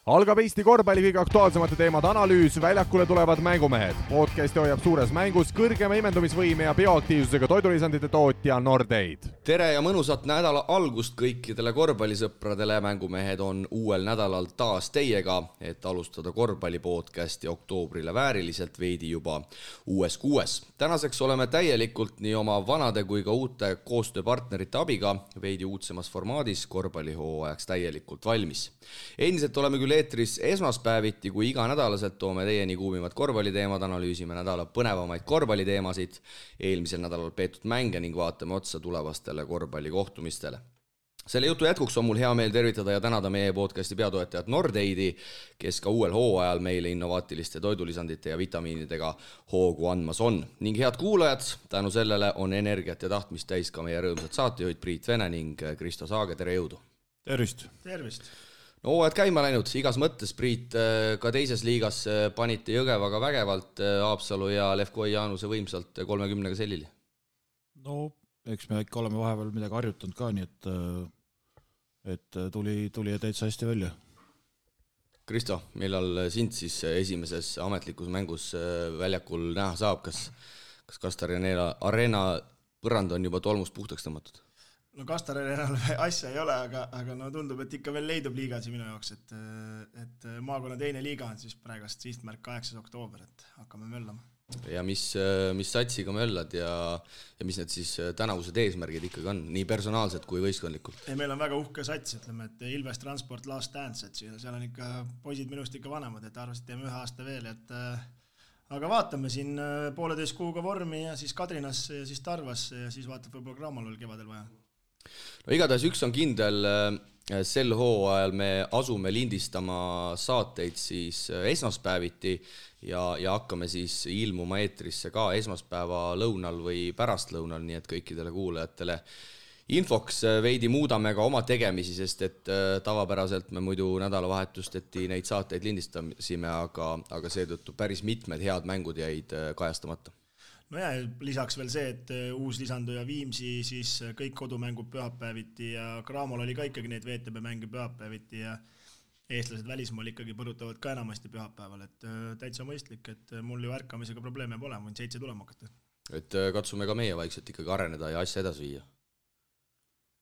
Algab Eesti korvpalli kõige aktuaalsemate teemade analüüs, väljakule tulevad mängumehed. Podcasti hoiab suures mängus kõrgema imendumisvõime ja bioaktiivsusega toidulisandite tootja Nordeid. Tere ja mõnusat nädala algust kõikidele korvpallisõpradele. Mängumehed on uuel nädalal taas teiega, et alustada korvpallipodcasti oktoobrile vääriliselt veidi juba uues kuues. Tänaseks oleme täielikult nii oma vanade kui ka uute koostööpartnerite abiga veidi uudsemas formaadis korvpallihooajaks täielikult valmis. Endiselt oleme küll eetris esmaspäeviti, kui iga nädalaselt toome teieni kuumivad korvpalliteemad, analüüsime nädala põnevamaid korvpalliteemasid, eelmisel nädalal peetud mänge ning vaatame otsa tulevastele korvpallikohtumistele. Selle jutu jätkuks on mul hea meel tervitada ja tänada meie podcasti peatoetajat Nordeidi, kes ka uuel hooajal meile innovaatiliste toidulisandite ja vitamiinidega hoogu andmas on. Ning head kuulajad, tänu sellele on energiat ja tahtmist täis ka meie rõõmsad saatejuhid Priit Vene ning Kristo Saage, tere jõudu! Tervist! Tervist! No hooajad käima läinud, igas mõttes, Priit, ka teises liigas panite Jõgevaga vägevalt Haapsalu ja Levkoi Jaanuse võimsalt 30-ga sellili. No, eks me ikka oleme vahepeal midagi harjutanud ka, nii et tuli täitsa hästi välja. Kristo, millal sind siis esimeses ametlikus mängus väljakul näha saab? Kas Kastar Arena põrand on juba tolmust puhtaks tõmmatud? No Kastar Arenal asja ei ole, aga no tundub, et ikka veel leidub liigasi minu jaoks, et maakonna teine liiga on siis praegast sihtmärk 8. oktoober, et hakkame möllama. Ja mis satsiga möllad ja mis need siis tänavused eesmärgid ikkagi on, nii personaalsed kui võistkondlikult? Meil on väga uhke sats, ütleme, et Ilves Transport Last Dance, et seal on ikka poisid minust ikka vanemad, et arvasid teeme 1 aasta veel, aga vaatame siin 1,5 kuuga vormi ja siis Kadrinasse ja siis Tarvasse ja siis vaatab võib-olla Graamalul kevadel vaja. No igatahes üks on kindel, sel hooajal me asume lindistama saateid siis esmaspäeviti ja hakkame siis ilmuma eetrisse ka esmaspäeva lõunal või pärastlõunal, nii et kõikidele kuulajatele infoks veidi muudame ka oma tegemisi, sest et tavapäraselt me muidu nädalavahetusteti neid saateid lindistasime, aga seetõttu päris mitmed head mängud jäid kajastamata. No ja lisaks veel see, et uus lisanduja Viimsi siis kõik kodumängud pühapäeviti ja Graamol oli ka ikkagi neid VTB mänge pühapäeviti ja eestlased välismaal ikkagi põrutavad ka enamasti pühapäeval, et täitsa mõistlik, et mul ju ärkamisega probleeme pole, võin 7 tulema hakata. Et katsume ka meie vaikselt ikkagi areneda ja asja edasi viia.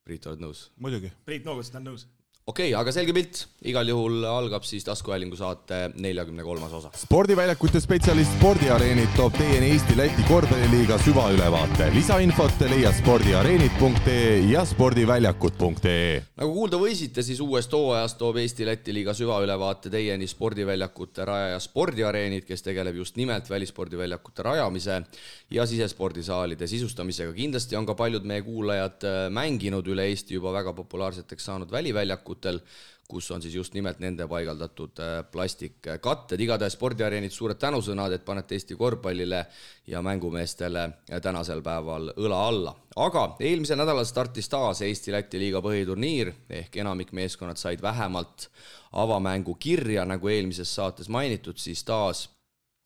Priit, oled nõus? Muidugi. Priit noogutas, ta on nõus. Okei, aga selge pilt. Igal juhul algab siis taskuhäälingu saate 43. osa. Spordiväljakute spetsialist Spordiareenid toob teieni Eesti-Läti korvpalliliiga süvaülevaate. Lisainfot leia spordiareenid.ee ja spordiväljakud.ee. Nagu kuulda võisite, siis uuest hooajast toob Eesti-Läti liiga süvaülevaate teieni spordiväljakute rajaja Spordiareenid, kes tegeleb just nimelt välispordiväljakute rajamise ja sisespordisaalide sisustamisega. Kindlasti on ka paljud meie kuulajad mänginud üle Eesti juba väga populaarseteks saanud väliväljakutel, kus on siis just nimelt nende paigaldatud plastikkatted. Igatahes Spordiareenid suured tänusõnad, et panete Eesti korvpallile ja mängumeestele tänasel päeval õla alla. Aga eelmisel nädalal startis taas Eesti-Läti liiga põhiturniir, ehk enamik meeskonnad said vähemalt avamängu kirja, nagu eelmises saates mainitud, siis taas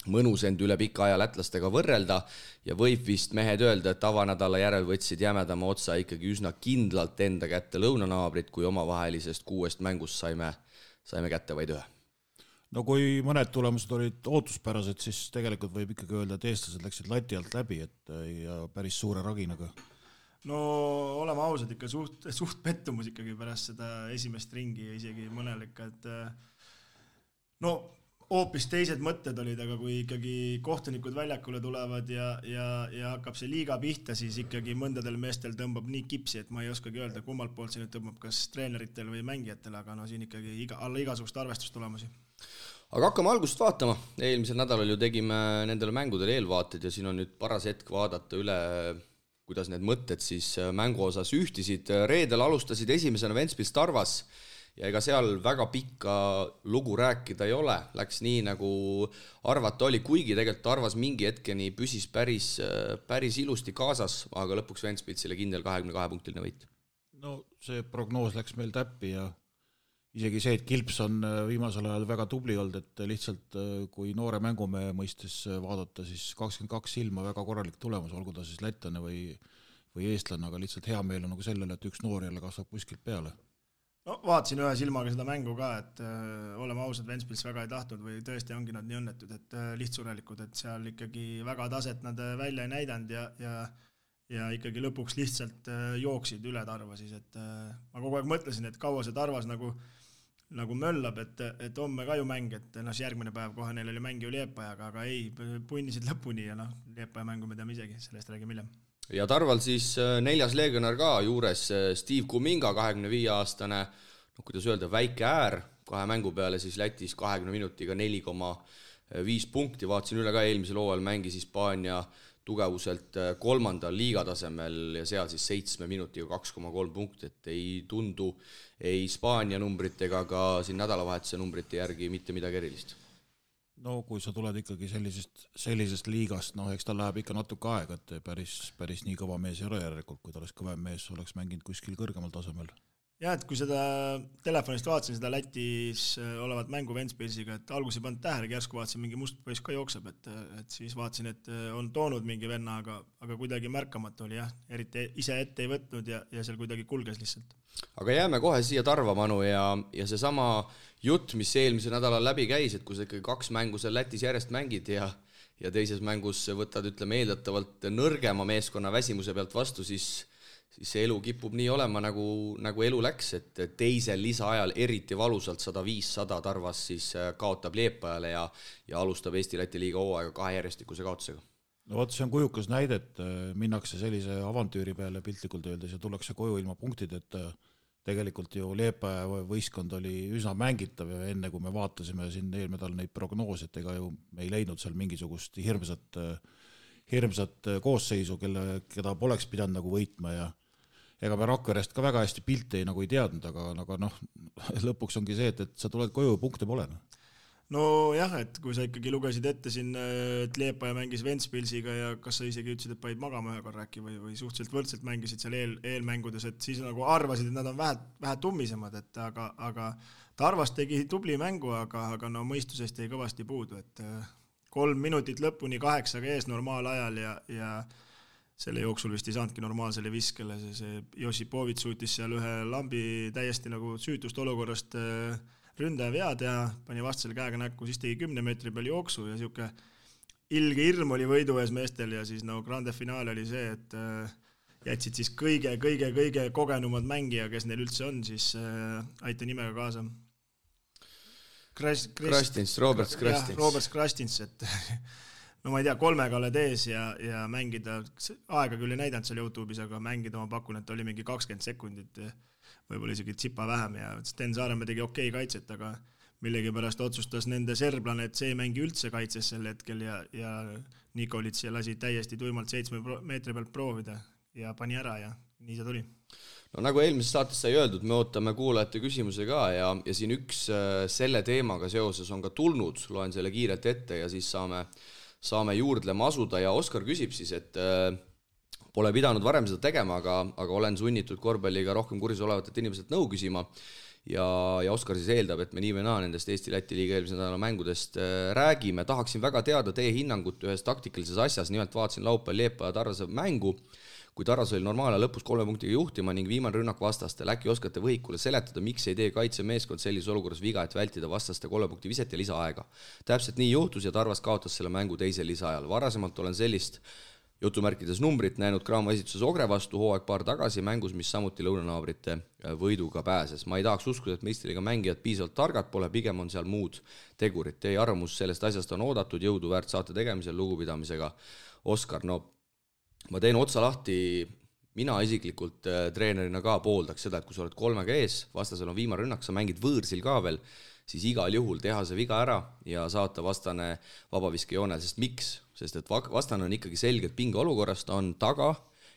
mõnus end üle pika aja lätlastega võrrelda ja võib vist mehed öelda, et avanädala järel võtsid jämedama otsa ikkagi üsna kindlalt enda kätte lõunanaabrid, kui omavahelisest 6 mängust saime kätte vaid 1. No kui mõned tulemused olid ootuspärased, siis tegelikult võib ikkagi öelda, et eestlased läksid lati alt läbi ja päris suure raginaga. No oleme ausad, ikka suht pettumus ikkagi pärast seda esimest ringi ja isegi mõnel ikka, et no hoopis teised mõtted olid, aga kui ikkagi kohtunikud väljakule tulevad ja hakkab see liiga pihta, siis ikkagi mõndadel meestel tõmbab nii kipsi, et ma ei oskagi öelda, kummalt poolt see nüüd tõmbab, kas treeneritel või mängijatel, aga no siin ikkagi alla igasugust arvestustulemusi. Aga hakkame algust vaatama. Eelmisel nädalal ju tegime nendele mängudele eelvaated ja siin on nüüd paras hetk vaadata üle, kuidas need mõtted siis mängu osas ühtisid. Reedel alustasid esimesena Ventspils Tarvas ja ega seal väga pikka lugu rääkida ei ole. Läks nii, nagu arvata oli, kuigi tegelikult Tarvas mingi hetkeni püsis päris ilusti kaasas, aga lõpuks Ventspilsile kindel 22-punktiline võit. No see prognoos läks meil täppi ja isegi see, et Kilps on viimasel ajal väga tubli olnud, et lihtsalt kui noore mängumehe mõistes vaadata, siis 22 silma väga korralik tulemus, olgu ta siis lätlane või eestlane, aga lihtsalt hea meel on nagu sellele, et üks noor jälle kasvab kuskilt peale. no vaatasin ühe silmaga seda mängu ka, et oleme ausad, Ventspils väga ei tahtnud või tõesti ongi nad nii õnnetud, et lihtsurelikult, et seal ikkagi väga taset nad välja ei näidanud ja ikkagi lõpuks lihtsalt jooksid üle Tarva siis, et ma kogu aeg mõtlesin, et kaua see Tarvas nagu möllab, et homme ka ju mäng, et järgmine päev kohe neil oli mäng ju Liepajaga, aga ei, punnisid lõpuni ja Liepaja mängu me teame isegi, sellest räägime hiljem. Ja Tarval siis 4. legionär ka juures, Steve Kuminga, 25-aastane, kuidas öelda, väike äär, 2 mängu peale siis Lätis 20 minutiga 4,5 punkti, vaatasin üle ka eelmisel hooajal mängis Hispaania tugevuselt 3. liigatasemel ja seal siis 7 minutiga 2,3 punkti, et ei tundu ei Hispaania numbrit ega ka siin nädalavahetuse numbrite järgi mitte midagi erilist. No kui sa tuled ikkagi sellisest liigast, eks ta läheb ikka natuke aega, et päris nii kõva mees ei ole järelikult, kui ta oleks kõvem mees, oleks mänginud kuskil kõrgemal tasemel. Ja, et kui seda telefonist vaatasin, seda Lätis olevat mängu Ventspilsiga, et alguses ei pannud tähele, järsku vaatasin, mingi must poiss ka jookseb, et siis vaatasin, et on toonud mingi venna, aga kuidagi märkamatu oli jah, eriti ise ette ei võtnud ja seal kuidagi kulges lihtsalt. Aga jääme kohe siia Tarva, Manu, ja seesama jutt, mis eelmisel nädalal läbi käis, et kui sa ikkagi 2 mängu seal Lätis järjest mängid ja teises mängus võtad, ütleme, eeldatavalt nõrgema meeskonna väsimuse pealt vastu, siis see elu kipub nii olema, nagu elu läks, et teisel lisaajal eriti valusalt 100-500 Tarvas siis kaotab Liepajale ja alustab Eesti-Läti liiga hooaega 2 järjestikuse kaotusega. No vot, see on kujukas näide, et minnakse sellise avantüüri peale piltlikult öeldes ja tullakse koju ilma punktid, et tegelikult ju Liepaja võistkond oli üsna mängitav ja enne kui me vaatasime siin eelnädal neid prognoose, et ega ju me ei leidnud seal mingisugust hirmsat koosseisu, keda poleks pidanud nagu võitma ja ega me Rakverest ka väga hästi pilte ei teadnud, aga lõpuks ongi see, et sa tuled koju ja punkte pole. No jah, et kui sa ikkagi lugesid ette siin, et Liepaja mängis Ventspilsiga ja kas sa isegi ütlesid, et panid magama ühe korra äkki või suhteliselt võrdselt mängisid seal eelmängudes, et siis nagu arvasid, et nad on vähe tummisemad, et aga Tarvas tegi tubli mängu, aga mõistusest jäi kõvasti puudu, et 3 minutit lõpuni 8 ees normaalajal ja selle jooksul vist ei saanudki normaalsele viskele, see Josipovitš suutis seal ühe lambi täiesti nagu süütust olukorrast ründaja vea teha, pani vastasele käega näkku, siis tegi 10 meetri peal jooksu ja siuke ilge hirm oli võidu ees meestel ja siis grande finaal oli see, et jätsid siis kõige kogenumad mängija, kes neil üldse on, siis aita nimega kaasa. Robert Krastins, et no ma ei tea, 3-ga oled ees ja mängida, aega küll ei näidanud seal YouTube'is, aga mängida ma pakun, et oli mingi 20 sekundit, võib-olla isegi tsipa vähem ja Sten Saaremäe tegi okei kaitset, aga millegipärast otsustas nende serblane, et see ei mängi üldse kaitses sel hetkel ja Nikolits lasi täiesti tuimalt 7 meetri pealt proovida ja pani ära ja nii see tuli. No nagu eelmises saates sai öeldud, me ootame kuulajate küsimuse ka ja siin üks selle teemaga seoses on ka tulnud, loen selle kiirelt ette ja siis saame juurdlema asuda ja Oskar küsib siis, et pole pidanud varem seda tegema, aga olen sunnitud korvpalliga rohkem kursis olevatelt inimeselt nõu küsima ja Oskar siis eeldab, et me nii või naa nendest Eesti-Läti liiga eelmise nädala mängudest räägime. Tahaksin väga teada teie hinnangut ühes taktikalises asjas, nimelt vaatasin laupäeval Liepaja Tarvase mängu, kui Tarvas oli normaalne lõpus 3 punktiga juhtima ning viimane rünnak vastastel. Äkki oskate võhikule seletada, miks ei tee kaitsemeeskond sellises olukorras viga, et vältida vastaste 3 punkti viset ja lisaaega. Täpselt nii juhtus ja Tarvas kaotas selle mängu teisel lisaajal. Varasemalt olen sellist jutumärkides numbrit näinud Graamo esituses Ogre vastu hooaeg paar tagasi mängus, mis samuti lõunanaabrite võiduga pääses. Ma ei tahaks uskuda, et meistriga mängijad piisavalt targad pole, pigem on seal muud tegurid. Teie arvamus sellest asjast on oodatud, jõudu väärt saate tegemisel lugupidamisega. Oskar, no ma teen otsa lahti, mina isiklikult treenerina ka pooldaks seda, et kui sa oled 3-ga ees, vastasel on viimane rünnak, sa mängid võõrsil ka veel, siis igal juhul teha see viga ära ja saata vastane vabaviskejoonel, sest miks? Sest et vastane on ikkagi selgelt pinge olukorrast, on taga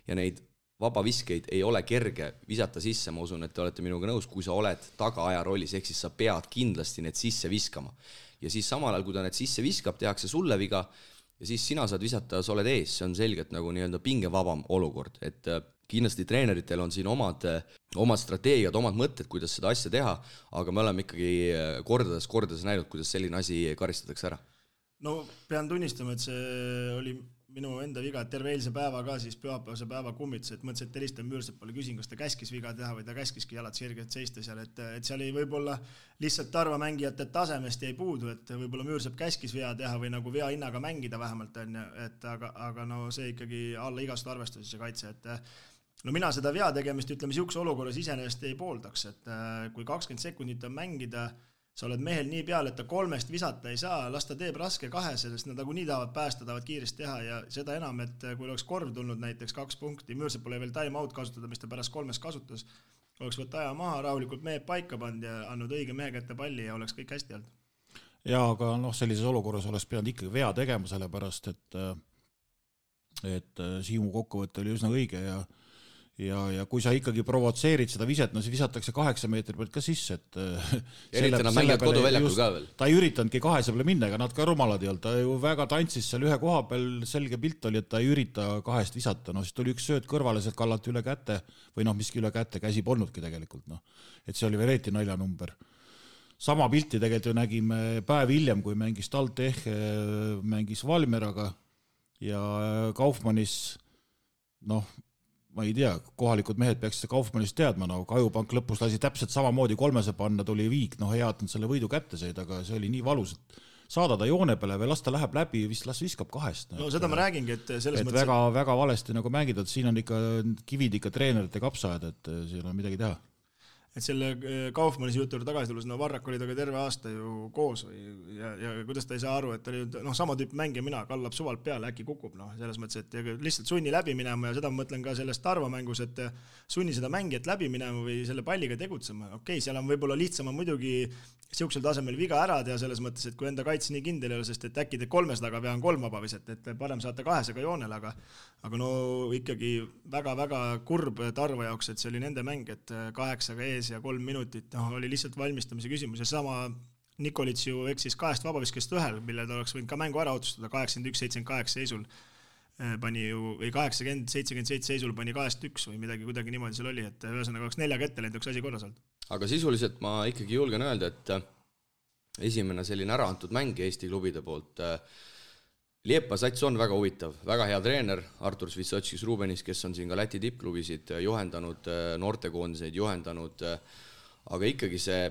ja neid vabaviskeid ei ole kerge visata sisse, ma usun, et te olete minuga nõus, kui sa oled tagaaja rollis, ehk siis sa pead kindlasti need sisse viskama. Ja siis samal ajal, kui ta need sisse viskab, tehakse sulle viga ja siis sina saad visata, sa oled ees, see on selgelt nagu nii-öelda pingevabam olukord, et kindlasti treeneritel on siin omad strateegiad, omad mõtted, kuidas seda asja teha, aga me oleme ikkagi kordades näinud, kuidas selline asi karistatakse ära. No pean tunnistama, et see oli minu enda viga, et terve eilse päeva ka siis pühapäevase päeva kummitus, et mõtlesin, et helistan Müürsepale, küsin, kas ta käskis viga teha või ta käskiski jalad sirgelt seista seal, et seal ei võib-olla lihtsalt Tarva mängijate tasemest jäi puudu, et võib-olla Müürsepp käskis vea teha või nagu vea hinnaga mängida vähemalt on, et aga no see ikkagi alla igast arvestusi see kaitse, et no mina seda vea tegemist, ütleme, siukse olukorras iseenesest ei pooldaks, et kui 20 sekundit on mängida, sa oled mehel nii peal, et ta 3 visata ei saa, las ta teeb raske 2, sellest nad nagu nii tahavad päästa, tahavad kiiresti teha ja seda enam, et kui oleks korv tulnud näiteks 2 punkti, Müürsepp pole veel time out kasutada, mis ta pärast 3 kasutas, oleks võtta aja maha, rahulikult mehed paika pand ja andnud õige mehe kätte palli ja oleks kõik hästi olnud. Ja aga sellises olukorras oleks pidanud ikkagi vea tegema, sellepärast, et Siimu kokkuvõte oli üsna õige ja kui sa ikkagi provotseerid seda viset, no see visatakse 8 meetri pealt ka sisse, et eriti nad mängivad koduväljakul ka veel. Ta ei üritanudki 2 peale minna, ega nad ka rumalad ei olnud, ta ju väga tantsis seal ühe koha peal, selge pilt oli, et ta ei ürita 2 visata, siis tuli üks sööt kõrvale, sealt kallati üle käte või miski üle käte, käsi polnudki tegelikult, et see oli vereeti naljanumber. Sama pilti tegelikult ju nägime päev hiljem, kui mängis TalTech, mängis Valmieraga ja Kaufmannis, ma ei tea, kohalikud mehed peaks seda Kaufmannist teadma, Kajupank lõpus lasi täpselt samamoodi 3 panna, tuli viik, hea, et nad selle võidu kätte said, aga see oli nii valus, et saada ta joone peale või las ta läheb läbi, las viskab 2. No seda ma räägingi, et selles mõttes... Väga, väga valesti nagu mängida, et siin on ikka kivid ikka treenerite kapsaajad, et siin on midagi teha. Et selle Kaufmannis juurde tagasi tulles, Varrak oli taga terve aasta ju koos ja kuidas ta ei saa aru, et ta oli sama tüüp mängija mina, kallab suvalt peale, äkki kukub, selles mõttes, et lihtsalt sunni läbi minema ja seda ma mõtlen ka sellest Tarva mängus, et sunni seda mängijat läbi minema või selle palliga tegutsema. Okei, seal on võib-olla lihtsama muidugi siuksel tasemel viga ära teha selles mõttes, et kui enda kaitse nii kindel ei ole, sest et äkki te 3 taga vean 3 vaba viset, et parem saate 2 joonel, aga ikkagi väga-väga kurb Tarva jaoks, et see oli nende mäng, et 8 ees ja 3 minutit, oli lihtsalt valmistamise küsimus ja sama Nikolits ju eksis 2 vabaviskest 1, mille ta oleks võinud ka mängu ära otsustada 81-78 seisul pani ju, või 80-77 seisul pani 2-1 või midagi kuidagi niimoodi seal oli, et ühesõnaga oleks 4 kätte läinud, üks asi korras olnud. Aga sisuliselt ma ikkagi julgen öelda, et esimene selline ära antud mäng Eesti klubide poolt. Liepa sats on väga huvitav, väga hea treener, Artur Svitsotskis Rubenis, kes on siin ka Läti tippklubisid juhendanud, noortekoondiseid juhendanud, aga ikkagi see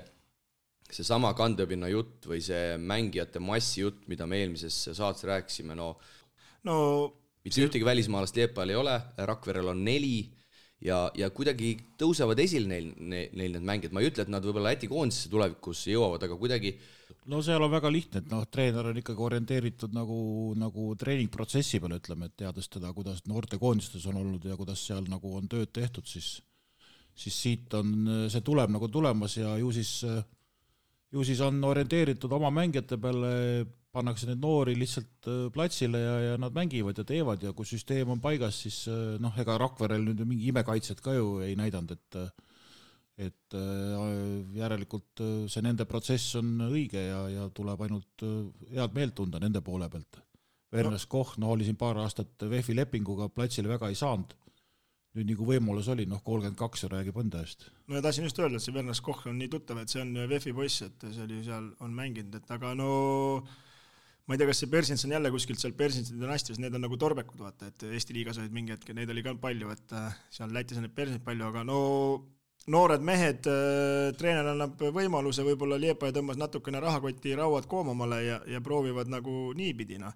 sama kandepinna jutt või see mängijate massi jutt, mida me eelmises saates rääkisime, mitte ühtegi välismaalast Liepal ei ole, Rakverel on 4 ja kuidagi tõusevad esil neil need mängijad. Ma ei ütle, et nad võib-olla Läti koondisesse tulevikus jõuavad, aga kuidagi... seal on väga lihtne, et treener on ikkagi orienteeritud nagu treeningprotsessi peale, ütleme, et teades teda, kuidas noortekoondistes on olnud ja kuidas seal nagu on tööd tehtud, siis siit on, see tuleb nagu tulemas ja ju siis on orienteeritud oma mängijate peale, pannakse neid noori lihtsalt platsile ja nad mängivad ja teevad ja kui süsteem on paigas, siis ega Rakverel nüüd mingi imekaitset ka ju ei näidanud, et järelikult see nende protsess on õige ja tuleb ainult head meelt tunda nende poole pealt. Vernes Koch oli siin paar aastat VEF-i lepinguga platsile väga ei saanud. Nüüd nagu võimalus oli, 32 räägib enda eest. Ja tahtsin just öelda, et see Vernes Koch on nii tuttav, et see on VEF-i poiss, et see oli seal on mänginud, et aga ma ei tea, kas see Persins on jälle kuskilt seal Persinsi dünastias, need on nagu torbekud, vaata, et Eesti liigas olid mingi hetk, neid oli ka palju, et seal Lätis on neid Persinid palju, aga noored mehed, treener annab võimaluse, võib-olla Liepa ja tõmbas natukene rahakoti rauad koomamale ja proovivad nagu niipidina,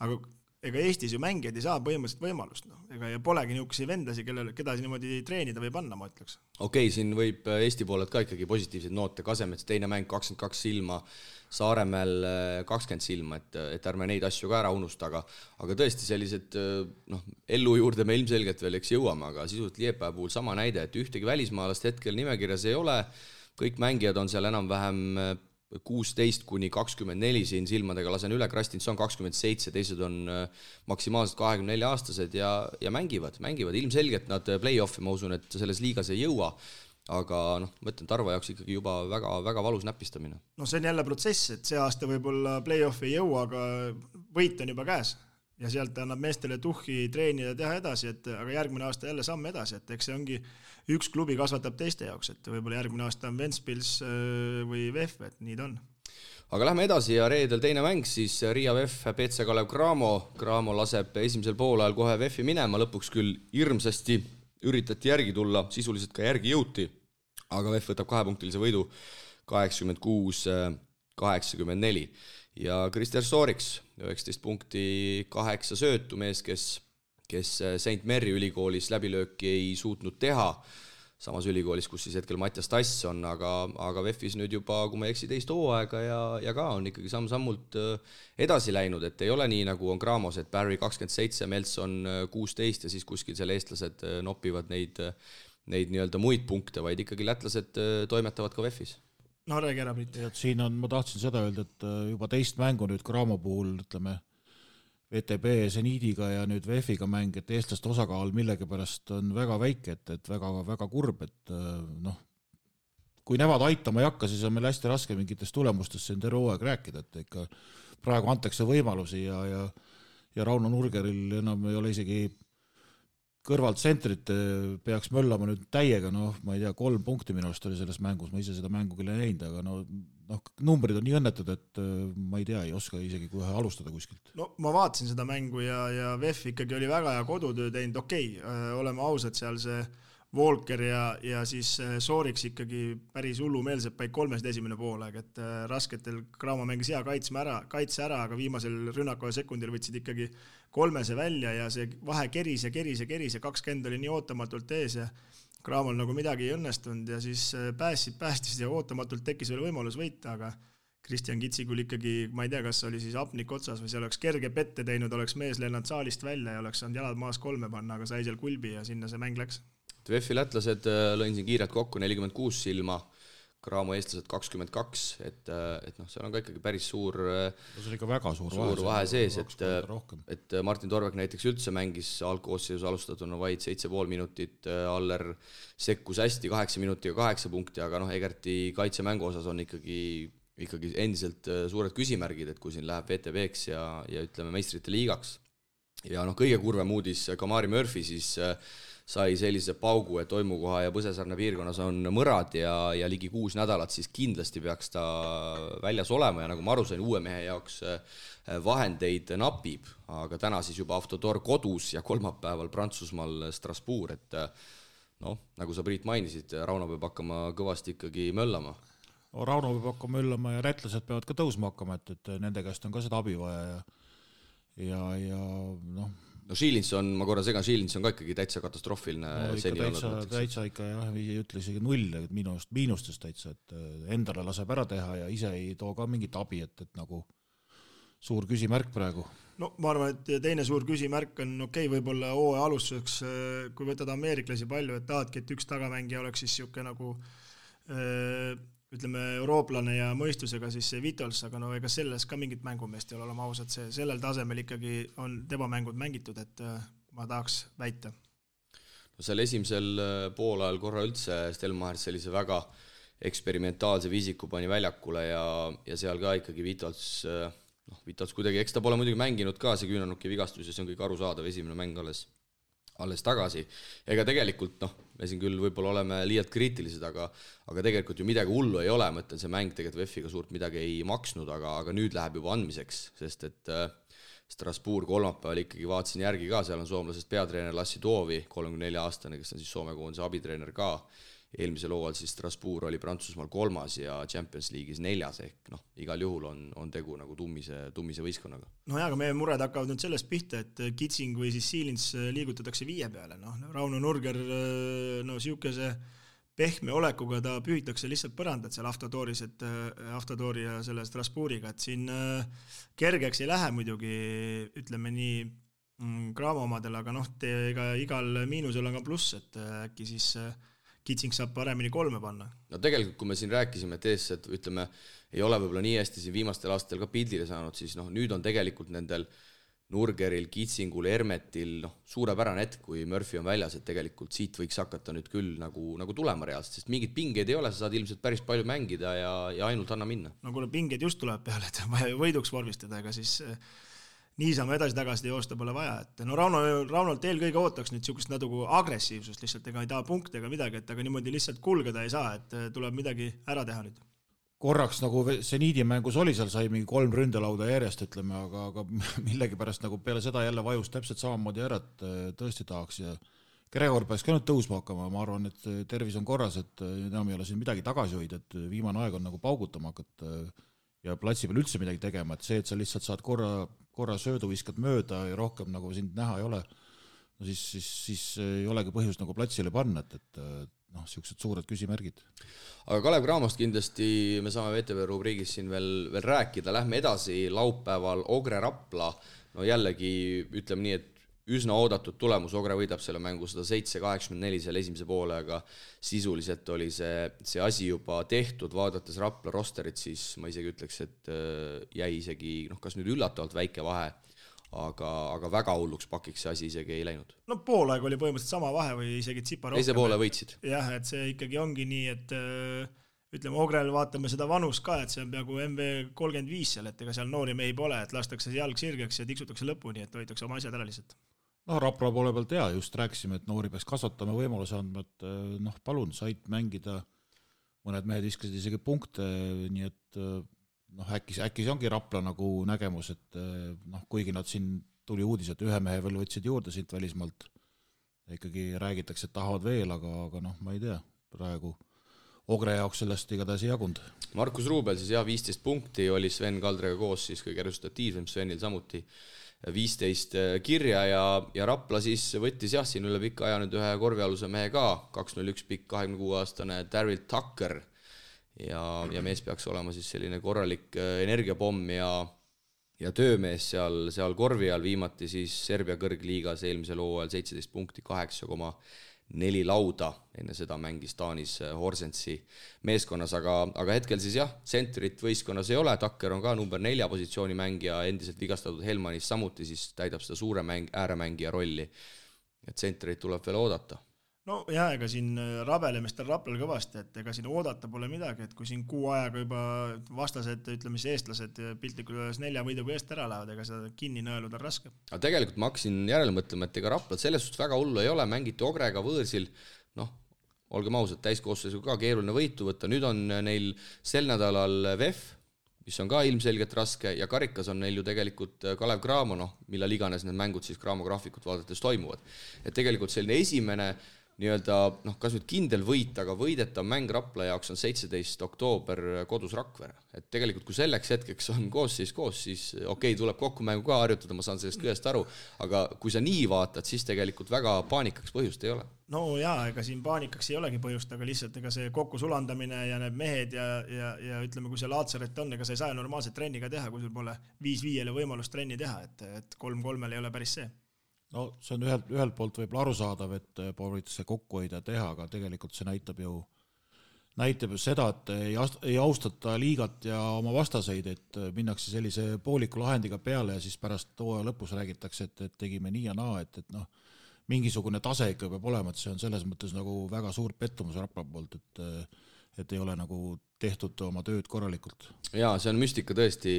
aga ega Eestis ju mängijad ei saa põhimõtteliselt võimalust, ja polegi niisuguseid vendasi, keda niimoodi treenida või panna, ma ütleks. Okei, siin võib Eesti poolelt ka ikkagi positiivseid noote, Kasemets teine mäng 22 silma, Saaremäel 20 silma, et ärme neid asju ka ära unusta, aga tõesti sellised ellu juurde me ilmselgelt veel eks jõuame, aga sisult Liepa puhul sama näide, et ühtegi välismaalast hetkel nimekirjas ei ole, kõik mängijad on seal enam-vähem 16-24 siin silmadega, lasen üle, Krastinson 27, teised on maksimaalselt 24-aastased ja mängivad. Ilmselgelt nad play-offi, ma usun, et selles liigas ei jõua, aga mõtlen Tarva jaoks ikkagi juba väga, väga valus näpistamine. See on jälle protsess, et see aasta võib-olla play-offi ei jõua, aga võit on juba käes. Ja sealt annab meestele tuhhi treenida ja teha edasi, aga järgmine aasta jälle samm edasi, et eks see ongi üks klubi kasvatab teiste jaoks, et võib-olla järgmine aasta on Ventspils või VEF, et nii ta on. aga lähme edasi ja reedel teine mäng siis Riia VEF BC Kalev Cramo. Cramo laseb esimesel poolajal kohe VEF-i minema, lõpuks küll hirmsasti üritati järgi tulla, sisuliselt ka järgi jõuti, aga VEF võtab 2-punktilise võidu 86-84 ja Krister Sooriks 19 punkti 8 söötu mees, kes St. Mary ülikoolis läbilööki ei suutnud teha, samas ülikoolis, kus siis hetkel Mattias Tass on, aga VEF-is nüüd juba, kui ma ei eksi, teist hooaega ja ka on ikkagi samm-sammult edasi läinud, et ei ole nii, nagu on Cramos, et Barry 27, Melson 16 ja siis kuskil seal eestlased nopivad neid nii-öelda muid punkte, vaid ikkagi lätlased toimetavad ka VEF-is. No räägi ära, Priit. Siin on, ma tahtsin seda öelda, et juba teist mängu nüüd Cramo puhul, ütleme, VTB Zeniidiga ja nüüd VEF-iga mäng, et eestlaste osakaal millegipärast on väga väike, et väga, väga kurb, et noh, kui nemad aitama ei hakka, siis on meil hästi raske mingitest tulemustest siin terve hooaeg rääkida, et ikka praegu antakse võimalusi ja Rauno Nurgeril enam ei ole isegi kõrvalt tsentrit peaks möllama nüüd täiega, ma ei tea, 3 punkti minu arust oli selles mängus, ma ise seda mängu küll ei näinud, aga numbrid on nii õnnetud, et ma ei tea, ei oska isegi kohe alustada kuskilt. No ma vaatasin seda mängu ja VEF ikkagi oli väga hea kodutöö teinud, oleme ausad, seal see Volker ja siis Sooriks ikkagi päris hullumeelselt paik 3 esimene poolaeg, et rasketel Cramo mängis hea kaitse ära, aga viimasel rünnakoja sekundil võtsid ikkagi 3 välja ja see vahe keris ja 20 oli nii ootamatult ees ja Cramol nagu midagi ei õnnestunud ja siis päästis ja ootamatult tekkis veel võimalus võita, aga Kristjan Kitsikul ikkagi, ma ei tea, kas oli siis apnik otsas või see oleks kerge pette teinud, oleks mees lennanud saalist välja ja oleks saanud jalad maas 3 panna, aga sai seal kulbi ja sinna see mäng läks. VEF-i lätlased lõin siin kiirelt kokku 46 silma, Cramo eestlased 22, et seal on ka ikkagi päris suur see on ikka väga suur vahe sees, et Martin Torvek näiteks üldse mängis algkoosseisus alustatuna vaid 7,5 minutit, Aller sekkus hästi 8 minutiga 8 punkti, aga Egerti kaitsemängu osas on ikkagi endiselt suured küsimärgid, et kui siin läheb VTB-ks ja ütleme meistrite liigaks. Ja kõige kurvem uudis, Kamari Murphy siis sai sellise paugu, et Oimukoha ja Põsesarna piirkonnas on mõrad ja ligi 6 nädalat, siis kindlasti peaks ta väljas olema ja nagu ma aru sain, uue mehe jaoks vahendeid napib, aga täna siis juba Autodor kodus ja kolmapäeval Prantsusmaal Strasbourg, et nagu sa Priit mainisid, Rauno peab hakkama kõvasti ikkagi möllama. Rauno peab hakkama möllama ja rätlased peavad ka tõusma hakkama, et nende käest on ka seda abi vaja Šiilinson, ma korra segan, Šiilinson ka ikkagi täitsa katastroofiline täitsa ikka jah, ei ütle isegi 0 miinustest täitsa, et endale laseb ära teha ja ise ei too ka mingit abi, et nagu suur küsimärk praegu. No ma arvan, et teine suur küsimärk on võib-olla hooaja alustuseks, kui võtad ameeriklasi palju, et tahadki, et üks tagamängija oleks siis siuke nagu ütleme eurooplane ja mõistusega siis see Vitols, aga ega selles ka mingit mängumeest ei ole olema ausad, sellel tasemel ikkagi on tema mängud mängitud, et ma tahaks väita. Seal esimesel poolajal korra üldse Stelmar sellise väga eksperimentaalse viisiku pani väljakule ja seal ka ikkagi Vitols kuidagi, eks ta pole muidugi mänginud ka, see küünanuki vigastus ja see on kõik arusaadav, esimene mäng alles tagasi. Ega tegelikult, me siin küll võib-olla oleme liialt kriitilised, aga tegelikult ju midagi hullu ei ole, ma ütlen, see mäng tegelikult VEF-iga suurt midagi ei maksnud, aga nüüd läheb juba andmiseks, sest et Strasbourg kolmapäeval ikkagi vaatasin järgi ka, seal on soomlasest peatreener Lassi Toovi, 34-aastane, kes on siis Soome koondise abitreener ka. Eelmisel hooajal siis Strasbourg oli Prantsusmaal 3. ja Champions League'is 4. ehk igal juhul on tegu nagu tummise võistkonnaga. Aga meie mured hakkavad nüüd sellest pihta, et Kitsing või siis Siilins liigutatakse 5 peale. Rauno Nurger siukese pehme olekuga ta pühitakse lihtsalt põrandat seal Autodori ja selle Strasbourgiga, et siin kergeks ei lähe muidugi, ütleme nii Cramo omadel, aga igal miinusel on ka pluss, et äkki siis Kitsing saab paremini 3 panna. Tegelikult, kui me siin rääkisime, et eestsed, ütleme, ei ole võib-olla nii hästi siin viimastel aastatel ka pildile saanud, siis nüüd on tegelikult nendel Nurgeril, Kitsingul, Hermetil suurepärane hetk, kui Murphy on väljas, et tegelikult siit võiks hakata nüüd küll nagu tulema reaalselt, sest mingid pingeid ei ole, sa saad ilmselt päris palju mängida ja ainult anna minna. Kui pingeid just tuleb peale, et vaja võiduks vormistada, ega siis niisama edasi-tagasi joosta pole vaja, et Raunolt eelkõige ootaks nüüd siukest natuke agressiivsust lihtsalt, ega ei taha punkte ega midagi, et aga niimoodi lihtsalt kulgeda ei saa, et tuleb midagi ära teha nüüd. korraks nagu seniidimängus oli, seal sai mingi 3 ründelauda järjest, ütleme, aga millegipärast nagu peale seda jälle vajus täpselt samamoodi ära, et tõesti tahaks ja Gregor peaks ka nüüd tõusma hakkama, ma arvan, et tervis on korras, et enam ei ole siin midagi tagasi hoida, et viimane aeg on nagu paugutama hakata ja platsi peal üldse midagi tegema, et see, et sa lihtsalt saad korra söödu viskad mööda ja rohkem nagu sind näha ei ole, no siis ei olegi põhjust nagu platsile panna, et noh, siuksed suured küsimärgid. Aga Kalev Cramost kindlasti me saame VTV rubriigis siin veel rääkida, lähme edasi laupäeval Ogre Rapla, no jällegi ütleme nii, et üsna oodatud tulemus, Ogre võidab selle mängu 107-84 selle esimese poole, aga sisuliselt oli see asi juba tehtud, vaadates Rapla rosterit, siis ma isegi ütleks, et jäi isegi, kas nüüd üllatavalt väike vahe, aga väga hulluks pakiks see asi isegi ei läinud. No poolaeg oli põhimõtteliselt sama vahe või isegi tsipa rohkem. Teise poole võitsid. Jah, et see ikkagi ongi nii, et ütleme, Ogrel vaatame seda vanust ka, et see on peaaegu MV35 seal, et ega seal noori mehi pole, et lastakse jalg sirgeks ja tiksutakse lõpuni, et hoitakse oma asjad ära lihtsalt. No Rapla poole pealt just rääkisime, et noori peaks kasvatama võimaluse andma, et palun, said mängida, mõned mehed viskasid isegi punkte, nii et äkki see ongi Rapla nagu nägemus, et kuigi nad siin tuli uudis, et ühe mehe veel võtsid juurde siit välismaalt, ikkagi räägitakse, et tahavad veel, aga ma ei tea, praegu Ogre jaoks sellest igatahes ei jagund. Markus Ruubel siis 15 punkti oli Sven Kaldrega koos, siis kõige resultatiivsem Svenil samuti 15 kirja ja Rapla siis võttis siin üle pika aja nüüd ühe korvialuse mehe ka, 201 pikk 26-aastane Daryl Tucker ja mees peaks olema siis selline korralik energiapomm ja töömees seal korvi all, viimati siis Serbia kõrgliigas eelmisel hooajal 17 punkti 8,4 lauda, enne seda mängis Taanis Horsensi meeskonnas, aga hetkel siis tsentrit võistkonnas ei ole, Tucker on ka number 4 positsiooni mängija, endiselt vigastatud Helmanis samuti siis täidab seda suure ääremängija rolli, et tsentrit tuleb veel oodata. No ega siin rabelemestel Raplal kõvasti, et ega siin oodata pole midagi, et kui siin kuu ajaga juba vastased, ütleme siis eestlased piltlikult üles 4 võiduga eest ära lähevad, ega seda kinni nõeluda on raske. Aga tegelikult ma hakkasin järele mõtlema, et ega Raplal selles suhtes väga hullu ei ole, mängiti Ogrega võõrsil, olgem ausad, täiskoosseisu ka keeruline võitu võtta, nüüd on neil sel nädalal VEF, mis on ka ilmselgelt raske ja karikas on neil ju tegelikult Kalev Cramo, millal iganes need mängud siis Cramo graafikut vaadates toimuvad. Et tegelikult selline esimene kas nüüd kindel võit, aga võidetav mäng Rapla jaoks on 17 oktoober kodus Rakvere. Et tegelikult kui selleks hetkeks on koos, siis tuleb kokku mängu ka harjutada, ma saan sellest kõigest aru, aga kui sa nii vaatad, siis tegelikult väga paanikaks põhjust ei ole. No ega siin paanikaks ei olegi põhjust, aga lihtsalt ega see kokku sulandamine ja need mehed ja ütleme, kui see Laatsaret on, ega sa ei saa normaalselt trenni ka teha, kui sul pole 5-5 võimalust trenni teha, et 3-3 ei ole päris see. No see on ühelt poolt võib-olla arusaadav, et proovitakse kokku hoida ja teha, aga tegelikult see näitab ju seda, et ei austata liigat ja oma vastaseid, et minnakse sellise pooliku lahendiga peale ja siis pärast hooaja lõpus räägitakse, et tegime nii ja naa, et mingisugune tase ikka peab olema, et see on selles mõttes nagu väga suur pettumus Rapla poolt, et ei ole nagu tehtud oma tööd korralikult. Jaa, see on müstika tõesti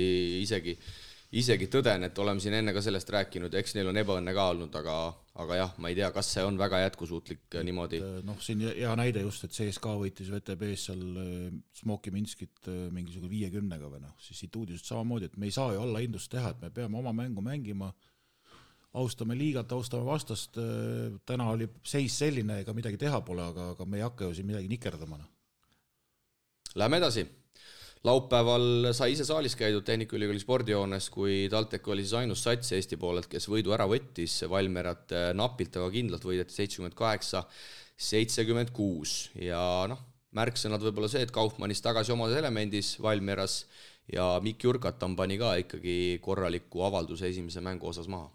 isegi tõden, et oleme siin enne ka sellest rääkinud, eks neil on ebaõnne ka olnud, aga jah, ma ei tea, kas see on väga jätkusuutlik niimoodi. Siin hea näide just, et CSKA võitis VTB-s seal Smoki Minskit mingisugune 50-ga või siis siit uudisest samamoodi, et me ei saa ju alla hindust teha, et me peame oma mängu mängima, austame liigat, austame vastast, täna oli seis selline, ega midagi teha pole, aga me ei hakka ju siin midagi nikerdama. Läheme edasi. Laupäeval sai ise saalis käidud Tehnikaülikooli spordijoones, kui TalTech oli siis ainus sats Eesti poolelt, kes võidu ära võttis, Valmerat napilt, aga kindlalt võideti 78-76 ja märksõnad võib-olla see, et Kaufmannis tagasi omas elemendis Valmeras ja Mikk Jurkatan pani ka ikkagi korraliku avalduse esimese mängu osas maha.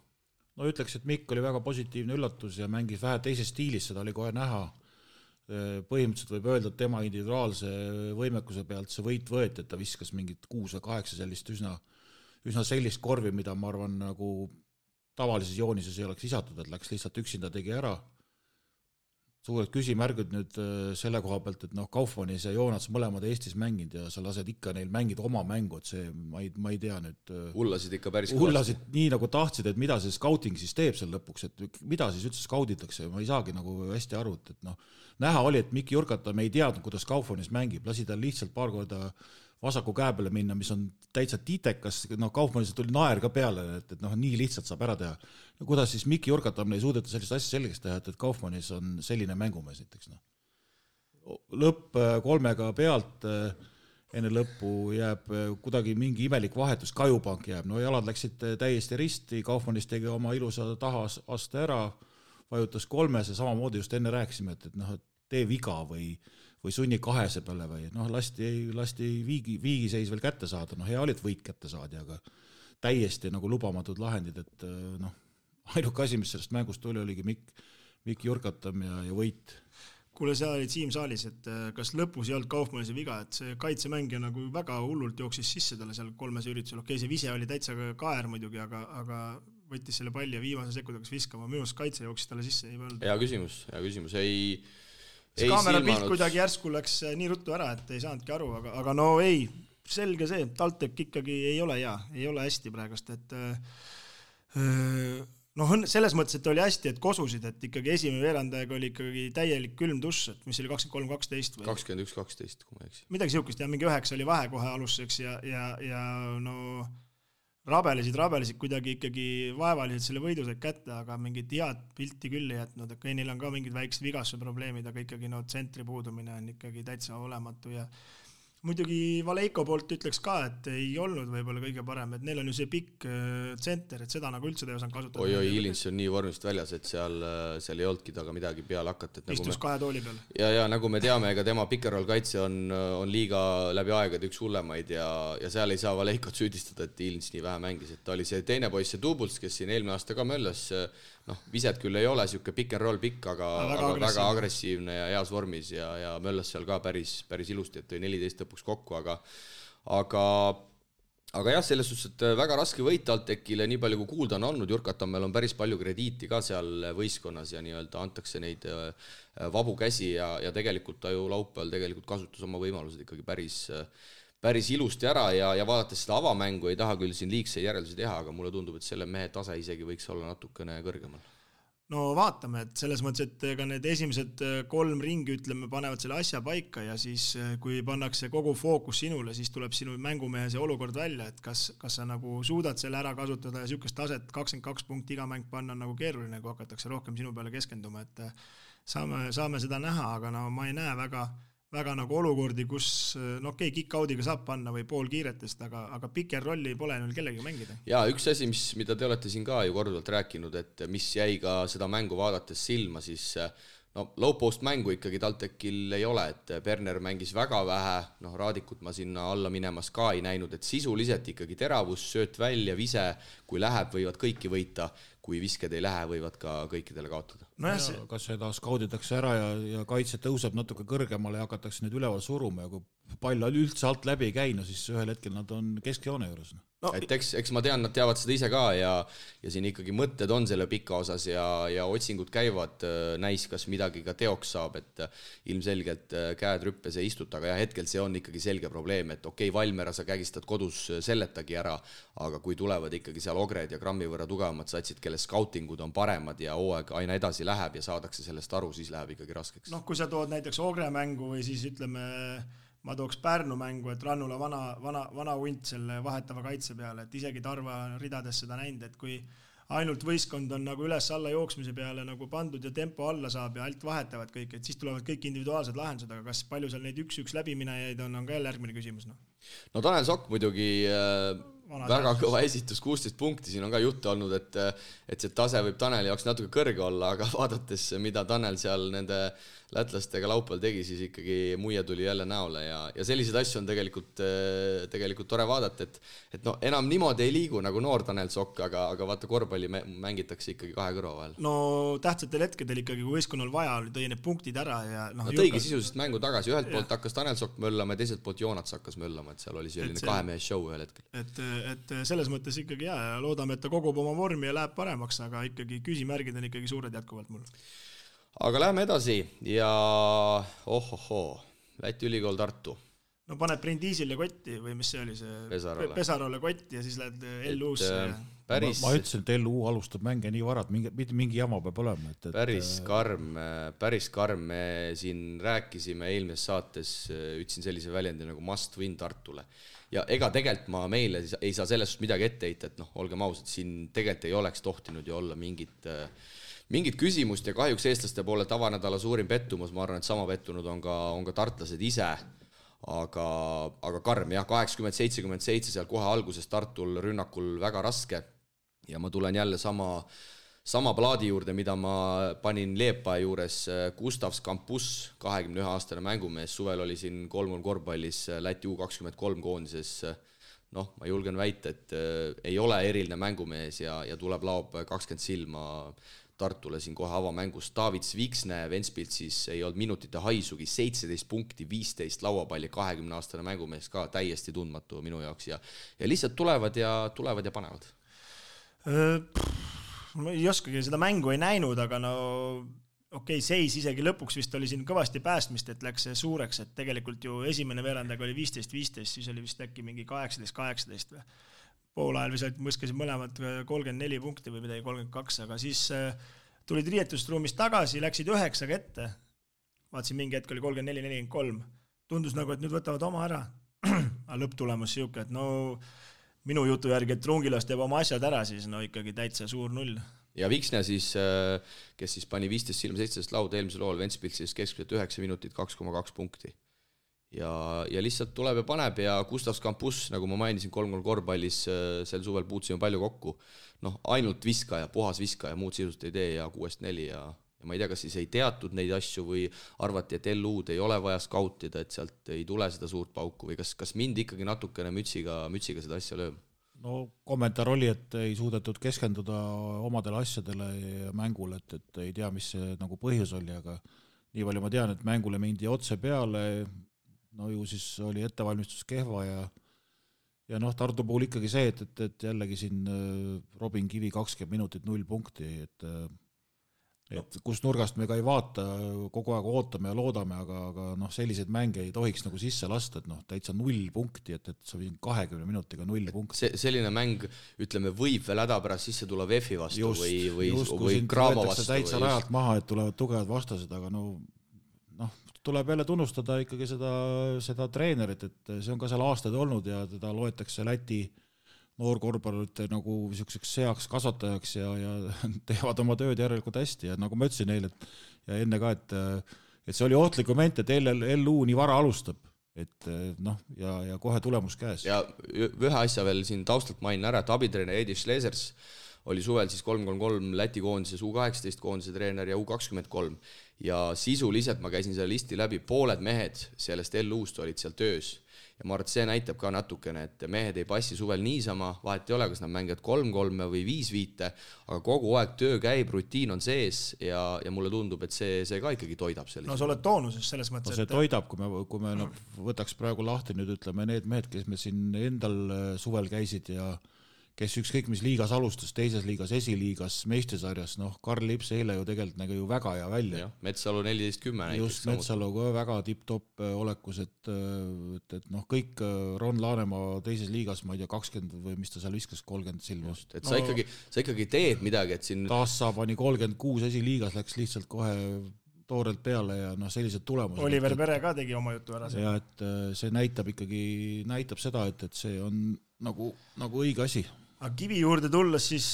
No ütleks, et Mikk oli väga positiivne üllatus ja mängis vähe teises stiilis, seda oli kohe näha. Põhimõtteliselt võib öelda, et tema individuaalse võimekuse pealt see võit võeti, et ta viskas mingit 6 või 8 sellist üsna sellist korvi, mida ma arvan nagu tavalises joonises ei oleks lisatud, et läks lihtsalt üksinda tegi ära. Suured küsimärgud nüüd selle koha pealt, et Kaufmannis ja Joonats mõlemad Eestis mänginud ja sa lased ikka neil mängida oma mängu, et see, ma ei tea nüüd. Hullasid ikka päris hullasid nii nagu tahtsid, et mida see scouting siis teeb seal lõpuks, et mida siis üldse scouditakse, ma ei saagi nagu hästi aru, et näha oli, et Mikk Jurkata, me ei teadnud, kuidas Kaufmannis mängib, lasi tal lihtsalt paar korda vasaku käe peale minna, mis on täitsa tiitekas, Kaufmannis tuli naer ka peale, et nii lihtsalt saab ära teha. No kuidas siis Mikki Jurkatamine ei suudeta sellist asja selgeks teha, et Kaufmannis on selline mängumees näiteks. Lõpp 3 pealt, enne lõppu jääb kuidagi mingi imelik vahetus, Kajupank jääb, jalad läksid täiesti risti, Kaufmannis tegi oma ilusa tahaste ära, vajutas 3 ja samamoodi just enne rääkisime, et tee viga või sunni 2 peale või lasti viigiseis veel kätte saada, hea oli, et võit kätte saadi, aga täiesti lubamatud lahendid, et ainuke asi, mis sellest mängust tuli, oligi Mikki Jurkatam ja võit. Kuule, seal olid Siim saalis, et kas lõpus ei olnud Kaufmannis viga, et see kaitsemängija väga hullult jooksis sisse talle seal 3 üritusel. Okei, see vise oli täitsa kaer muidugi, aga võttis selle palli ja viimase sekund hakkas viskama. Minu arust kaitse jooksis talle sisse. Hea küsimus. See kaamera pilt kuidagi järsku läks nii ruttu ära, et ei saanudki aru, aga selge see, TalTech ikkagi ei ole hea, ei ole hästi praegust, et selles mõttes, et oli hästi, et kosusid, et ikkagi esimene veerandajaga oli ikkagi täielik külm duss, et mis oli 23-12 või 21-12, kui ma eksi. Midagi siukest, mingi 9 oli vahe kohe aluseks ja rabelesid kuidagi ikkagi vaevaliselt selle võidu said kätte, aga mingit head pilti küll ei jätnud, et neil on ka mingid väiksed vigastuse probleemid, aga ikkagi tsentri puudumine on ikkagi täitsa olematu ja muidugi Valeiko poolt ütleks ka, et ei olnud võib-olla kõige parem, et neil on ju see pikk tsenter, et seda üldse ei osanud kasutada. Oi, Ilins on nii vormist väljas, et seal ei olnudki taga midagi peale hakata. Istus 2 tooli peal. Ja nagu me teame, ega tema pick-and-roll kaitse on liiga läbi aegade üks hullemaid ja seal ei saa Valeikot süüdistada, et Ilins nii vähe mängis. Et ta oli see teine poiss, see Dubuls, kes siin eelmine aasta ka möllas, viset küll ei ole, siuke pick-and-roll pikk, aga väga agressiivne ja heas vormis ja möllas seal ka päris ilusti, et tõi 14 lõpuks kokku, aga jah, selles suhtes, et väga raske võit TalTechile, nii palju kui kuulda on olnud, Jurkatammel on päris palju krediiti ka seal võistkonnas ja nii-öelda antakse neid vabu käsi ja tegelikult ta ju laupäeval tegelikult kasutas oma võimalused ikkagi päris ilusti ära ja vaadates seda avamängu ei taha küll siin liigse järeldusi teha, aga mulle tundub, et selle mehe tase isegi võiks olla natukene kõrgemal. No vaatame, et selles mõttes, et ka need esimesed 3 ringi, panevad selle asja paika ja siis kui pannakse kogu fookus sinule, siis tuleb sinu mängumehe see olukord välja, et kas sa suudad selle ära kasutada ja sükest taset 22 punkti iga mäng panna on keeruline, kui hakatakse rohkem sinu peale keskenduma, et saame seda näha, aga ma ei näe väga olukordi, kus kick-out'iga saab panna või pool kiiretest, aga picker rolli pole neil kellegi mängida. Ja üks asi, mida te olete siin ka ju korduvalt rääkinud, et mis jäi ka seda mängu vaadates silma, siis low post mängu ikkagi TalTechil ei ole, et Berner mängis väga vähe, Raadikut ma sinna alla minemas ka ei näinud, et sisuliselt ikkagi teravus, sööt välja, vise, kui läheb, võivad kõiki võita, kui visked ei lähe, võivad ka kõikidele kaotada. Kas seda skauditakse ära ja kaitse tõuseb natuke kõrgemale ja hakatakse nüüd üleval suruma ja kui pall üldse alt läbi ei käi, siis ühel hetkel nad on keskjoone juures. Et eks ma tean, nad teavad seda ise ka ja siin ikkagi mõtted on selle pika osas ja otsingud käivad, näis, kas midagi ka teoks saab, et ilmselgelt käed rüppes ei istuta, aga hetkel see on ikkagi selge probleem, et okei, Valmera sa kägistad kodus selletagi ära, aga kui tulevad ikkagi seal Ogred ja grammi võrra tugevamad satsid, kelle skautingud on paremad ja hooaeg aina edasi läheb ja saadakse sellest aru, siis läheb ikkagi raskeks. Kui sa tood näiteks Ogre mängu või siis ütleme ma tooks Pärnu mängu, et Rannula vana hunt selle vahetava kaitse peale, et isegi Tarva ridades seda näinud, et kui ainult võistkond on üles-alla jooksmise peale pandud ja tempo alla saab ja alt vahetavad kõik, et siis tulevad kõik individuaalsed lahendused, aga kas palju seal neid 1-1 läbiminejaid on ka jälle järgmine küsimus. No Tanel Sokk muidugi väga kõva esitus, 16 punkti, siin on ka juttu olnud, et see tase võib Taneli jaoks natuke kõrge olla, aga vaadates, mida Tanel seal nende lätlastega laupäeval tegi, siis ikkagi muie tuli jälle näole ja selliseid asju on tegelikult tore vaadata, et enam niimoodi ei liigu nagu noor Tanel Sokk, aga vaata korvpalli mängitakse ikkagi 2 kõrva vahel. No tähtsatel hetkedel ikkagi, kui võistkonnal vaja oli, tõi need punktid ära ja tõigi sisuliselt mängu tagasi, ühelt poolt hakkas Tanel Sokk möllama ja teiselt poolt Joonats hakkas möllama, et seal oli selline 2-mehe show ühel hetkel. Et selles mõttes ikkagi ja loodame, et ta kogub oma vormi ja läheb paremaks, aga ikkagi küsimärgid on ikkagi suured jätkuvalt mul. Aga läheme edasi ja Läti ülikool Tartu. no paned Brindisile kotti või mis see oli see Pesarole kotti ja siis lähed LU-sse. Ma ütlesin, et LU alustab mänge nii varad, mingi jama peab olema. Päris karm. Me siin rääkisime eelmises saates, ütlesin sellise väljendi nagu must win Tartule. Ja ega tegelikult ma meile ei saa sellest midagi ette heita, et olgem ausad, siin tegelikult ei oleks tohtinud ju olla mingit küsimust ja kahjuks eestlaste poole tavanädala suurim pettumus, ma arvan, et sama pettunud on ka tartlased ise. Aga karm, jah, 80-77 seal kohe alguses Tartul rünnakul väga raske ja ma tulen jälle sama plaadi juurde, mida ma panin Leepa juures. Gustavs Campus, 21-aastane mängumees, suvel oli siin 3 korvpallis Läti U23 koondises. Ma julgen väita, et ei ole eriline mängumees ja tuleb laob 20 silma Tartule siin kohe avamängus. David Sviksne Ventspilt siis ei olnud minutite haisugi, 17 punkti, 15 lauapalli, 20-aastane mängumees ka täiesti tundmatu minu jaoks ja lihtsalt tulevad ja panevad. Ma ei oskagi, seda mängu ei näinud, aga seis isegi lõpuks vist oli siin kõvasti päästmist, et läks suureks, et tegelikult ju esimene veerandaga oli 15-15, siis oli vist äkki mingi 18-18 või. Poolajal vist mõskasid mõlemad 34 punkti või midagi 32, aga siis tulid riietusruumist tagasi, läksid 9 ette. Vaatasin mingi hetk oli 34-43. Tundus nagu, et nüüd võtavad oma ära. Aga lõpptulemus siuke, et minu jutu järgi, et Rungilas teeb oma asjad ära, siis ikkagi täitsa suur 0. Ja Viksne siis, kes siis pani 15 silma 17 lauda eelmisel lool Ventspilt, siis keskmiselt 9 minutit 2,2 punkti. Ja lihtsalt tuleb ja paneb ja Gustavs Campus, nagu ma mainisin 3 korvpallis, sel suvel puutsime palju kokku. Ainult viskaja, puhas viskaja, muud sisust ei tee ja 6-4 ja ma ei tea, kas siis ei teatud neid asju või arvati, et LU-d ei ole vaja skautida, et sealt ei tule seda suurt pauku või kas mind ikkagi natukene mütsiga seda asja lööb? Kommentaar oli, et ei suudetud keskenduda omadele asjadele ja mängule, et ei tea, mis see nagu põhjus oli, aga nii palju ma tean, et mängule mindi otse peale, ju siis oli ettevalmistus kehva ja Tartu puhul ikkagi see, et jällegi siin Robin Kivi 20 minutit 0 punkti, et kus nurgast me ka ei vaata, kogu aeg ootame ja loodame, aga selliseid mänge ei tohiks nagu sisse lasta, et täitsa 0 punkti, et sa võin 20 minutiga 0 punkti. Selline mäng, ütleme, võib veel häda pärast sisse tulla VEF-i vastu või Graamo vastu. Täitsa rajalt maha, et tulevad tugevad vastased, aga tuleb jälle tunnustada ikkagi seda treenerit, et see on ka seal aastaid olnud ja teda loetakse Läti noorkorvpallurite nagu niisuguseks seaks kasvatajaks ja teevad oma tööd järelikult hästi ja nagu ma ütlesin neile ja enne ka, et see oli ohtlik moment, et LU nii vara alustab, et ja kohe tulemus käes. Ja ühe asja veel siin taustalt mainin ära, et abitreene Edi Schlesers oli suvel siis 3-3 Läti koondises, U18 koondise treener ja U23 ja sisuliselt ma käisin selle listi läbi, pooled mehed sellest LU-st olid seal töös ja ma arvan, et see näitab ka natukene, et mehed ei passi suvel niisama, vahet ei ole, kas nad mängivad 3-3 või 5-5, aga kogu aeg töö käib, rutiin on sees ja mulle tundub, et see ka ikkagi toidab sellist. Sa oled toonuses selles mõttes, see toidab, kui me võtaks praegu lahti nüüd, ütleme, need mehed, kes me siin endal suvel käisid ja kes ükskõik mis liigas alustas, teises liigas, esiliigas, meistrisarjas, Karl Lips eile ju tegelikult nägi ju väga hea välja. Metsalu 14-10 näiteks. Just Metsalu ka väga tipp-top olekus, et kõik Ron Laanemaa teises liigas, ma ei tea, 20 või mis ta seal viskas, 30 silma. Et sa ikkagi teed midagi, et siin... Taassa pani 36 esiliigas, läks lihtsalt kohe toorelt peale ja sellised tulemused. Oliver Pere ka tegi oma jutu ära. Ja et see näitab seda, et see on nagu õige asi. Aga Kivi juurde tulles siis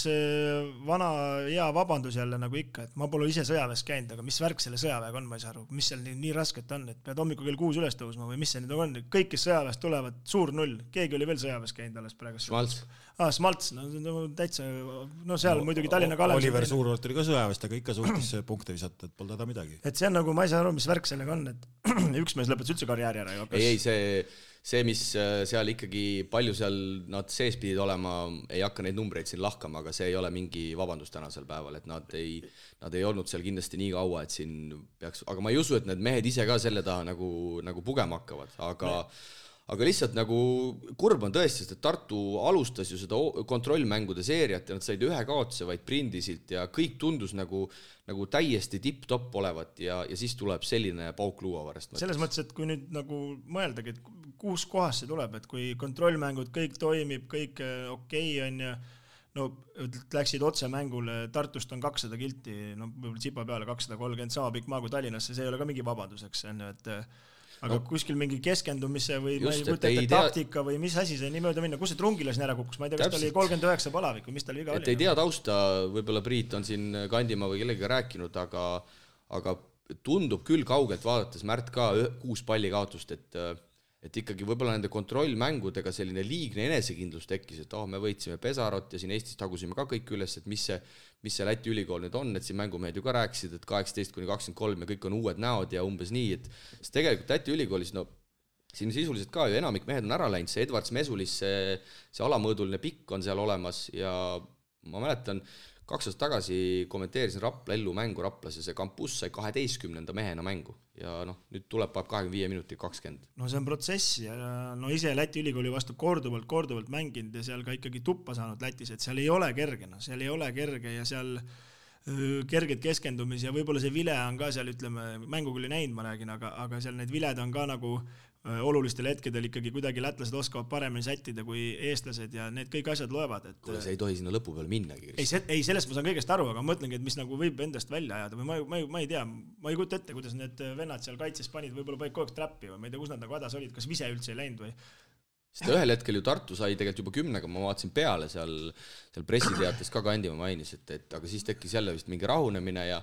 vana hea vabandus jälle nagu ikka, et ma pole ise sõjaväes käinud, aga mis värk selle sõjaväega on, ma ei saa aru, mis seal nii rasket on, et pead hommikul kell 6 üles tõusma või mis see nüüd on, kõik kes sõjaväes tulevad, suur 0, keegi oli veel sõjaväes käinud alles praegu. Smalts, täitsa, seal muidugi Tallinna Kalev. Oliver Suurvart oli ka sõjaväest, aga ikka suutis punkte visata, et pole teda midagi. Et see on nagu, ma ei saa aru, mis värk sellega on, et üks mees lõpetas üldse karjääri ära. Ei, see, mis seal ikkagi palju seal nad sees pidid olema, ei hakka neid numbreid siin lahkama, aga see ei ole mingi vabandus tänasel päeval, et nad ei olnud seal kindlasti nii kaua, et siin peaks, aga ma ei usu, et need mehed ise ka selle taha nagu pugema hakkavad, aga lihtsalt nagu kurb on tõesti, et Tartu alustas ju seda kontrollmängude seeriat ja nad said ühe kaotuse vaid Prindisilt ja kõik tundus nagu täiesti tipp-top olevat ja siis tuleb selline pauk luua varast. Selles mõttes, et kui nüüd nagu mõeldagi, et kus kohas see tuleb, et kui kontrollmängud kõik toimib, kõik okei on ja no läksid otse mängule, Tartust on 200 kilti, no võib-olla Tsipa peale 230, sama pikk maa kui Tallinnasse, see ei ole ka mingi vabaduseks, et aga kuskil mingi keskendumise või just, taktika või mis asi see nii mööda minna, kus see Trungilas ära kukkus, ma ei tea, kas ta oli 39 palavik või mis tal viga oli. Et ei tea tausta, võib-olla Priit on siin Kandimaa või kellega rääkinud, aga tundub küll kaugelt vaadates Märt ka 6 palli kaotust, et ikkagi võib-olla nende kontrollmängudega selline liigne enesekindlus tekkis, et me võitsime Pesarot ja siin Eestis tagusime ka kõik üles, et mis see Läti ülikool nüüd on, et siin mängumehed ju ka rääkisid, et 18-23 ja kõik on uued näod ja umbes nii, et tegelikult Läti ülikoolis, no siin sisuliselt ka ju enamik mehed on ära läinud, see Edvards Mesulis, see alamõõduline pikk on seal olemas ja ma mäletan, 2 aastat tagasi kommenteerisin Rapla Ellu mängu Raplas ja see kampus sai 12. mehena mängu ja nüüd tuleb 25 minutit 20. No see on protsess ja no ise Läti ülikooli vastu korduvalt mänginud ja seal ka ikkagi tuppa saanud Lätis, et seal ei ole kerge, seal ei ole kerge ja seal kerged keskendumisi ja võib-olla see vile on ka seal, ütleme, mängu küll ei näinud, ma räägin, aga seal need viled on ka nagu olulistel hetkedel ikkagi kuidagi lätlased oskavad paremini sättida kui eestlased ja need kõik asjad loevad. Kuule, see ei tohi sinna lõpu peal minnagi. Ei, sellest ma saan kõigest aru, aga ma mõtlengi, et mis nagu võib endast välja ajada või ma ei tea, ma ei kujuta ette, kuidas need vennad seal kaitses panid, võib-olla panid kogu aeg trappi või ma ei tea, kus nad nagu hädas olid, kas vise üldse ei läinud või? Sest ühel hetkel ju Tartu sai tegelikult juba 10, ma vaatasin peale seal pressiteates ka Kandimaa mainis, et aga siis tekkis jälle vist mingi rahunemine ja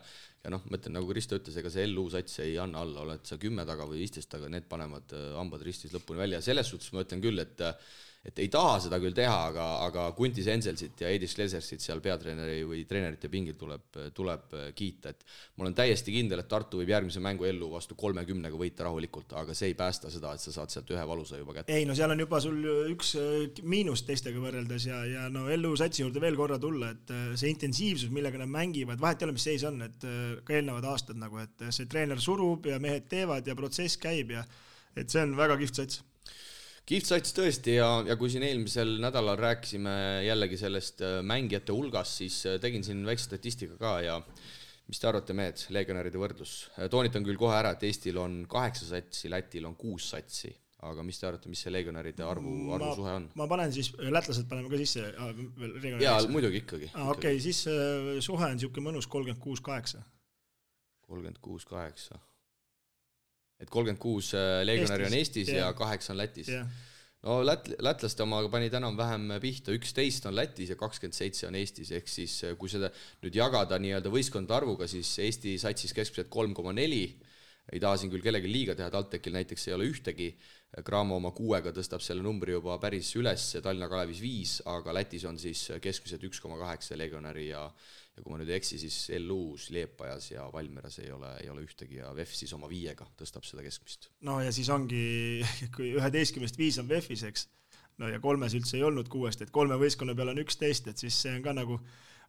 mõtlen, nagu Risto ütles, ega see LU sats ei anna alla, oled sa 10 taga või 15 taga, need panevad hambad ristis lõpuni välja ja selles suhtes ma ütlen küll, et ei taha seda küll teha, aga Kuntis Enselsit ja Edis Klesersit seal peatreeneri või treenerite pingil tuleb kiita, et ma olen täiesti kindel, et Tartu võib järgmise mängu LU vastu 30 võita rahulikult, aga see ei päästa seda, et sa saad sealt ühe valusa juba kätte. Ei, no seal on juba sul üks miinus teistega võrreldes ja no LU satsi juurde veel korra tulla, et see intensiivsus, millega nad mängivad, vahet ei ole, mis seis on, et ka eelnevad aastad nagu, et see treener surub ja mehed teevad ja protsess käib ja et see on väga kihvt sats. Kihvt sats tõesti ja kui siin eelmisel nädalal rääkisime jällegi sellest mängijate hulgas, siis tegin siin väikse statistika ka ja mis te arvate, mehed, legionäride võrdlus? Toonitan küll kohe ära, et Eestil on 8 satsi, Lätil on 6 satsi, aga mis te arvate, mis see legionäride arvu suhe on? Ma panen siis, lätlased paneme ka sisse. Jaa, muidugi ikkagi. Okei, siis suhe on siuke mõnus 36-8. 36-8. Et 36 legionäri on Eestis ja 8 on Lätis. No lätlaste omaga pani täna vähem pihta, 11 on Lätis ja 27 on Eestis, ehk siis kui seda nüüd jagada nii-öelda võistkondade arvuga, siis Eesti satsis keskmiselt 3,4, ei taha siin küll kellegi liiga teha, TalTechil näiteks ei ole ühtegi, Graamo oma 6-ga tõstab selle numbri juba päris üles, Tallinna Kalevis 5, aga Lätis on siis keskmiselt 1,8 legionäri ja kui ma nüüd eksi, siis LU-s, Liepajas ja Valmeras ei ole ühtegi ja VEF siis oma 5-ga tõstab seda keskmist. No ja siis ongi, kui 11-5 on VEF-is, eks, no ja 3 üldse ei olnud 6, et 3 võistkonna peal on 11, et siis see on ka nagu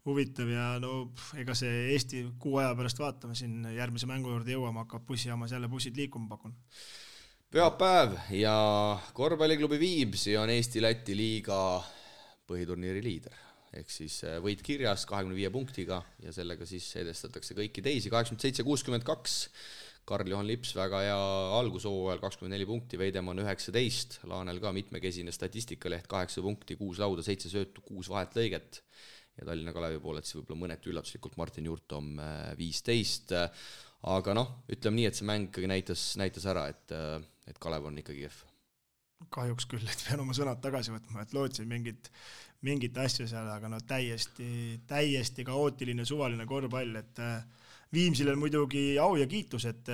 huvitav ja no ega see Eesti 6 aja pärast vaatame siin järgmise mängu juurde jõuama, hakkab bussijaamas jälle bussid liikuma pakun. Pühapäev ja korvpalliklubi Viimsi on Eesti-Läti liiga põhiturniiri liider. Ehk siis võit kirjas 25 punktiga ja sellega siis edestatakse kõiki teisi. 87-62, Karl-Johan Lips väga hea algushooajal 24 punkti, Veidemann 19, Laanel ka mitmekesine statistikaleht 8 punkti, 6 lauda, 7 söötu, 6 vahetlõiget ja Tallinna Kalevi poolelt siis võib-olla mõneti üllatuslikult Martin Jurtom 15. Aga ütleme nii, et see mäng ikkagi näitas ära, et Kalev on ikkagi kehv. Kahjuks küll, et pean oma sõnad tagasi võtma, et lootsin mingit asja seal, aga täiesti kaootiline suvaline korvpall, et Viimsil on muidugi au ja kiitus, et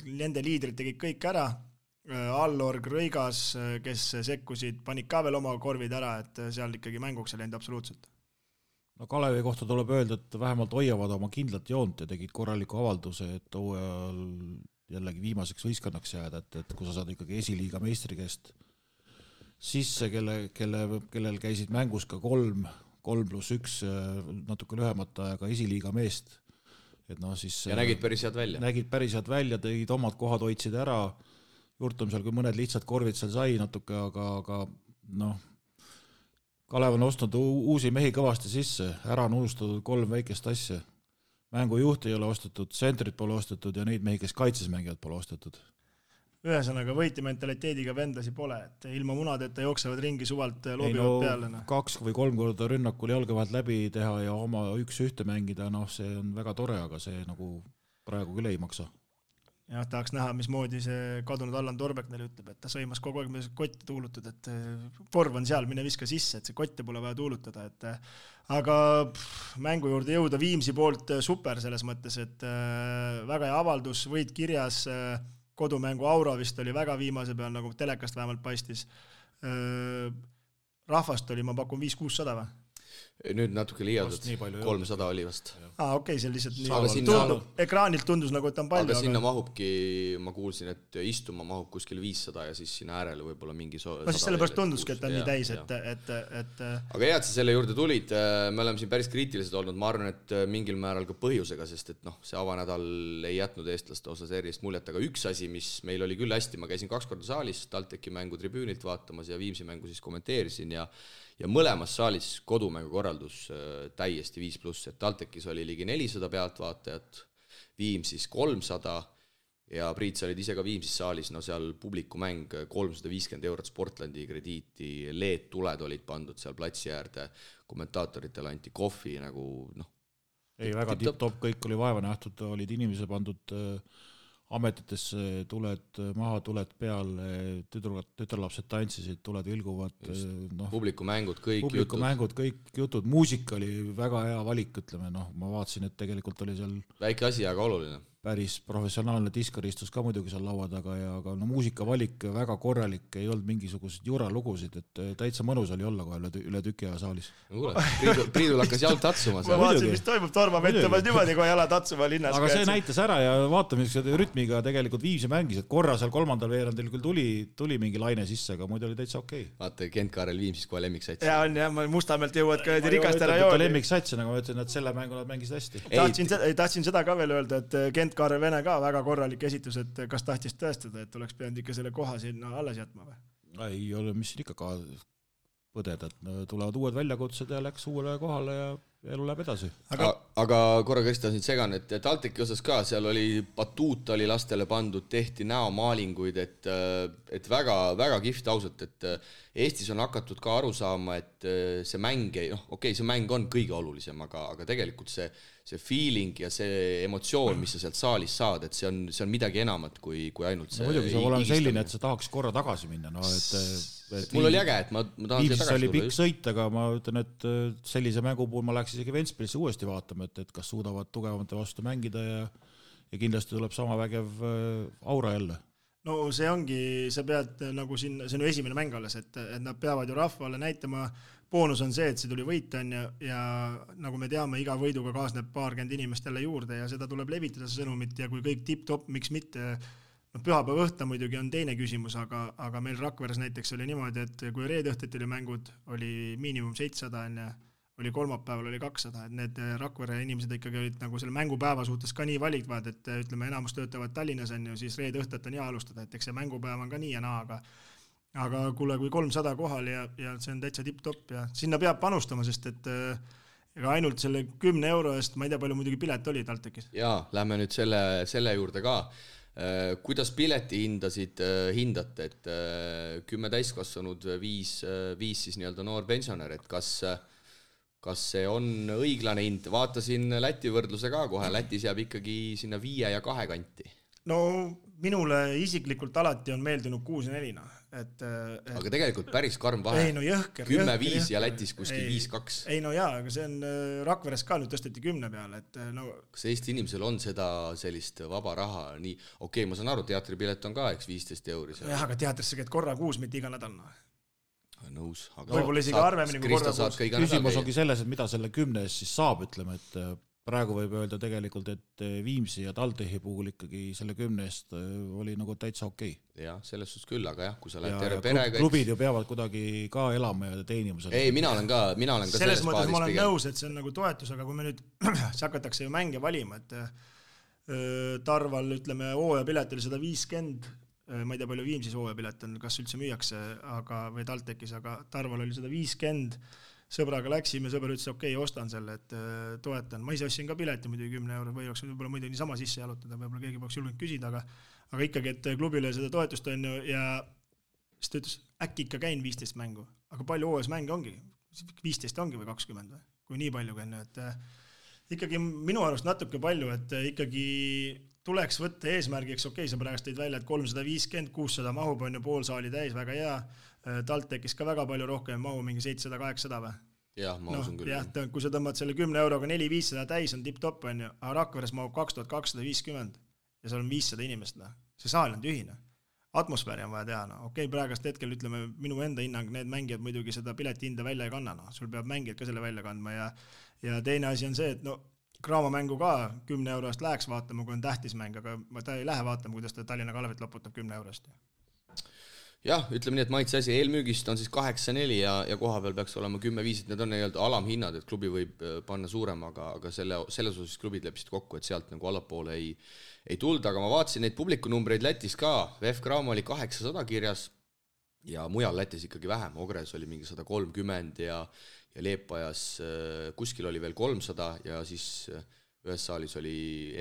nende liidrid tegid kõik ära, Allorg, Rõigas, kes sekkusid, panid ka veel oma korvid ära, et seal ikkagi mänguks ei läinud absoluutselt. No Kalevi kohta tuleb öelda, et vähemalt hoiavad oma kindlat joont ja tegid korraliku avalduse, et hooajal jällegi viimaseks võistkonnaks jääda, et kui sa saad ikkagi esiliiga meistri käest sisse, kellel käisid mängus ka 3+1 natuke lühemata ajaga esiliiga meest. Et siis, ja nägid päris head välja. Nägid päris head välja, tegid omad kohad hoidsid ära, Jurtum seal, kui mõned lihtsad korvid seal sai natuke, aga Kalev on ostnud uusi mehi kõvasti sisse, ära on unustatud 3 väikest asja. Mängujuht ei ole ostetud, sentrit pole ostetud ja neid mehi, kes kaitses mängivad, pole ostetud. ühesõnaga võitja mentaliteediga vendlasi pole, et ilma munadeta jooksevad ringi suvalt loobivad peale. 2 või 3 korda rünnakul jalga vahelt läbi teha ja oma 1-1 mängida, see on väga tore, aga see nagu praegu küll ei maksa. Jah, tahaks näha, mismoodi see kadunud Allan Torbek neile ütleb, et ta sõimas kogu aeg, mida kotte tuulutud, et korv on seal, mine viska sisse, et see kotte pole vaja tuulutada, et aga mängu juurde jõuda Viimsi poolt super selles mõttes, et väga hea avaldus, võit kirjas, kodumängu aura vist oli väga viimase peal, nagu telekast vähemalt paistis. Rahvast oli, ma pakun 500-600 või? Nüüd natuke liialdud, 300 oli vast. Okei, see lihtsalt nii ekraanilt tundus nagu, et on palju. Aga sinna mahubki, ma kuulsin, et istuma mahub kuskil 500 ja siis sinna äärele võib-olla mingi 100. No siis sellepärast tunduski, et on nii täis, et Aga hea, et sa selle juurde tulid, me oleme siin päris kriitilised olnud, ma arvan, et mingil määral ka põhjusega, sest et see avanädal ei jätnud eestlaste osas erilist muljet, aga üks asi, mis meil oli küll hästi, ma käisin 2 korda saalis, TalTechi mängu tribüünilt vaatamas ja Viimsi mängu siis kommenteerisin ja mõlemas saalis kodumängu korraldus täiesti 5+, et TalTechis oli ligi 400 pealtvaatajat, Viimsis 300 ja Priit, sa olid ise ka Viimsis saalis, seal publikumäng 350 eurot Sportlandi krediiti, LED-tuled olid pandud seal platsi äärde, kommentaatoritel anti kohvi nagu Ei, väga tipp-top, kõik oli vaeva nähtud, olid inimesed pandud ametitesse, tuled maha, tuled peal, tütarlapsed tantsisid, tuled vilguvad. Publikumängud, kõik jutud, muusika oli väga hea valik, ütleme, ma vaatasin, et tegelikult oli seal väike asi, aga oluline. Päris professionaalne diskar istus ka muidugi seal laua taga ja aga muusikavalik väga korralik, ei olnud mingisuguseid juralugusid, et täitsa mõnus oli olla kohe üle tüki aja saalis. Priidul hakkas jalg tatsuma. Ma vaatasin, mis toimub, Torma mõtlemas niimoodi, kui jala tatsuma linnas. Aga see näitas ära ja vaatame, rütmiga tegelikult Viimsi mängis, et korra seal 3. veerandil küll tuli mingi laine sisse, aga muidu oli täitsa okei. Vaata, Kent-Kaarel Viimsis kohe lemmiksats. Ja on, ma Mustamäelt jõuad ka rikaste rajooni. Lemmiksats, nagu ma ütlen, et selle mängu nad mängisid hästi. Tahtsin seda ka veel öelda, et Kent-Kaarel Vene ka väga korralik esitus, et kas tahtis tõestada, et oleks pidanud ikka selle koha sinna alles jätma või? Ei ole, mis ikka ka põdeda, et tulevad uued väljakutsed ja läks uuele kohale ja elu läheb edasi. Aga korra Krista siin segan, et TalTechi osas ka, seal oli batuut oli lastele pandud, tehti näomaalinguid, et väga, väga kihvt ausalt, et Eestis on hakatud ka aru saama, et see mäng, see mäng on kõige olulisem, aga tegelikult see feeling ja see emotsioon, mis sa sealt saalis saad, et see on midagi enamat kui ainult see. Muidugi see olema selline, et sa tahaks korra tagasi minna. Mul oli äge, et ma tahan Viimsis oli pikk sõit, aga ma ütlen, et sellise mängu puhul ma läks isegi Ventspilisse uuesti vaatama, et kas suudavad tugevamate vastu mängida ja kindlasti tuleb sama vägev aura jälle. No see ongi, sa pead nagu siin, see on ju esimene mäng alles, et nad peavad ju rahvale näitama, boonus on see, et see tuli võita ja nagu me teame, iga võiduga kaasneb 20 inimest jälle juurde ja seda tuleb levitada see sõnumit ja kui kõik tipp-top, miks mitte, pühapäeva õhta muidugi on teine küsimus, aga meil Rakveres näiteks oli niimoodi, et kui reede õhtuti oli mängud, oli miinimum 700 oli kolmapäeval oli 200, et need Rakvere inimesed ikkagi olid nagu selle mängupäeva suhtes ka nii valikvad, et ütleme, enamus töötavad Tallinnas on ju, siis reede õhtet on hea alustada, et eks see mängupäev on ka nii ja naa, aga kuule, kui 300 kohal ja see on täitsa tipp-top ja sinna peab panustama, sest et ega ainult selle 10 euro eest, ma ei tea, palju muidugi pilet oli TalTechis. Jaa, lähme nüüd selle juurde ka. Kuidas pileti hindate, et 10 täiskasvanud 5 siis nii-öelda noor pensionär, et kas see on õiglane hind? Vaatasin Läti võrdluse ka kohe, Lätis jääb ikkagi sinna 5 ja 2 kanti. No minule isiklikult alati on meeldinud 6 ja 4. Aga tegelikult päris karm vahe. Ei, no jõhker. 10-5 ja Lätis kuskil 5-2. Ei, no jaa, aga see on Rakveres ka nüüd tõsteti 10 peale. Kas Eesti inimesel on seda sellist vaba raha? Nii, okei, ma saan aru, teatripilet on ka, eks 15 €. Jah, aga teatrisse käid korra kuus, mitte iga nädal. Nõus. Võib-olla isegi arvemini kui korra kuus. Küsimus ongi selles, et mida selle 10 eest siis saab, ütleme, et praegu võib öelda tegelikult, et Viimsi ja TalTechi puhul ikkagi selle 10 eest oli nagu täitsa okei. Jah, selles suhtes küll, aga jah, kui sa lähed terve perega... Klubid ju peavad kuidagi ka elama ja teenima. Ei, mina olen ka selles mõttes ma olen nõus, et see on nagu toetus, aga kui me nüüd hakatakse ju mänge valima, et Tarval, ütleme, hooajapilet oli 150, ma ei tea, palju Viimsis hooajapilet on, kas üldse müüakse või TalTechis, aga Tarval oli 150, sõbraga läksime, sõber ütles, okei, ostan selle, et toetan. Ma ise ostsin ka pileti muidugi 10 € või oleks võib-olla muidu niisama sisse jalutada, võib-olla keegi peaks julgenud küsida, aga ikkagi, et klubile seda toetust on ju ja siis ta ütles, äkki ikka käin 15 mängu, aga palju hooajas mänge ongi? 15 ongi või 20 või? Kui nii palju käin, et ikkagi minu arust natuke palju, et ikkagi tuleks võtta eesmärgiks, okei, sa praegust tõid välja, et 350, 600 mahub on ju pool saali täis, väga hea, TalTechis ka väga palju rohkem mahu, mingi 700-800 või? Jah, ma usun küll. Jah, kui sa tõmbad selle 10 euroga 4-500 täis on tipp-top on ju, aga Rakveres mahub 2250 ja seal on 500 inimest, see saal on tühine. Atmosfääri on vaja teha, okei, praegast hetkel ütleme minu enda hinnang, need mängijad muidugi seda pileti hinda välja ei kanna, sul peab mängijad ka selle välja kandma ja teine asi on see, et Graamo mängu ka 10 eurost läheks vaatama, kui on tähtis mäng, aga ta ei lähe vaatama, kuidas ta Tallinna Kalevit loputab 10 eurost. Jah, ütleme nii, et maitse asi eelmüügist on siis 8-4 ja koha peal peaks olema 10-5, need on nii-öelda alamhinnad, et klubi võib panna suurem, aga selles osas klubid leppisid kokku, et sealt nagu allapoole ei tulda, aga ma vaatasin neid publikunumbreid Lätis ka, VF Graamo oli 800 kirjas ja mujal Lätis ikkagi vähem, Ogres oli mingi 130 ja Leepajas kuskil oli veel 300 ja siis ühes saalis oli,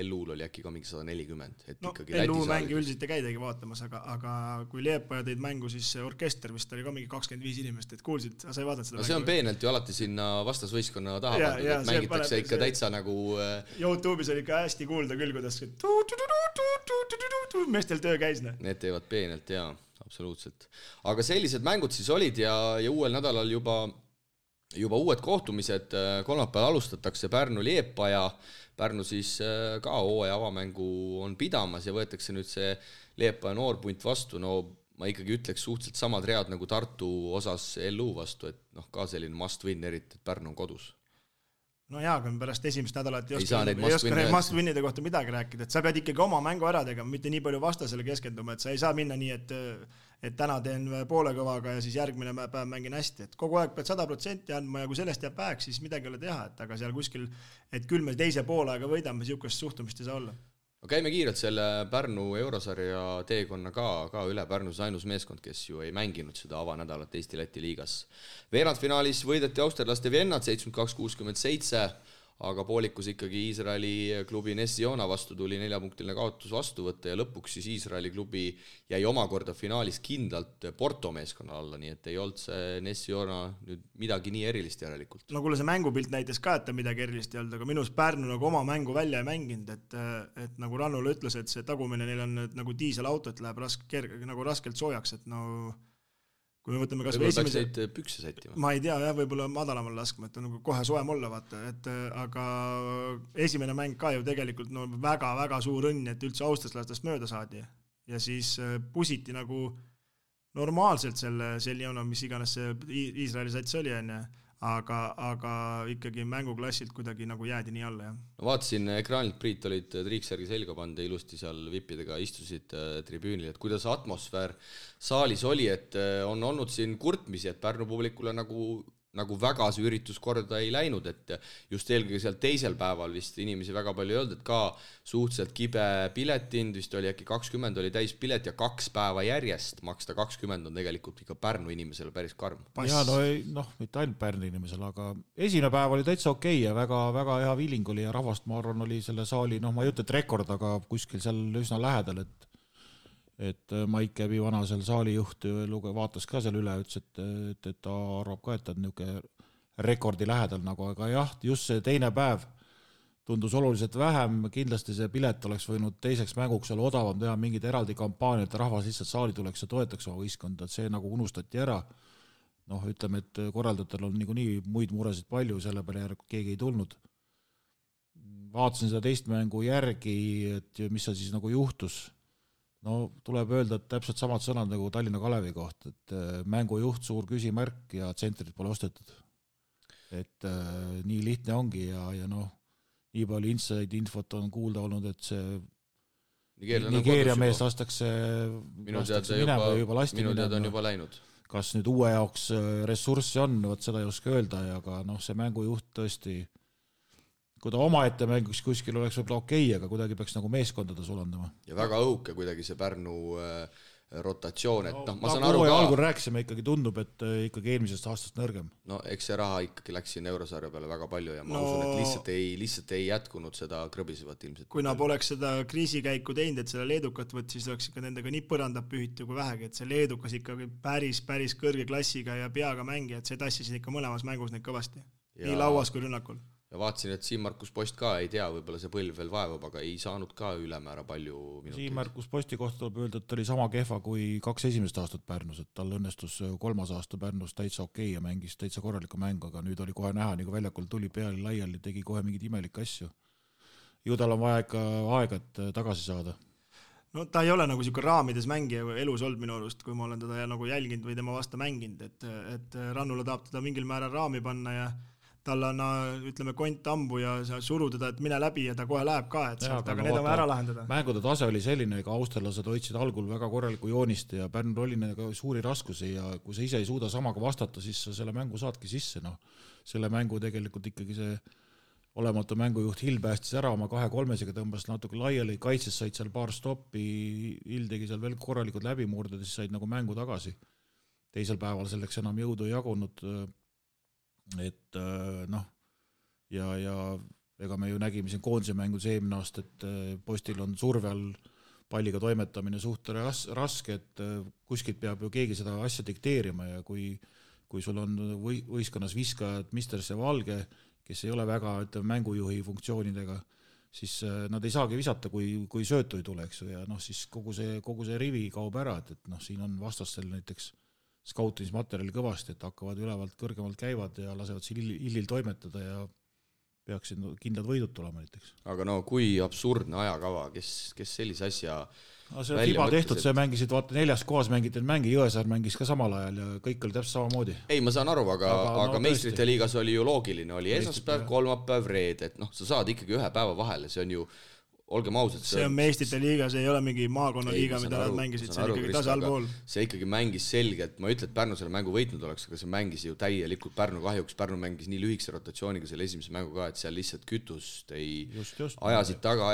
LU-l oli äkki ka mingi 140. Et ikkagi LU mängi üldiselt ei käidagi vaatamas, aga kui Leepaja tõid mängu, siis orkester vist oli ka mingi 25 inimest, et kuulsid, sa ei vaadanud seda mängu? See on peenelt ju alati sinna vastasvõistkonna taha pandud, et mängitakse ikka täitsa nagu... YouTube'is oli ikka hästi kuulda küll, kuidas meestel töö käis. Need teevad peenelt, jaa, absoluutselt. Aga sellised mängud siis olid ja uuel nädalal juba uued kohtumised, kolmapäeval alustatakse Pärnu-Liepaja, Pärnu siis ka hooaja avamängu on pidamas ja võetakse nüüd see Liepaja noorpunt vastu, ma ikkagi ütleks suhteliselt samad read nagu Tartu osas LU vastu, et ka selline must win, eriti, et Pärnu on kodus. No jaa, kui pärast esimest nädalat ei oska need must-winnide kohta midagi rääkida, et sa pead ikkagi oma mängu ära tegema, mitte nii palju vastasele keskenduma, et sa ei saa minna nii, et täna teen poole kõvaga ja siis järgmine päev mängin hästi, et kogu aeg pead 100% andma ja kui sellest jääb väheks, siis midagi ei ole teha, et aga seal kuskil, et küll me teise poolaega võidame, siukest suhtumist ei saa olla. No käime kiirelt selle Pärnu eurosarja teekonna ka üle. Pärnus ainus meeskond, kes ju ei mänginud seda avanädalat Eesti-Läti liigas. Veerandfinaalis võideti austerlaste Viennat 72-67, aga poolikus ikkagi Iisraeli klubi Nessiona vastu tuli 4-punktiline kaotus vastu võtta ja lõpuks siis Iisraeli klubi jäi omakorda finaalis kindlalt Porto meeskonna alla, nii et ei olnud see Nessiona nüüd midagi nii erilist järelikult. No kuule, see mängupilt näitas ka, et ta midagi erilist ei olnud, aga minus Pärnu nagu oma mängu välja ei mänginud, et nagu Rannula ütles, et see tagumine neil on nagu diiselauto, et läheb nagu raskelt soojaks, et kui me võtame kas või esimese... pükse sättima. Ma ei tea, võib-olla madalamal laskma, et on nagu kohe soem olla, vaata, aga esimene mäng ka ju tegelikult väga-väga suur õnn, et üldse austraslastest mööda saadi ja siis pusiti nagu normaalselt selle Seljona, mis iganes see Iisraeli sats oli, aga ikkagi mänguklassilt kuidagi nagu jäädi nii alla. No vaatasin ekraanilt, Priit olid triiksärgi selga panda, ilusti seal vippidega istusid tribüünil, et kuidas atmosfäär saalis oli, et on olnud siin kurtmisi, et Pärnu publikule nagu väga see üritus korda ei läinud, et just eelkõige seal teisel päeval vist inimesi väga palju ei olnud, et ka suhteliselt kibe piletind, vist oli äkki 20 oli täis pilet ja 2 päeva järjest maksta 20 on tegelikult ikka Pärnu inimesele päris karm. Ja mitte ainult Pärnu inimesele, aga esimene päev oli täitsa okei ja väga hea viiling oli ja rahvast, ma arvan, oli selle saali, ma ei ütle, et rekord, aga kuskil seal üsna lähedal, et Maik Käbi vana seal saalijuht vaatas ka seal üle, ütles, et ta arvab ka, et ta on niisugune rekordi lähedal nagu, aga jah, just see teine päev tundus oluliselt vähem, kindlasti see pilet oleks võinud teiseks mänguks olla odavam teha mingid eraldi kampaaniad, et rahvas lihtsalt saali tuleks ja toetaks oma võistkonda, et see nagu unustati ära. Ütleme, et korraldajatel on nii muid muresid palju, selle peale keegi ei tulnud. Vaatasin seda teist mängu järgi, et mis see siis nagu juhtus. Tuleb öelda, et täpselt samad sõnad nagu Tallinna Kalevi koht, et mängujuht suur küsimärk ja tsentrid pole ostetud. Et nii lihtne ongi ja nii palju inside infot on kuulda olnud, et see Nigeeria mees lastakse minema või juba lasti minema. On juba läinud. Kas nüüd uue jaoks ressurssi on, seda ei oska öelda, aga see mängujuht tõesti, kui ta omaette mängiks kuskil oleks võib-olla okei, aga kuidagi peaks nagu meeskondades olandama. Ja väga õhuke kuidagi see Pärnu rotatsioon, et ma saan nagu aru ka. Algul rääkisime, ikkagi tundub, et ikkagi eelmisest aastast nõrgem. No eks see raha ikkagi läks siin eurosarja peale väga palju ja ma usun, et lihtsalt ei jätkunud seda krõbisevat ilmselt. Kui nad poleks seda kriisikäiku teinud, et selle leedukat võt, siis oleks ikka nendega nii põrandab pühitu kui vähegi, et see leedukas ikkagi päris kõrge klassiga ja peaga mängi, et see tassisid ikka mõlemas mängus neid kõvasti. Nii lauas kui rünnakul. Ja vaatasin, et Siim-Markus Post ka ei tea, võib-olla see põlv veel vaevab, aga ei saanud ka ülemäära palju minuteid. Siim-Markus Posti kohta tuleb öelda, et ta oli sama kehva kui 2 esimest aastat Pärnus, et tal õnnestus 3. aasta Pärnus täitsa okei ja mängis täitsa korraliku mängu, aga nüüd oli kohe näha, nagu väljakul tuli peale laiali, tegi kohe mingid imelikke asju. Ju tal on vaja ikka aega, et tagasi saada. No ta ei ole nagu siuke raamides mängija elus olnud minu arust, kui ma olen teda nagu jälginud või tema vasta mänginud, et Rannula tahab teda mingil määral raami panna ja tal on, ütleme, kont ambu ja suru teda, et mine läbi ja ta kohe läheb ka, et sealt, aga need on ära lahendada. Mängude tase oli selline, ega austerlased hoidsid algul väga korraliku joonist ja Pärnul oli nendega suuri raskusi ja kui sa ise ei suuda samaga vastata, siis sa selle mängu saadki sisse. Selle mängu tegelikult ikkagi see olematu mängujuht Hill päästis ära oma 2-3-sega, tõmbas natuke laiali, kaitses said seal paar stoppi, Hill tegi seal veel korralikud läbimurded, siis said nagu mängu tagasi. Teisel päeval selleks enam jõudu ei jagunud, et ja ega me ju nägime siin koondise mängus eelmine aasta, et Postil on surve all palliga toimetamine suht raske, et kuskilt peab ju keegi seda asja dikteerima ja kui sul on võistkonnas viskajad Misters ja Valge, kes ei ole väga mängujuhi funktsioonidega, siis nad ei saagi visata, kui söötu ei tule, eks ju, ja siis kogu see rivi kaob ära, et siin on vastastel näiteks skautimismaterjali kõvasti, et hakkavad ülevalt kõrgemalt käivad ja lasevad siin Illil toimetada ja peaksid kindlad võidud tulema näiteks. Aga kui absurdne ajakava, kes sellise asja see on FIBA tehtud, see mängisid, vaata 4. kohas mängid mängi, Jõesaar mängis ka samal ajal ja kõik oli täpselt samamoodi. Ei, ma saan aru, aga meistrite liigas oli ju loogiline, oli esmaspäev, kolmapäev, reed, et sa saad ikkagi ühe päeva vahele, see on ju olgem ausad. See on meistrite liiga, see ei ole mingi maakonnaliiga, mida nad mängisid, see on ikkagi tase allpool. See ikkagi mängis selgelt, ma ütlen, et Pärnu selle mängu võitnud oleks, aga see mängis ju täielikult Pärnu kahjuks, Pärnu mängis nii lühikese rotatsiooniga selle esimese mängu ka, et seal lihtsalt kütust ei ajasid taga,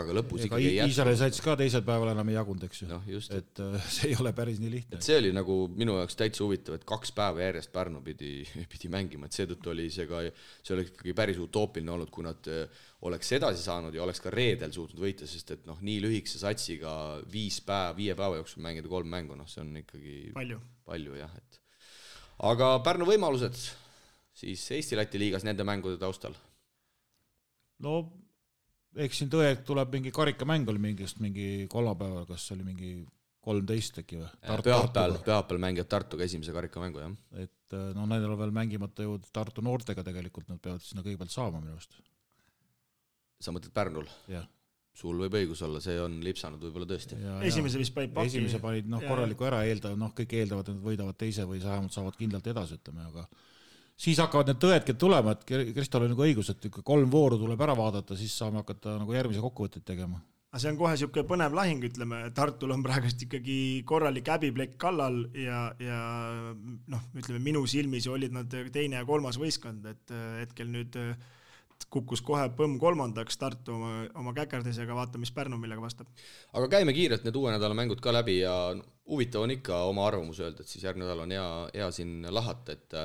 aga lõpus ikkagi ei jätku. Iisraeli saits ka teisel päeval enam ei jagunud, eks ju. Et see ei ole päris nii lihtne. Et see oli nagu minu jaoks täitsa huvitav, et 2 päeva järjest Pärnu pidi mängima, et seetõttu oli see oli ikkagi päris utoopiline olnud, kui nad oleks edasi saanud ja oleks ka reedel suutnud võita, sest et nii lühikese satsiga 5 päeva jooksul mängida 3 mängu, see on ikkagi palju jah. Aga Pärnu võimalused siis Eesti-Läti liigas nende mängude taustal? Eks siin tõe tuleb mingi karikamäng oli mingi kolmapäeval, kas oli mingi 13 äkki või? Pühapäeval mängivad Tartuga esimese karikamängu, jah. Et nendel on veel mängimata ju Tartu noortega tegelikult, nad peavad sinna kõigepealt saama minu arust. Sa mõtled Pärnul? Jah. Sul võib õigus olla, see on lipsanud võib-olla tõesti. Esimese vist panid paki. Esimese panid korraliku ära, kõik eeldavad, et nad võidavad teise või vähemalt saavad kindlalt edasi, ütleme, aga siis hakkavad need tõedki tulema, et Kristol on nagu õigus, et 3 vooru tuleb ära vaadata, siis saame hakata nagu järgmise kokkuvõtteid tegema. See on kohe siuke põnev lahing, ütleme, Tartul on praegust ikkagi korralik häbiplekk kallal ja ütleme, minu silmis olid nad 2. ja 3. võistkond, et hetkel nüüd kukkus kohe põmm 3. Tartu oma käkerdisega, vaata, mis Pärnu millega vastab. Aga käime kiirelt need uue nädala mängud ka läbi ja huvitav on ikka oma arvamus öelda, et siis järgmine nädal on hea siin lahata, et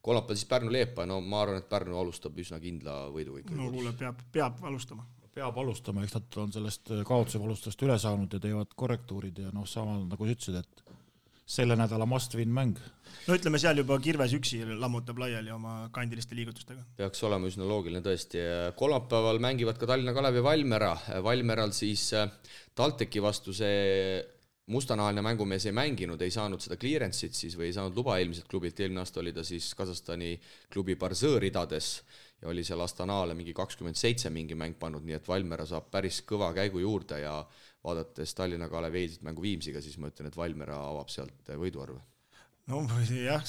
kolmapäeval siis Pärnu-Leepa, ma arvan, et Pärnu alustab üsna kindla võiduga ikka. Kuule, peab alustama. Peab alustama, eks nad on sellest kaotuse valustast üle saanud ja teevad korrektuurid ja sama nagu sa ütlesid, et selle nädala must-win mäng. Ütleme, seal juba Kirves üksi lammutab laiali oma kandiliste liigutustega. Peaks olema üsna loogiline tõesti. Kolmapäeval mängivad ka Tallinna Kalev ja Valmera. Valmeral siis TalTechi vastu see mustanahaline mängumees ei mänginud, ei saanud seda clearance'it siis või ei saanud luba eelmiselt klubilt. Eelmine aasta oli ta siis Kasahstani klubi Barzõõ ridades ja oli seal Astanaale mingi 27 mingi mäng pannud, nii et Valmera saab päris kõva käigu juurde ja vaadates Tallinna Kalev eilset mängu Viimsiga, siis ma ütlen, et Valmera avab sealt võiduarve. Jah,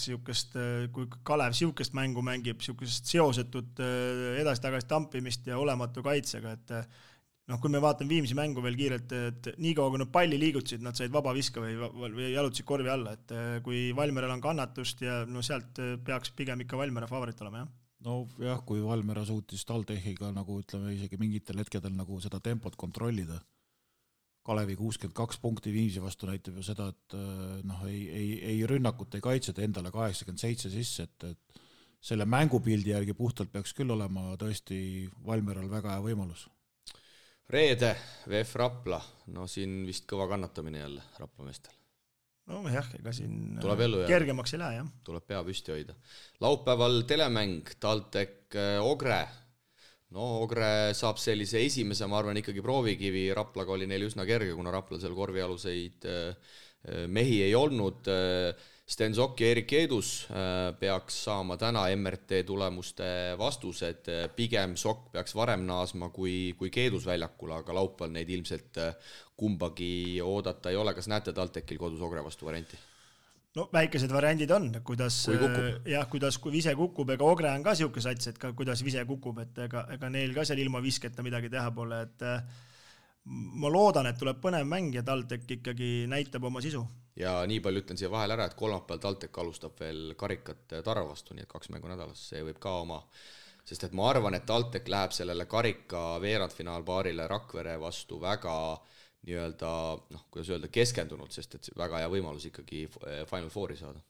kui Kalev siukest mängu mängib, siukest seosetut edasi-tagasi tampimist ja olematu kaitsega, et kui me vaatame Viimsi mängu veel kiirelt, et nii kaua, kui nad palli liigutasid, nad said vaba viska või jalutasid korvi alla, et kui Valmeral on kannatust ja sealt peaks pigem ikka Valmera favorit olema, jah? Kui Valmera suutis TalTechiga nagu ütleme isegi mingitel hetkedel nagu seda tempot kontrollida, Kalevi 62 punkti Viimsi vastu näitab ju seda, et noh, ei rünnakut, ei kaitset, endale 87 sisse, et selle mängupildi järgi puhtalt peaks küll olema tõesti Valmieral väga hea võimalus. Reede, VF Rapla, no siin vist kõva kannatamine jälle Rapla meestel. No jah, ega siin kergemaks ei lähe, jah. Tuleb pea püsti hoida. Laupäeval telemäng, TalTech Ogre. No Ogre saab sellise esimese, ma arvan, ikkagi proovikivi. Raplaga oli neil üsna kerge, kuna Raplal seal korvialuseid mehi ei olnud. Sten Sokk ja Erik Eedus peaks saama täna MRT tulemuste vastused. Pigem Sokk peaks varem naasma kui Keedus väljakul, aga laupäeval neid ilmselt kumbagi oodata ei ole. Kas näete TalTechil kodus Ogre vastu varianti? No väikesed variandid on, kuidas kui Vise kukub, ega Ogre on ka siuke sats, et ka kuidas Vise kukub, et ega neil ka seal ilma visketa midagi teha pole, et ma loodan, et tuleb põnev mäng ja TalTech ikkagi näitab oma sisu. Ja nii palju ütlen siia vahel ära, et kolmapäeval TalTech alustab veel karikat Tarva vastu, nii et 2 mängu nädalas, see võib ka oma, sest et ma arvan, et TalTech läheb sellele karika veerandfinaalpaarile Rakvere vastu väga nii-öelda, kuidas öelda, keskendunud, sest et väga hea võimalus ikkagi Final Fouri saada.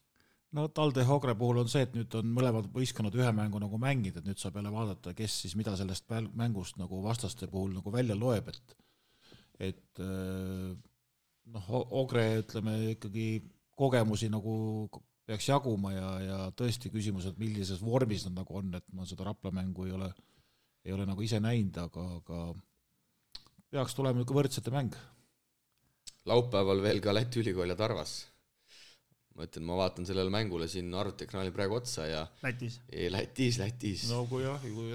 No TalTech Ogre puhul on see, et nüüd on mõlemad võistkonnad ühe mängu nagu mängid, et nüüd saab jälle vaadata, kes siis mida sellest mängust nagu vastaste puhul nagu välja loeb, et Ogre, ütleme, ikkagi kogemusi nagu peaks jaguma ja tõesti küsimused, millises vormis nad nagu on, et ma seda Rapla mängu ei ole nagu ise näinud, aga peaks tulema võrdsete mäng. Laupäeval veel ka Läti ülikool ja Tarvas. Ma ütlen, ma vaatan sellele mängule siin arvutiekraanil praegu otsa ja Lätis. No kui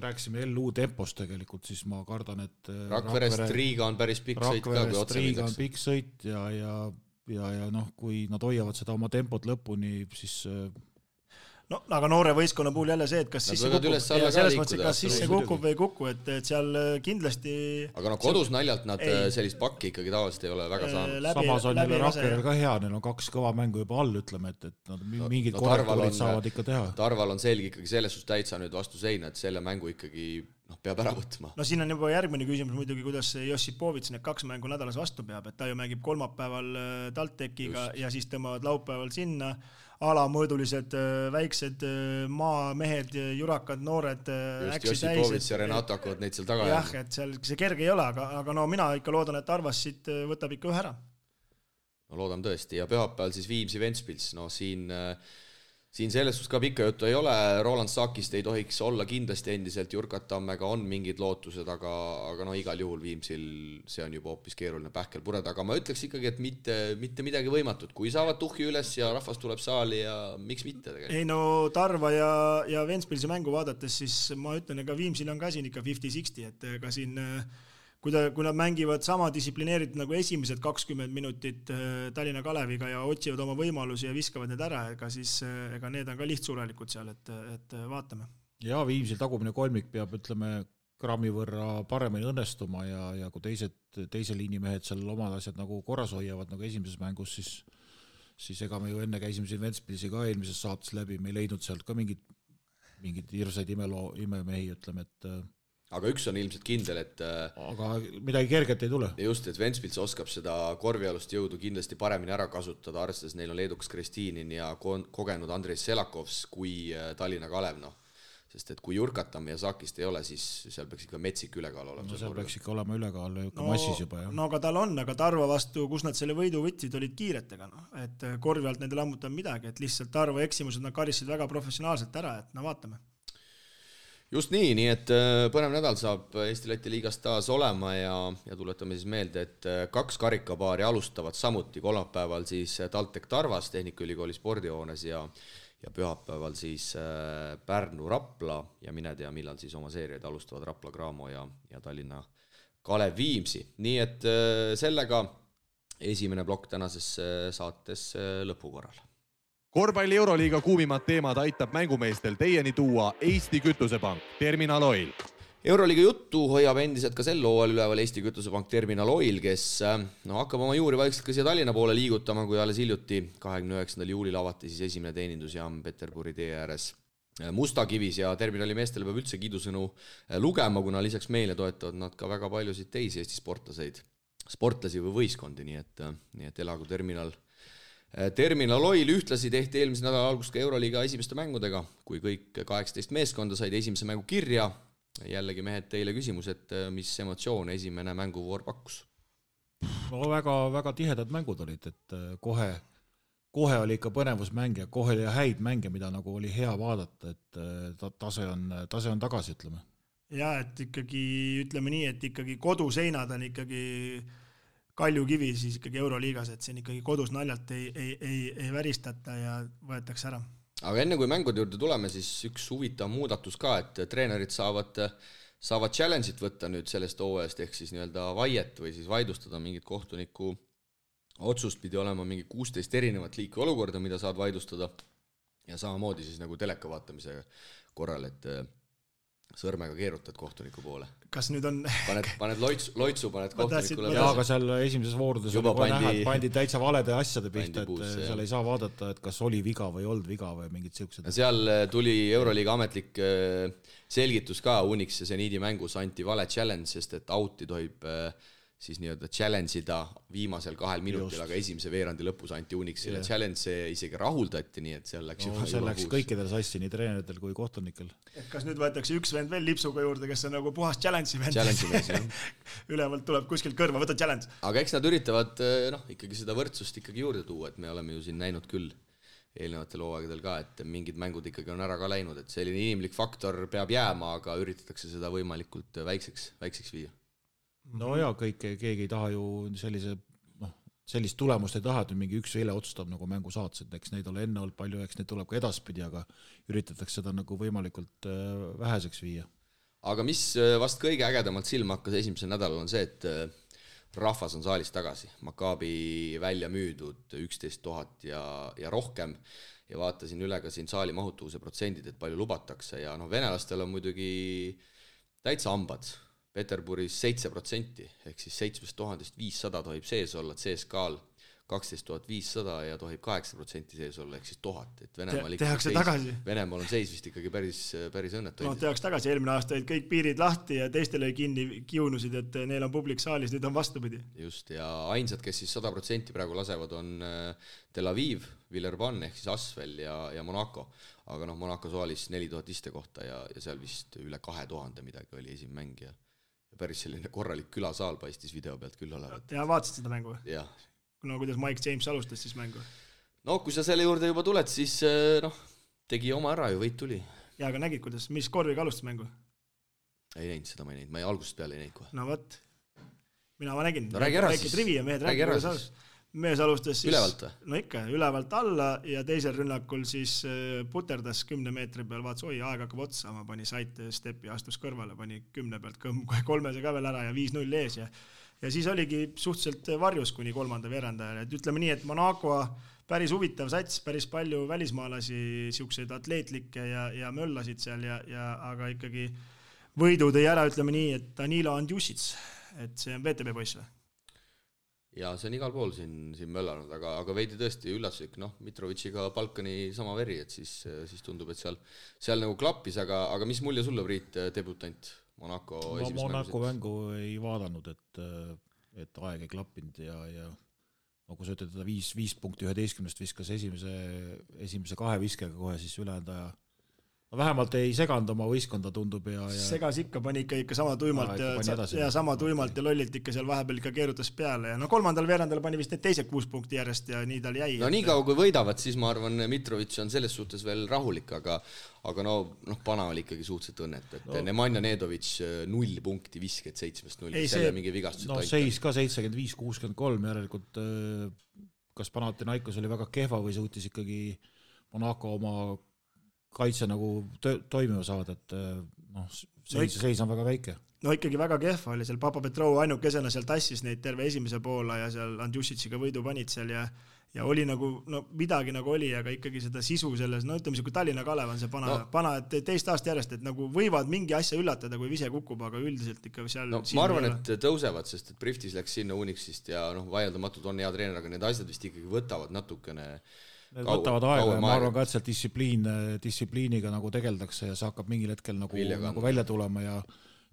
rääksime LU tempost tegelikult, siis ma kardan, et Rakverest Riiga on päris pikk sõit ka, kui otsa Riiga on pikk sõit ja noh, kui nad hoiavad seda oma tempot lõpuni, siis no, aga noore võistkonna puhul jälle see, et kas sisse kukub ja selles mõttes, kas sisse kukub või ei kuku, et seal kindlasti aga no kodus naljalt nad sellist pakki ikkagi tavaliselt ei ole väga saanud. Samas on jälle Rakverel ka hea, neil on 2 kõva mängu juba all, ütleme, et nad mingid korrektuurid saavad ikka teha. Tarval on selge ikkagi selles suhtes täitsa nüüd vastu seina, et selle mängu ikkagi peab ära võtma. No siin on juba järgmine küsimus muidugi, kuidas Jossipovits need 2 mängu nädalas vastu peab, et ta ju mängib kolmapäeval TalTechiga ja siis tõmbavad laupäeval sinna alamõõdulised väiksed maamehed, jurakad, noored just Jossipovits ja Renato hakkavad neid seal taga jah, et seal see kerge ei ole, aga no mina ikka loodan, et Arvas siit võtab ikka ühe ära. No loodan tõesti ja pühapäeval siis Viimsi Ventspils, no siin selles suhtes ka pikka juttu ei ole, Roland Sakist ei tohiks olla kindlasti endiselt, Jurkat Tammega on mingid lootused, aga no igal juhul Viimsil see on juba hoopis keeruline pähkel pureda, aga ma ütleks ikkagi, et mitte midagi võimatut, kui saavad tuhhi üles ja rahvas tuleb saali ja miks mitte tegelikult. Ei no Tarva ja Ventspilsi mängu vaadates, siis ma ütlen, ega Viimsil on ka siin ikka 50-60, et ka siin kui nad mängivad sama distsiplineeritud nagu esimesed 20 minutit Tallinna Kaleviga ja otsivad oma võimalusi ja viskavad need ära, ega need on ka lihtsurelikult seal, et vaatame. Ja Viimsil tagumine kolmik peab, ütleme, grammi võrra paremini õnnestuma ja kui teise liini mehed seal omad asjad nagu korras hoiavad nagu esimeses mängus, siis ega me ju enne käisime siin Ventspilsi ka eelmises saates läbi, me ei leidnud sealt ka mingid hirsaid imemehi, ütleme, et aga üks on ilmselt kindel, et aga midagi kerget ei tule. Just, et Ventspils oskab seda korvialust jõudu kindlasti paremini ära kasutada, arvestades neil on Leedukas Kristinin ja kogenud Andrei Selakovs kui Tallinna Kalev, sest et kui Jurkatam ja Sakist ei ole, siis seal peaks ikka metsik ülekaal olema. No seal peaks ikka olema ülekaal massis juba. Ja. No aga tal on, aga Tarva vastu, kus nad selle võidu võtsid, olid kiiretega, et korvi alt nende lammutab midagi, et lihtsalt Tarva eksimused nad karisid väga professionaalselt ära, et vaatame. Just nii, et põnev nädal saab Eesti-Läti liigast taas olema ja tuletame siis meelde, et 2 karikapaari alustavad samuti kolmapäeval siis TalTech Tarvas Tehnikaülikooli spordihoones ja pühapäeval siis Pärnu Rapla ja mine tea, millal siis oma seeriaid alustavad Rapla Graamo ja Tallinna Kalev Viimsi. Nii et sellega esimene plokk tänases saates lõpukorral. Korvpalli Euroliiga kuumimad teemad aitab mängumeestel teieni tuua Eesti Kütusepank, Terminal Oil. Euroliiga juttu hoiab endiselt ka sel hooajal üleval Eesti Kütusepank Terminal Oil, kes hakkab oma juuri vaikselt ka siia Tallinna poole liigutama, kui alles hiljuti 29. juulil avati siis esimene teenindusjaam Peterburi tee ääres Mustakivis ja Terminali meestele peab üldse kiidusõnu lugema, kuna lisaks meile toetavad nad ka väga paljusid teisi Eesti sportlaseid. sportlasi või võistkondi, nii et elagu Terminal Oil. Ühtlasi tehti eelmise nädala algust ka Euroliiga esimeste mängudega, kui kõik 18 meeskonda said esimese mängu kirja. Jällegi mehed teile küsimus, et mis emotsioone esimene mänguvoor pakkus? No väga tihedad mängud olid, et kohe oli ikka põnevusmäng ja kohe oli häid mänge, mida nagu oli hea vaadata, et tase on tagasi, ütleme. Ja, et ikkagi, ütleme nii, et ikkagi koduseinad on ikkagi Kaljukivi siis ikkagi Euroliigas, et siin ikkagi kodus naljalt ei väristata ja võetakse ära. Aga enne kui mängude juurde tuleme, siis üks huvitav muudatus ka, et treenerid saavad challenge'it võtta nüüd sellest hooajast ehk siis nii-öelda vaiet või siis vaidlustada mingit kohtuniku otsust, pidi olema mingi 16 erinevat liiki olukorda, mida saad vaidlustada ja samamoodi siis nagu teleka vaatamise korral, et sõrmega keerutad kohtuniku poole. Kas nüüd on... Paned loitsu, paned kohtunikule. Jaa, aga seal esimeses voorudes pandi täitsa valede asjade pihta, et seal ei saa vaadata, et kas oli viga või olnud viga või mingid siuksed. Seal tuli Euroliiga ametlik selgitus ka, Unix ja Zeniidi mängus anti vale challenge, sest et out'i tohib siis nii-öelda challenge'ida viimasel 2 minutil, aga esimese veerandi lõpus anti Unixile challenge, see isegi rahuldati, nii et seal läks läks kõikidel sassi, nii treeneritel kui kohtunikel. Et kas nüüd võetakse üks vend veel lipsuga juurde, kes on nagu puhas challenge'i vend? Challenge'i mees, Ülevalt tuleb kuskilt kõrva, võta challenge. Aga eks nad üritavad ikkagi seda võrdsust ikkagi juurde tuua, et me oleme ju siin näinud küll eelnevatel hooaegadel ka, et mingid mängud ikkagi on ära ka läinud, et selline inimlik faktor peab jääma, aga üritatakse seda võimalikult väikseks viia. No ja keegi ei taha ju sellist tulemust ei taha, et mingi üks eile otsustab nagu mängu saats, et eks neid ole enne olnud palju, eks neid tuleb ka edaspidi, aga üritatakse seda nagu võimalikult väheseks viia. Aga mis vast kõige ägedamalt silma hakkas esimesel nädalal on see, et rahvas on saalis tagasi. Maccabi välja müüdud 11 000 ja rohkem ja vaatasin üle ka siin saali mahutuvuse protsendid, et palju lubatakse ja venelastel on muidugi täitsa hambad. Peterburis 7%, ehk siis 7500 tohib sees olla, CSKA-l 12500 ja tohib 8% sees olla, ehk siis 1000. Et Venemaal on seis vist ikkagi päris õnnetu. No tehaks tagasi, eelmine aasta olid kõik piirid lahti ja teistele kinni kiunusid, et neil on publik saalis, nüüd on vastupidi. Just, ja ainsad, kes siis 100% praegu lasevad, on Tel Aviv, Villerban ehk siis Asvel ja Monaco. Aga Monaco saalis 4000 iste kohta ja seal vist üle 2000 midagi oli esim mäng ja päris selline korralik külasaal paistis video pealt küll olevat. Ja vaatasid seda mängu? Jah. No kuidas Mike James alustas siis mängu? No kui sa selle juurde juba tuled, siis tegi oma ära ju, võit tuli. Ja aga nägid, kuidas, mis korviga alustas mängu? Ei näinud seda, ma ei näinud, ma algusest peale ei näinud kohe. No võt, ma nägin. No räägi ära siis. Räägi ära siis. Mees alustas siis, ülevalt või? No ikka, ülevalt alla ja teisel rünnakul siis puterdas 10 meetri peal, vaatas, aeg hakkab otsa, ma pani saite stepi, astus kõrvale, pani 10 pealt 3 ka veel ära ja 5-0 ees ja siis oligi suhteliselt varjus kuni 3. veerandajal, et ütleme nii, et Monaco päris huvitav sats, päris palju välismaalasi, siukseid atleetlikke ja möllasid seal aga ikkagi võidu tõi ära, ütleme nii, et Danilo Andjusic, et see on VTB poiss või? Ja see on igal pool siin möllanud, aga veidi tõesti üllatuslik, Mitrovitšiga Balkani sama veri, et siis tundub, et seal nagu klappis, aga mis mulje sulle, Priit, debutant Monaco esimest mängu? Monaco mängu ei vaadanud, et aeg ei klappinud ja kui sa ütled, 5 punkti 11 viskas esimese 2 viskega kohe siis ülejäänud aja. Vähemalt ei seganud oma võistkonda, tundub ja segas ikka, pani ikka sama tuimalt ja sama tuimalt ja lollilt ikka seal vahepeal ikka keerutas peale ja 3. veerandal pani vist need teised 6 punkti järjest ja nii tal jäi. No nii kaua kui võidavad, siis ma arvan, Mitrovic on selles suhtes veel rahulik, aga Pana oli ikkagi suhteliselt õnnet, et Nemanja Nedovic 0 punkti visked 7-0, selle mingi vigastused aitab. Seis ka 75-63 järelikult, kas Panathinaikos oli väga kehva või suutis ikkagi Monaco oma kaitse nagu toimima saada, et seis on väga väike. No ikkagi väga kehva oli seal, Papa Petrov ainukesena seal tassis neid terve esimese poola ja seal Andjusitsiga võidu panid seal ja oli nagu, midagi nagu oli, aga ikkagi seda sisu selles, ütleme kui Tallinna Kalev on see pana, et teist aasta järjest, et nagu võivad mingi asja üllatada, kui vise kukub, aga üldiselt ikka seal... ma arvan, et tõusevad, sest et Priftis läks sinna Unixist ja vaieldamatult on hea treener, aga need asjad vist ikkagi võtavad natukene Need võtavad aega ja ma arvan ka, et sealt distsipliiniga nagu tegeldakse ja see hakkab mingil hetkel nagu välja tulema ja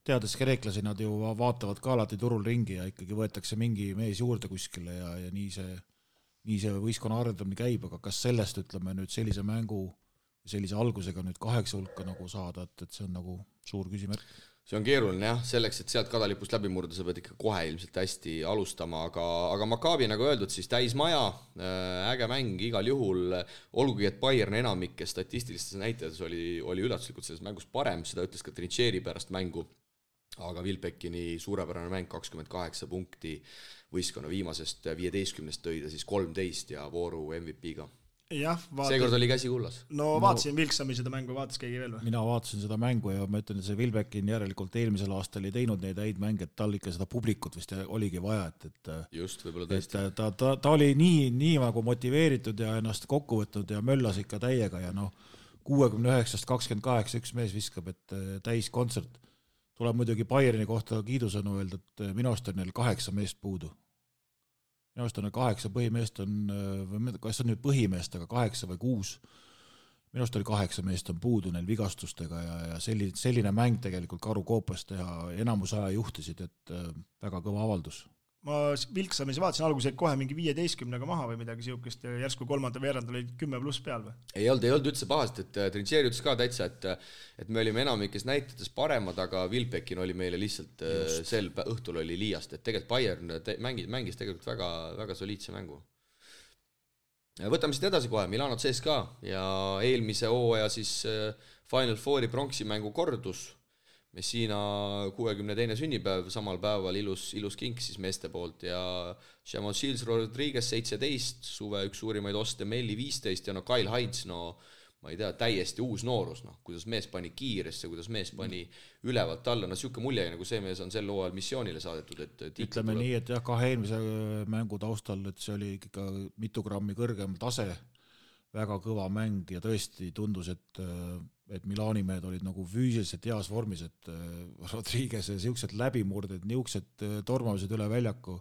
teades kreeklasi, nad ju vaatavad ka alati turul ringi ja ikkagi võetakse mingi mees juurde kuskile ja nii see võistkonna arendamine käib, aga kas sellest, ütleme nüüd sellise mängu, sellise algusega nüüd 8 hulka nagu saada, et see on nagu suur küsimärk. See on keeruline jah, selleks, et sealt kadalipust läbi murda, sa pead ikka kohe ilmselt hästi alustama, aga Maccabi nagu öeldud, siis täismaja, äge mäng igal juhul, olgugi, et Bayern enamike statistilistes näitajades oli üllatuslikult selles mängus parem, seda ütles ka Trincheri pärast mängu, aga Wilbeckini suurepärane mäng 28 punkti võistkonna viimasest 15 tõi ta siis 13 ja vooru MVP-ga. Jah, seekord oli käsi kullas. No vaatasin Vilksami seda mängu, vaatas keegi veel või? Mina vaatasin seda mängu ja ma ütlen, et see Wilbeckin järelikult eelmisel aastal ei teinud neid häid mänge, et tal ikka seda publikut vist oligi vaja, et just, võib-olla tõesti. Ta oli nii nagu motiveeritud ja ennast kokku võtnud ja möllas ikka täiega ja 69-st 28 üks mees viskab, et täis kontsert. Tuleb muidugi Bayerni kohta kiidusõnu öelda, et minu arust on neil 8 meest puudu. Minu arust on 8 põhimeest kas on nüüd põhimeest, aga 8 või 6. Minu arust oli 8 meest on puudu neil vigastustega ja selline mäng tegelikult Karu Koopas teha enamus aja juhtisid, et väga kõva avaldus. Ma Vilksamis vaatasin alguses kohe mingi 15-ga maha või midagi siukest ja järsku kolmanda veerand oli 10+ peal või? Ei olnud üldse pahast, et Trincheri ütles ka täitsa, et me olime enamikes näitetes paremad, aga Wilbeckin oli meile lihtsalt sel õhtul oli liiast, et tegelikult Bayern mängis tegelikult väga, väga soliidse mängu. Võtame siit edasi kohe, Milano CSKA ja eelmise hooaja siis Final Fouri pronksi mängu kordus. Messina 62. sünnipäev, samal päeval ilus kink siis meeste poolt ja Chamon-Shields Rodriguez 17, suve üks suurimaid oste, Melli 15 ja Kyle Heinz, ma ei tea, täiesti uus noorus, kuidas mees pani kiiresse, kuidas mees pani ülevalt alla, siuke mulje, nagu see mees on sel hooajal missioonile saadetud, et ütleme nii, et jah, 2 eelmise mängu taustal, et see oli ikka mitu grammi kõrgem tase, väga kõva mäng ja tõesti tundus, et Milani mehed olid nagu füüsiliselt heas vormis, et Rodriguez ja siuksed läbimurded, niuksed tormamised üle väljaku.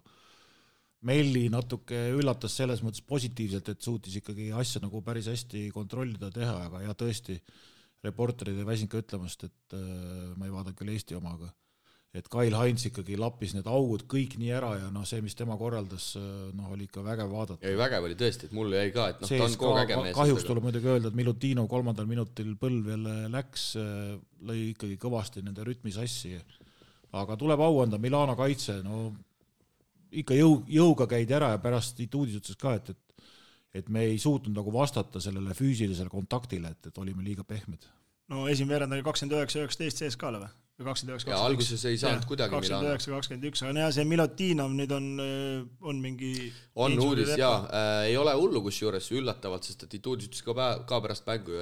Melli natuke üllatas selles mõttes positiivselt, et suutis ikkagi asja nagu päris hästi kontrollida teha, aga ja tõesti reporterid ei väsinud ka ütlemast, et ma ei vaadanud küll Eesti omaga, et Kyle Heinz ikkagi lappis need augud kõik nii ära ja see, mis tema korraldas, oli ikka vägev vaadata. Ja vägev oli tõesti, et mulle jäi ka, et ta on kogu äge mees. Kahjuks tuleb muidugi öelda, et Milutino 3. minutil põlv jälle läks, lõi ikkagi kõvasti nende rütmi sassi. Aga tuleb au anda Milano kaitse, ikka jõuga käid ära ja pärast Ituudis ütles ka, et me ei suutnud nagu vastata sellele füüsilisele kontaktile, et olime liiga pehmed. Esimene veerand oli 29-19 CSKA-le või? 29-21. Ja alguses ei saanud kuidagi Milano. 29-21, aga see Milutinov nüüd on mingi... On uudis, ei ole hullu kusjuures üllatavalt, sest et Ituudis ütles ka pärast mängu,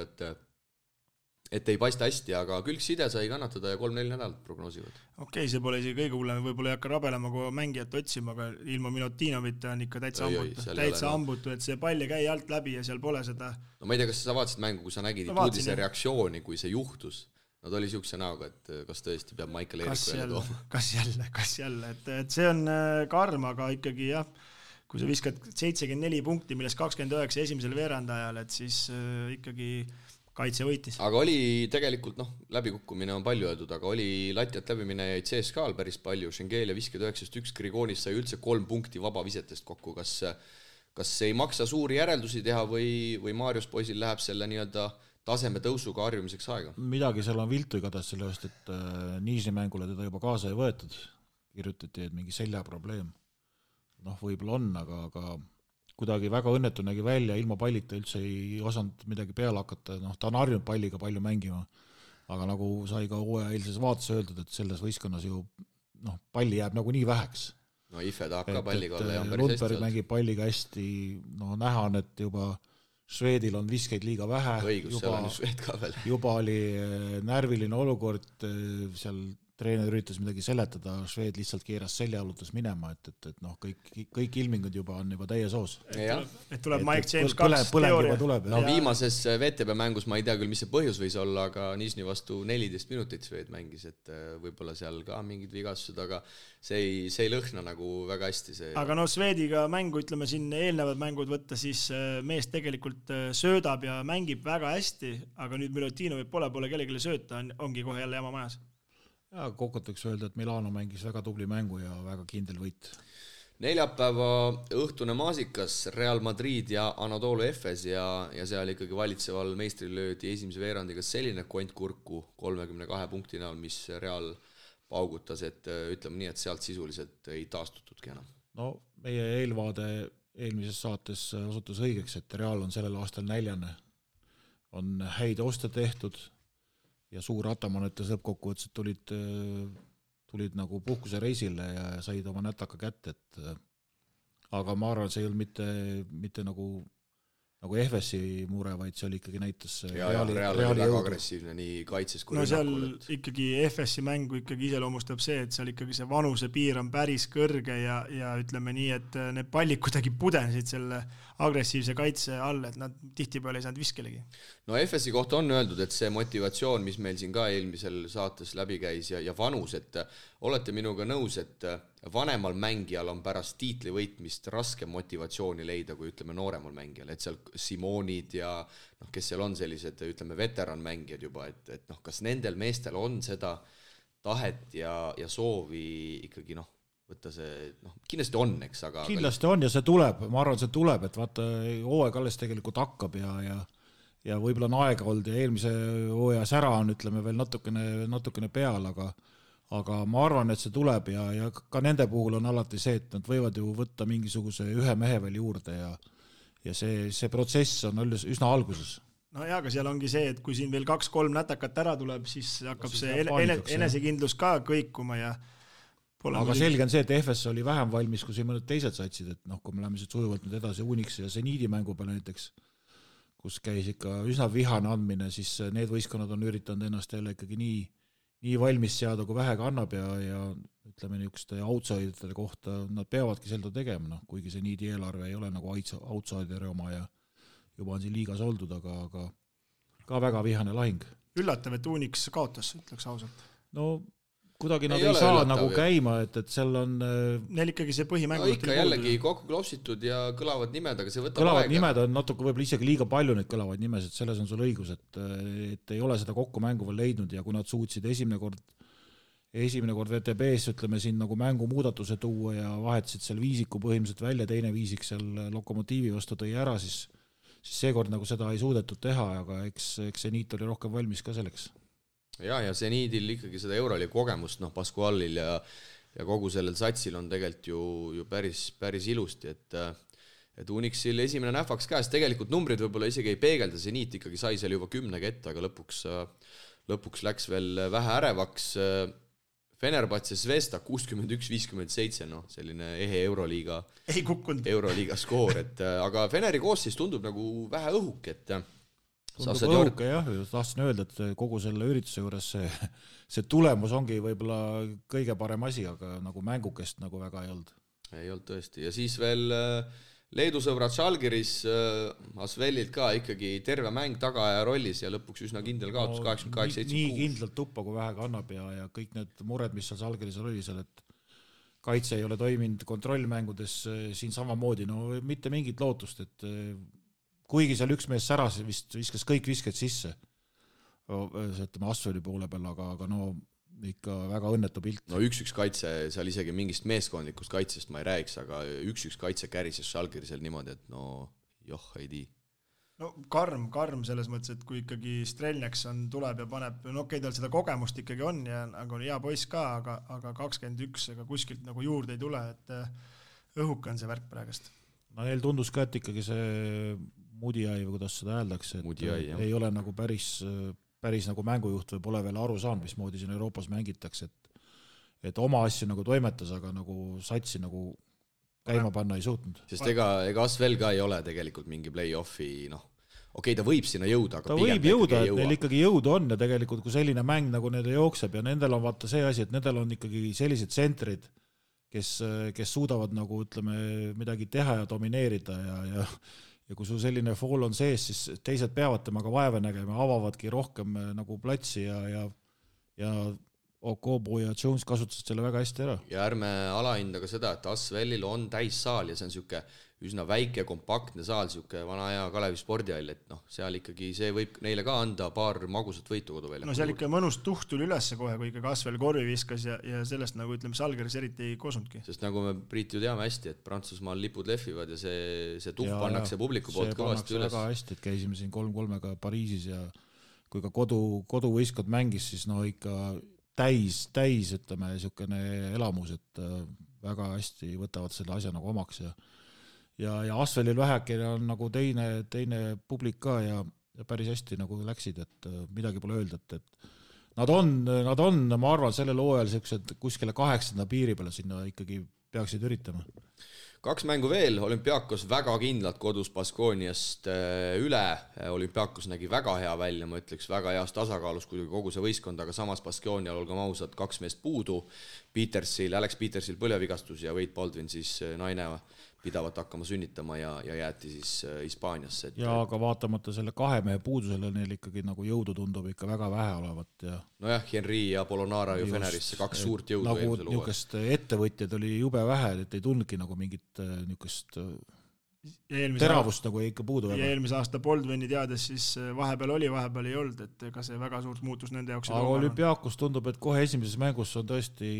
et ei paista hästi, aga külgside sai kannatada ja 3-4 nädalat prognoosivad. Okei, see pole isegi kõige hullem, võib-olla ei hakka rabelema, kui mängijat otsima, aga ilma Milutinovita on ikka täitsa ambutu, et see pall ei käi alt läbi ja seal pole seda... No ma ei tea, kas sa vaatasid mängu, kui sa nägid Ituudise reaktsiooni, kui see juhtus. Nad oli siukse näoga, et kas tõesti peab Michael Eeriku jälle tooma. Kas jälle, et see on karm, aga ikkagi jah, kui sa viskad 74 punkti, millest 29 esimesel veerandajal, et siis ikkagi kaitse võitis. Aga oli tegelikult, läbikukkumine on palju öeldud, aga oli latjat läbimine jäid CSKA-l päris palju, Schengelia 59-1, Grigonis sai üldse 3 punkti vabavisetest kokku, kas ei maksa suuri järeldusi teha või Marius poisil läheb selle nii-öelda taseme tõusuga harjumiseks aega? Midagi seal on viltu igatahes sellest, et Niisni mängule teda juba kaasa ei võetud. Kirjutati, et mingi selja probleem. Võib-olla on, aga kuidagi väga õnnetu nägi välja, ilma pallita üldse ei osanud midagi peale hakata. Ta on harjunud palliga palju mängima, aga nagu sai ka hooaja eilses vaates öeldud, et selles võistkonnas ju palli jääb nagu nii väheks. Ife tahab ka palliga olla ja on päris hästi. Lundberg mängib palliga hästi, näha on, et juba Švedil on viskeid liiga vähe. Õigus, seal on Šved ka veel. Juba oli närviline olukord, seal treener üritas midagi seletada, Šved lihtsalt keeras selja alutas minema, et kõik ilmingud juba on juba täies hoos. Et tuleb Mike James 2 teooria. Viimases VTB mängus ma ei tea küll, mis see põhjus võis olla, aga Niisni vastu 14 minutit Šved mängis, et võib-olla seal ka mingid vigastused, aga see ei lõhna nagu väga hästi. Aga Švediga mängu, ütleme siin eelnevad mängud võtta, siis mees tegelikult söödab ja mängib väga hästi, aga nüüd Milutinovi pole kellelegi sööta, ongi kohe jälle jama majas. Ja kokkuvõtteks öelda, et Milano mängis väga tubli mängu ja väga kindel võit. Neljapäeva õhtune maasikas Real Madrid ja Anadolu Efes ja seal ikkagi valitseval meistri löödi esimese veerandiga selline kont kurku 32 punkti näol, mis Real paugutas, et ütleme nii, et sealt sisuliselt ei taastutudki enam. No meie eelvaade eelmises saates osutus õigeks, et Real on sellel aastal 4. On häid oste tehtud ja suur Ataman ütles lõppkokkuvõttes, et tulid nagu puhkuse reisile ja said oma nätaka kätte, aga ma arvan, see ei olnud mitte nagu FS-i mure, vaid see oli ikkagi näitas Real oli väga agressiivne nii kaitses kui rünnakul. No seal ikkagi FS-i mängu ikkagi iseloomustab see, et seal ikkagi see vanuse piir on päris kõrge ja ütleme nii, et need pallid kuidagi pudenesid selle agressiivse kaitse all, et nad tihtipeale ei saanud viskelegi. No FS-i kohta on öeldud, et see motivatsioon, mis meil siin ka eelmisel saates läbi käis ja vanus, et olete minuga nõus, et vanemal mängijal on pärast tiitli võitmist raske motivatsiooni leida, kui ütleme nooremal mängijal, et seal Simonid ja kes seal on sellised, ütleme veteranmängijad juba, et kas nendel meestel on seda tahet ja soovi ikkagi võtta see, kindlasti on, eks, aga kindlasti on ja see tuleb, ma arvan, see tuleb, et vaata, hooaeg alles tegelikult hakkab ja võib-olla on aega olnud ja eelmise hooaja sära on, ütleme, veel natukene peal, aga ma arvan, et see tuleb ja ka nende puhul on alati see, et nad võivad ju võtta mingisuguse ühe mehe veel juurde ja see protsess on üsna alguses. No jaa, aga seal ongi see, et kui siin veel 2-3 nätakat ära tuleb, siis hakkab see enesekindlus ka kõikuma ja aga selge on see, et FS oli vähem valmis, kui mõned teised satsid, et kui me läheme siit sujuvalt nüüd edasi Unix ja Zeniidi mängu peale näiteks, kus käis ikka üsna vihane andmine, siis need võistkonnad on üritanud ennast jälle ikkagi nii valmis seada, kui vähega annab ja ütleme niisuguste outsiderite kohta, nad peavadki seda tegema, kuigi Zeniidi eelarve ei ole nagu outsideri oma ja juba on siin liigas oldud, aga ka väga vihane lahing. Üllatav, et Unix kaotas, ütleks ausalt. No kuidagi nad ei saa nagu käima, et seal on neil ikkagi see põhimäng ikka jällegi kokku klopsitud ja kõlavad nimed, aga see võtab kõlavad aega. Nimed on natuke võib-olla isegi liiga palju neid kõlavaid nimesid, selles on sul õigus, et ei ole seda kokku mängu veel leidnud ja kui nad suutsid esimene kord VTB-s ütleme siin nagu mängu muudatuse tuua ja vahetasid seal viisiku põhimõtteliselt välja, teine viisik seal Lokomotiivi vastu tõi ära, siis seekord nagu seda ei suudetud teha, aga eks Zeniit oli rohkem valmis ka selleks. Ja Zeniidil ikkagi seda Euroliiga kogemust, Pascualil ja kogu sellel satsil on tegelikult ju päris ilusti, et Unixil esimene nähvaks käes, tegelikult numbrid võib-olla isegi ei peegelda, Zeniit ikkagi sai seal juba 10 ette, aga lõpuks läks veel vähe ärevaks. Fenerbahce Zvezda 61-57, selline ehe Euroliiga skoor, aga Feneri koosseis tundub nagu vähe õhuk, et tundub õhuke jah, tahtsin öelda, et kogu selle ürituse juures see tulemus ongi võib-olla kõige parem asi, aga nagu mängukest nagu väga ei olnud. Ei olnud tõesti ja siis veel Leedu sõbrad Žalgiris Asvelilt ka ikkagi terve mäng tagaaja rollis ja lõpuks üsna kindel kaotus 88-76. Nii kindlalt tuppa, kui vähega annab ja kõik need mured, mis seal Žalgiris oli seal, et kaitse ei ole toiminud kontrollmängudes siin samamoodi, mitte mingit lootust, et kuigi seal üks mees säras vist viskas kõik visked sisse, ütleme Asveli poole peal, aga ikka väga õnnetu pilt. No 1-1 kaitse, seal isegi mingist meeskondlikust kaitsest ma ei räägiks, aga 1-1 kaitse kärises Žalgirisel niimoodi, et ei tii. No karm selles mõttes, et kui ikkagi Strelneks tuleb ja paneb, tal seda kogemust ikkagi on ja nagu on hea poiss ka, aga 21 ega kuskilt nagu juurde ei tule, et õhuke on see värk praegust. No neil tundus ka, et ikkagi see Mudiai või kuidas seda hääldakse, et ei ole nagu päris nagu mängujuht või pole veel aru saanud, mismoodi siin Euroopas mängitakse, et oma asju nagu toimetas, aga nagu satsi nagu käima panna ei suutnud. Sest ega Asvel ka ei ole tegelikult mingi play-offi, ta võib sinna jõuda, aga ta võib jõuda, et neil ikkagi jõudu on ja tegelikult kui selline mäng nagu nende jookseb ja nendel on vaata see asi, et nendel on ikkagi sellised tsentrid, kes suudavad nagu ütleme midagi teha ja domineerida ja kui sul selline fool on sees, siis teised peavad temaga vaeva nägema, avavadki rohkem nagu platsi ja Okobo ja Jones kasutasid selle väga hästi ära. Ja ärme alahinda ka seda, et Asvelil on täissaal ja see on siuke üsna väike, kompaktne saal, siuke vana hea Kalevi spordihall, et seal ikkagi see võib neile ka anda paar magusat võitu koduvälja. No seal ikka mõnus tuht tuli ülesse kohe, kui ikka Asvel korvi viskas ja sellest nagu ütleme, Salgeris eriti ei kosunudki. Sest nagu me Priit ju teame hästi, et Prantsusmaal lipud lehvivad ja see tuht pannakse publiku poolt kõvasti üles. See väga hästi, et käisime siin 3-3-ga Pariisis ja kui ka koduvõistkond mängis, siis ikka täis, ütleme, niisugune elamus, et väga hästi võtavad selle asja nagu omaks ja Asvelil vähekene on nagu teine publik ka ja päris hästi nagu läksid, et midagi pole öelda, et nad on, ma arvan, sellel hooajal sellised kuskile 8. piiri peale sinna ikkagi peaksid üritama. 2 mängu veel, Olümpiakos väga kindlalt kodus Baskooniast üle, Olümpiakos nägi väga hea välja, ma ütleks väga heas tasakaalus kogu see võistkond, aga samas Baskoonial olgem ausad 2 meest puudu, Alex Petersil põlvevigastus ja Wade Baldwin siis naine pidavat hakkama sünnitama ja jäeti siis Hispaaniasse. Ja aga vaatamata selle 2 mehe puudusele neil ikkagi nagu jõudu tundub ikka väga vähe olevat. Nojah, Henry ja Polonara ju Fenerisse 2 suurt jõudu nagu eelmisel niisugust ettevõtjad oli jube vähe, et ei tundnudki nagu mingit niisugust teravust nagu ikka puudu. Ja eelmise aasta Baldwini teades siis vahepeal oli, vahepeal ei olnud, et ega see väga suurt muutus nende jaoks. Aga Olümpiakos tundub, et kohe esimeses mängus on tõesti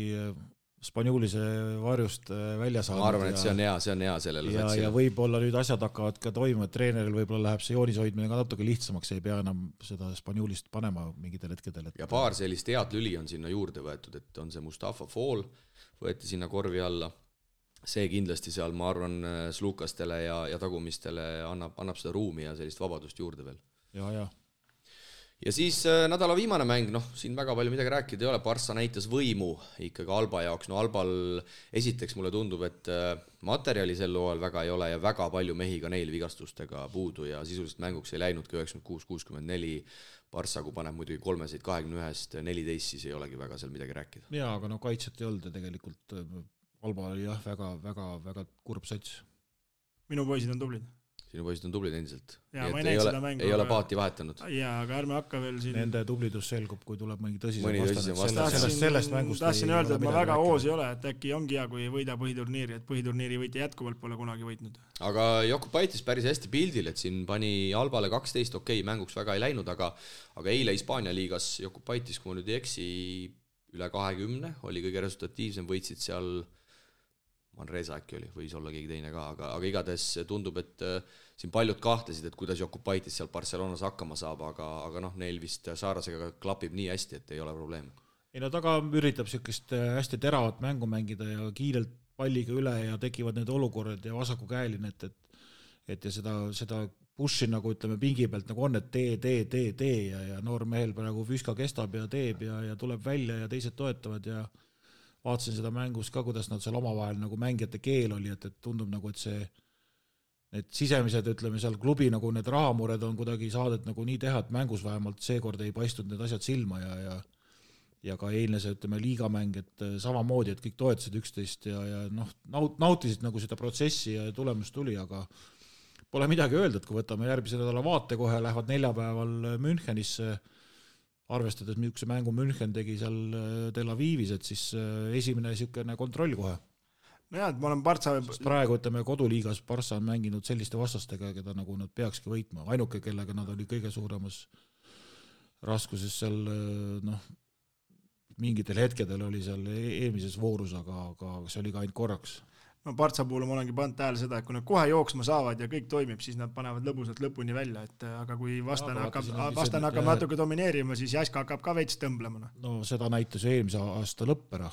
Spanjulise varjust välja saanud. Ma arvan, et see on hea sellele satsile. Ja võib-olla nüüd asjad hakkavad ka toimuma, et treeneril võib-olla läheb see joonishoidmine ka natuke lihtsamaks, ei pea enam seda Spanjulist panema mingitel hetkedel. Ja paar sellist head lüli on sinna juurde võetud, et on see Mustafa Fall, võeti sinna korvi alla. See kindlasti seal, ma arvan, slukastele ja tagumistele annab seda ruumi ja sellist vabadust juurde veel. Ja. Ja siis nädala viimane mäng, siin väga palju midagi rääkida ei ole, Barça näitas võimu ikkagi Alba jaoks, Albal esiteks mulle tundub, et materjali sel hooajal väga ei ole ja väga palju mehi ka neil vigastustega puudu ja sisuliselt mänguks ei läinudki 96-64, Barça kui paneb muidugi 3-21-st 14, siis ei olegi väga seal midagi rääkida. Jaa, aga kaitset ei olnud ja tegelikult Alba oli väga kurb sats. Minu poisid on tublid. Sinu poisid on tublid endiselt. Ja, ma ei ole paati vahetanud. Jaa, aga ärme hakka veel siin... Nende tublidus selgub, kui tuleb mõni tõsisem vastane. Sellest mängust tahtsin öelda, et ma väga hoos ei ole, et äkki ongi hea, kui võida põhiturniiri, et põhiturniiri võiti jätkuvalt pole kunagi võitnud. Aga Jokubaitis päris hästi pildil, et siin pani Albale 12, mänguks väga ei läinud, aga eile Hispaania liigas Jokubaitis, kui ma nüüd ei eksi, üle 20 oli kõige resultatiivsem, võitsid seal Manresa äkki oli, võis olla keegi teine ka, aga igatahes tundub, et siin paljud kahtlesid, et kuidas Jokubaitis seal Barcelonas hakkama saab, aga neil vist Saarasega klapib nii hästi, et ei ole probleem. Ei, taga üritab sellist hästi teravat mängu mängida ja kiirelt palliga üle ja tekivad need olukorrad ja vasaku käeline, et ja seda pushi nagu ütleme pingi pealt nagu on, et tee ja noor mehel praegu füüska kestab ja teeb ja tuleb välja ja teised toetavad ja vaatasin seda mängus ka, kuidas nad seal omavahel nagu mängijate keel oli, et tundub nagu, et need sisemised, ütleme seal klubi nagu need rahamured on kuidagi saadet nagu nii teha, et mängus vähemalt seekord ei paistnud need asjad silma ja ka eilne see, ütleme, liigamäng, et samamoodi, et kõik toetasid üksteist ja nautisid nagu seda protsessi ja tulemus tuli, aga pole midagi öelda, et kui võtame järgmise nädala vaate kohe, lähevad neljapäeval Münchenisse, arvestades, milline mängu München tegi seal Tel Avivis, et siis esimene niisugune kontroll kohe. No jah, et ma olen Barça... Praegu, ütleme, koduliigas Barça on mänginud selliste vastastega, keda nagu nad peakski võitma. Ainuke, kellega nad oli kõige suuremas raskuses seal, mingitel hetkedel oli seal eelmises voorus, aga see oli ka ainult korraks. No Barça puhul ma olengi pannud tähele seda, et kui nad kohe jooksma saavad ja kõik toimib, siis nad panevad lõbusalt lõpuni välja, et aga kui vastane hakkab natuke domineerima, siis Jaska hakkab ka veits tõmblema. No seda näitas eelmise aasta lõppera,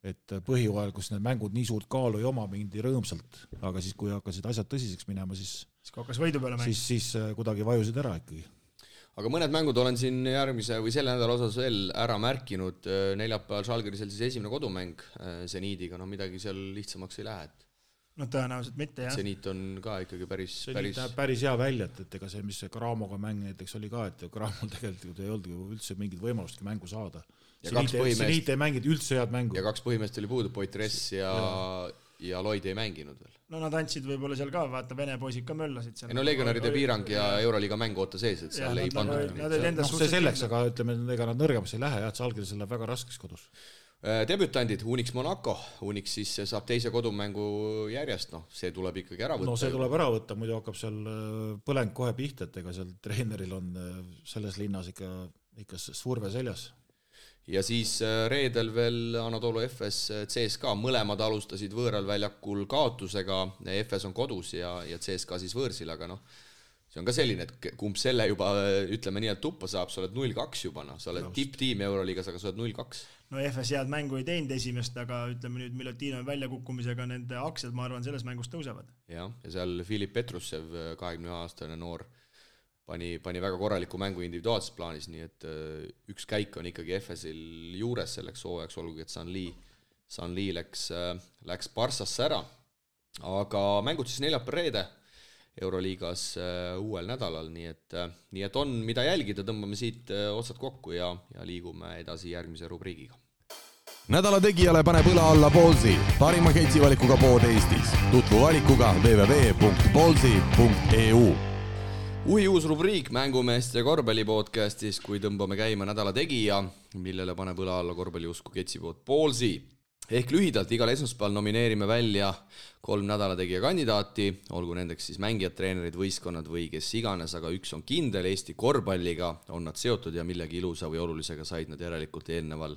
et põhihooajal, kus need mängud nii suurt kaalu ei oma, mindi rõõmsalt, aga siis kui hakkasid asjad tõsiseks minema, siis hakkas võidu peale mäng. Siis kuidagi vajusid ära ikkagi. Aga mõned mängud olen siin järgmise või selle nädala osas veel ära märkinud. Neljapäeval Žalgirisel siis esimene kodumäng Zeniidiga, midagi seal lihtsamaks ei lähe. No tõenäoliselt mitte, jah. Zeniit on ka ikkagi päris hea välja, et ega see, mis Gramoga mäng näiteks oli ka, et Gramol tegelikult ei olnud üldse mingit võimalustki mängu saada. Zeniit ei mängid üldse head mängu. Ja 2 põhimeest oli puudu, Poitres ja Lloyd ei mänginud veel. no nad andsid võib-olla seal ka, vaata Vene poisid ka möllasid seal. No legionäride piirang ja Euroliiga mängu oota sees, et seal ei pandud. See selleks, aga ütleme, ega nad nõrgemaks ei lähe, et see algel läheb väga raskeks kodus. Debütandid, Unix Monaco, Unix siis saab teise kodumängu järjest, see tuleb ikkagi ära võtta. No see tuleb ära võtta, muidu hakkab seal põleng kohe pihta, et ega seal treeneril on selles linnas ikka surve seljas. Ja siis reedel veel Anadolu FS CSKA, mõlemad alustasid võõral väljakul kaotusega, FS on kodus ja CSKA siis võõrsil, aga see on ka selline, et kumb selle juba, ütleme nii, et tuppa saab, sa oled 0-2 juba, sa oled tipptiim Euroliigas, aga sa oled 0-2. No FS head mängu ei teinud esimest, aga ütleme nüüd Milutino väljakukkumisega nende aktsiad, ma arvan, selles mängus tõusevad. Ja seal Filip Petrussev, 21-aastane noor, pani väga korraliku mängu individuaalses plaanis, nii et üks käik on ikkagi FS-il juures selleks hooajaks, olgugi et Sanli läks Barssasse ära. Aga mängud siis neljapäev-reede Euroliigas uuel nädalal, nii et on mida jälgida, tõmbame siit otsad kokku ja liigume edasi järgmise rubriigiga. Nädala tegijale paneb õla alla Ballsi, parima ketsivalikuga pood Eestis. Tutvu valikuga www.ballsi.eu. Uus rubriik mängumeeste korvpallipodcastis, kui tõmbame käima nädala tegija, millele paneb õla alla korvpalliusku ketsipood Ballsi. Ehk lühidalt igal esmaspäeval nomineerime välja 3 nädalategija kandidaati, olgu nendeks siis mängijad, treenerid, võistkonnad või kes iganes, aga üks on kindel, Eesti korvpalliga on nad seotud ja millegi ilusa või olulisega said nad järelikult eelneval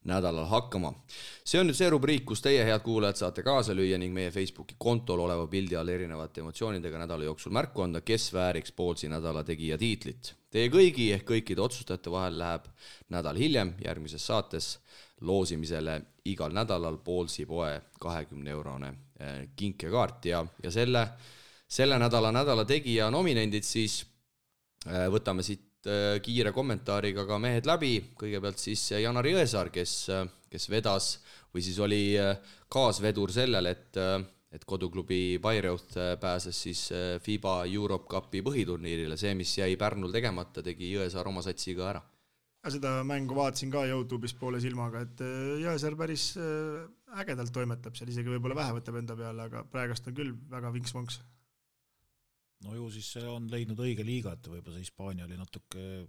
nädalal hakkama. See on nüüd see rubriik, kus teie, head kuulajad, saate kaasa lüüa ning meie Facebooki kontol oleva pildi all erinevate emotsioonidega nädala jooksul märku anda, kes vääriks Ballsi nädalategija tiitlit. Teie kõigi ehk kõikide otsustajate vahel läheb nädal hiljem järgmises saates loosimisele igal nädalal Ballsi poe 20-eurone kinkekaart ja selle nädala tegija nominendid siis võtame siit kiire kommentaariga ka mehed läbi. Kõigepealt siis Janar Jõesaar, kes vedas või siis oli kaasvedur sellel, et koduklubi Bayreuth pääses siis FIBA Europe Cupi põhiturniirile. See, mis jäi Pärnul tegemata, tegi Jõesaar oma satsiga ära. Seda mängu vaatasin ka YouTube'is poole silmaga, et Jõesaar päris ägedalt toimetab seal, isegi võib-olla vähe võtab enda peale, aga praegust on küll väga vinks-vonks. No ju siis see on leidnud õige liiga, et võib-olla see Hispaania oli natuke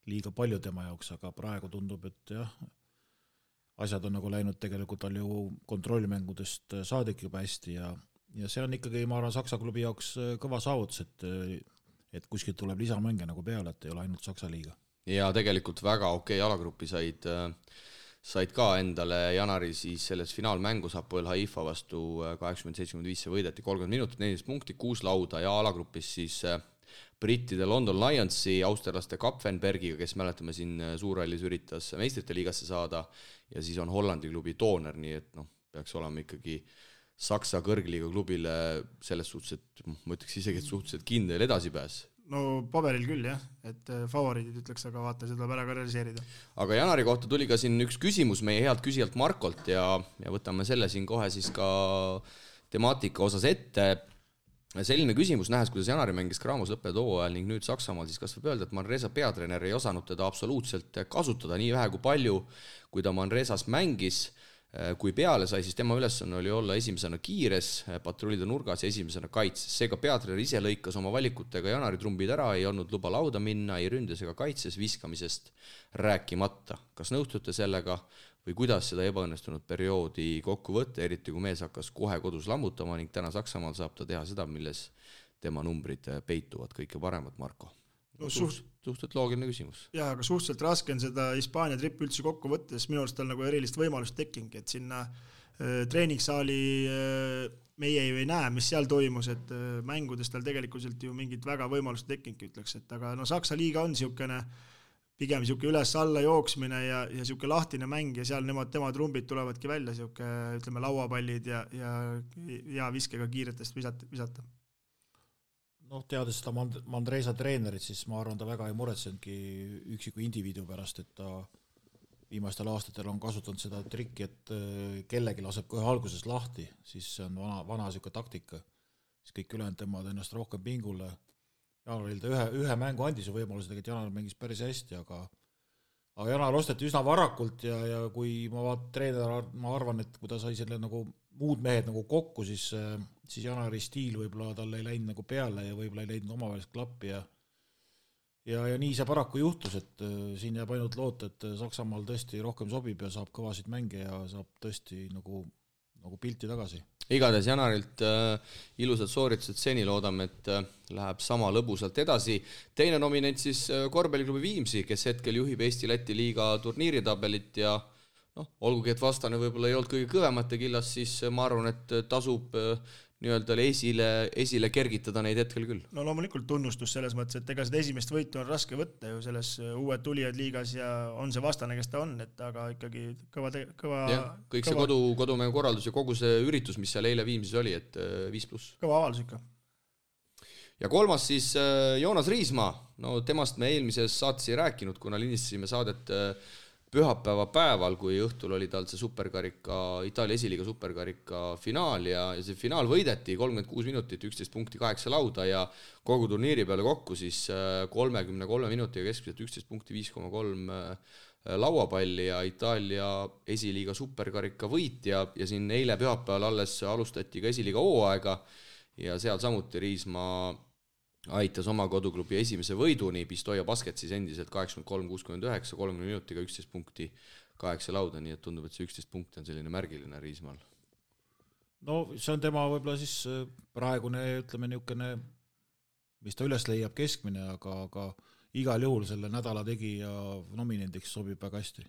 liiga palju tema jaoks, aga praegu tundub, et jah, asjad on nagu läinud tegelikult tal ju kontrollmängudest saadik juba hästi ja see on ikkagi, ma arvan, Saksa klubi jaoks kõva saavutus, et kuskilt tuleb lisamänge nagu peale, et ei ole ainult Saksa liiga. Ja tegelikult väga okei alagrupi said ka endale Janari siis selles finaalmängus Hapoel Haifa vastu 80-75 võideti 30 minutit, 14 punkti, 6 lauda ja alagrupis siis brittide London Lionsi, austerlaste Kapfenbergiga, kes mäletame siin suurrallis üritas meistrite liigasse saada ja siis on Hollandi klubi Tooner, nii et peaks olema ikkagi Saksa kõrgliiga klubile selles suhtes, et ma ütleks isegi, et suhteliselt kindel edasipääs. No paberil küll jah, et favoriidid ütleks, aga vaata, seda tuleb ära ka realiseerida. Aga Janari kohta tuli ka siin üks küsimus meie healt küsijalt Markolt ja võtame selle siin kohe siis ka temaatika osas ette. Selline küsimus, nähes, kuidas Janari mängis Graamos lõppenud hooajal ning nüüd Saksamaal, siis kas võib öelda, et Manresa peatreener ei osanud teda absoluutselt kasutada nii vähe kui palju, kui ta Manresas mängis. Kui peale sai, siis tema ülesanne oli olla esimesena kiires, patrullida nurgas ja esimesena kaitses. Seega peatreener ise lõikas oma valikutega Janari trumbid ära, ei olnud luba lauda minna, ei ründes ega kaitses, viskamisest rääkimata. Kas nõustute sellega või kuidas seda ebaõnnestunud perioodi kokku võtta, eriti kui mees hakkas kohe kodus lammutama ning täna Saksamaal saab ta teha seda, milles tema numbrid peituvad kõike paremat, Marko? Suhteliselt loogiline küsimus. Jaa, aga suhteliselt raske on seda Hispaania trippi üldse kokku võttes, minu arust tal nagu erilist võimalust tekking, et sinna treeningsaali meie ei näe, mis seal toimus, et mängudes tal tegelikult ju mingit väga võimalust tekking ütleks, et aga Saksa liiga on pigem üles-alla jooksmine ja lahtine mäng ja seal tema trumbid tulevadki välja, ütleme lauapallid ja viskega kiiretest visata. Teades seda Manresa treenerit, siis ma arvan, ta väga ei muretsenudki üksiku indiviidu pärast, et ta viimastel aastatel on kasutanud seda trikki, et kellegi laseb kohe alguses lahti, siis see on vana siuke taktika, siis kõik ülejäänud tõmbavad ennast rohkem pingule. Janaril ta ühe mängu andis ju võimaluse, et Janar mängis päris hästi, aga Janar osteti üsna varakult ja kui ma treener, ma arvan, et kui ta sai selle nagu muud mehed nagu kokku, siis Janari stiil võib-olla tal ei läinud nagu peale ja võib-olla ei leidnud omavaheliselt klappi ja nii see paraku juhtus, et siin jääb ainult loota, et Saksamaal tõesti rohkem sobib ja saab kõvasid mänge ja saab tõesti nagu pilti tagasi. Igatahes Janarilt ilusad sooritused seni, loodame, et läheb sama lõbusalt edasi. Teine nominent siis korvpalliklubi Viimsi, kes hetkel juhib Eesti-Läti liiga turniiritabelit ja olgugi, et vastane võib-olla ei olnud kõige kõvemate killas, siis ma arvan, et tasub nii-öelda esile kergitada neid hetkel küll. No loomulikult tunnustus selles mõttes, et ega seda esimest võitu on raske võtta ju selles uued tulijad liigas ja on see vastane, kes ta on, et aga ikkagi kõva ja, kõik see kodumängu korraldus ja kogu see üritus, mis seal eile Viimsis oli, et 5+. Kõva avaldus ikka. Ja kolmas siis Joonas Riismaa, temast me eelmises saates ei rääkinud, kuna lindistasime saadet pühapäeva päeval, kui õhtul oli tal see superkarika, Itaalia esiliiga superkarika finaal ja see finaal võideti 36 minutit, 11 punkti, 8 lauda ja kogu turniiri peale kokku siis 33 minutiga keskmiselt 11 punkti, 5,3 lauapalli ja Itaalia esiliiga superkarika võit ja siin eile pühapäeval alles alustati ka esiliiga hooaega ja seal samuti Riismaa aitas oma koduklubi esimese võiduni, Pistoia Basket siis endiselt 83-69, 30 minutiga 11 punkti, 8 lauda, nii et tundub, et see 11 punkti on selline märgiline Riismaal. No see on tema võib-olla siis praegune, ütleme niisugune, mis ta üles leiab keskmine, aga igal juhul selle nädala tegija nominendiks sobib väga hästi.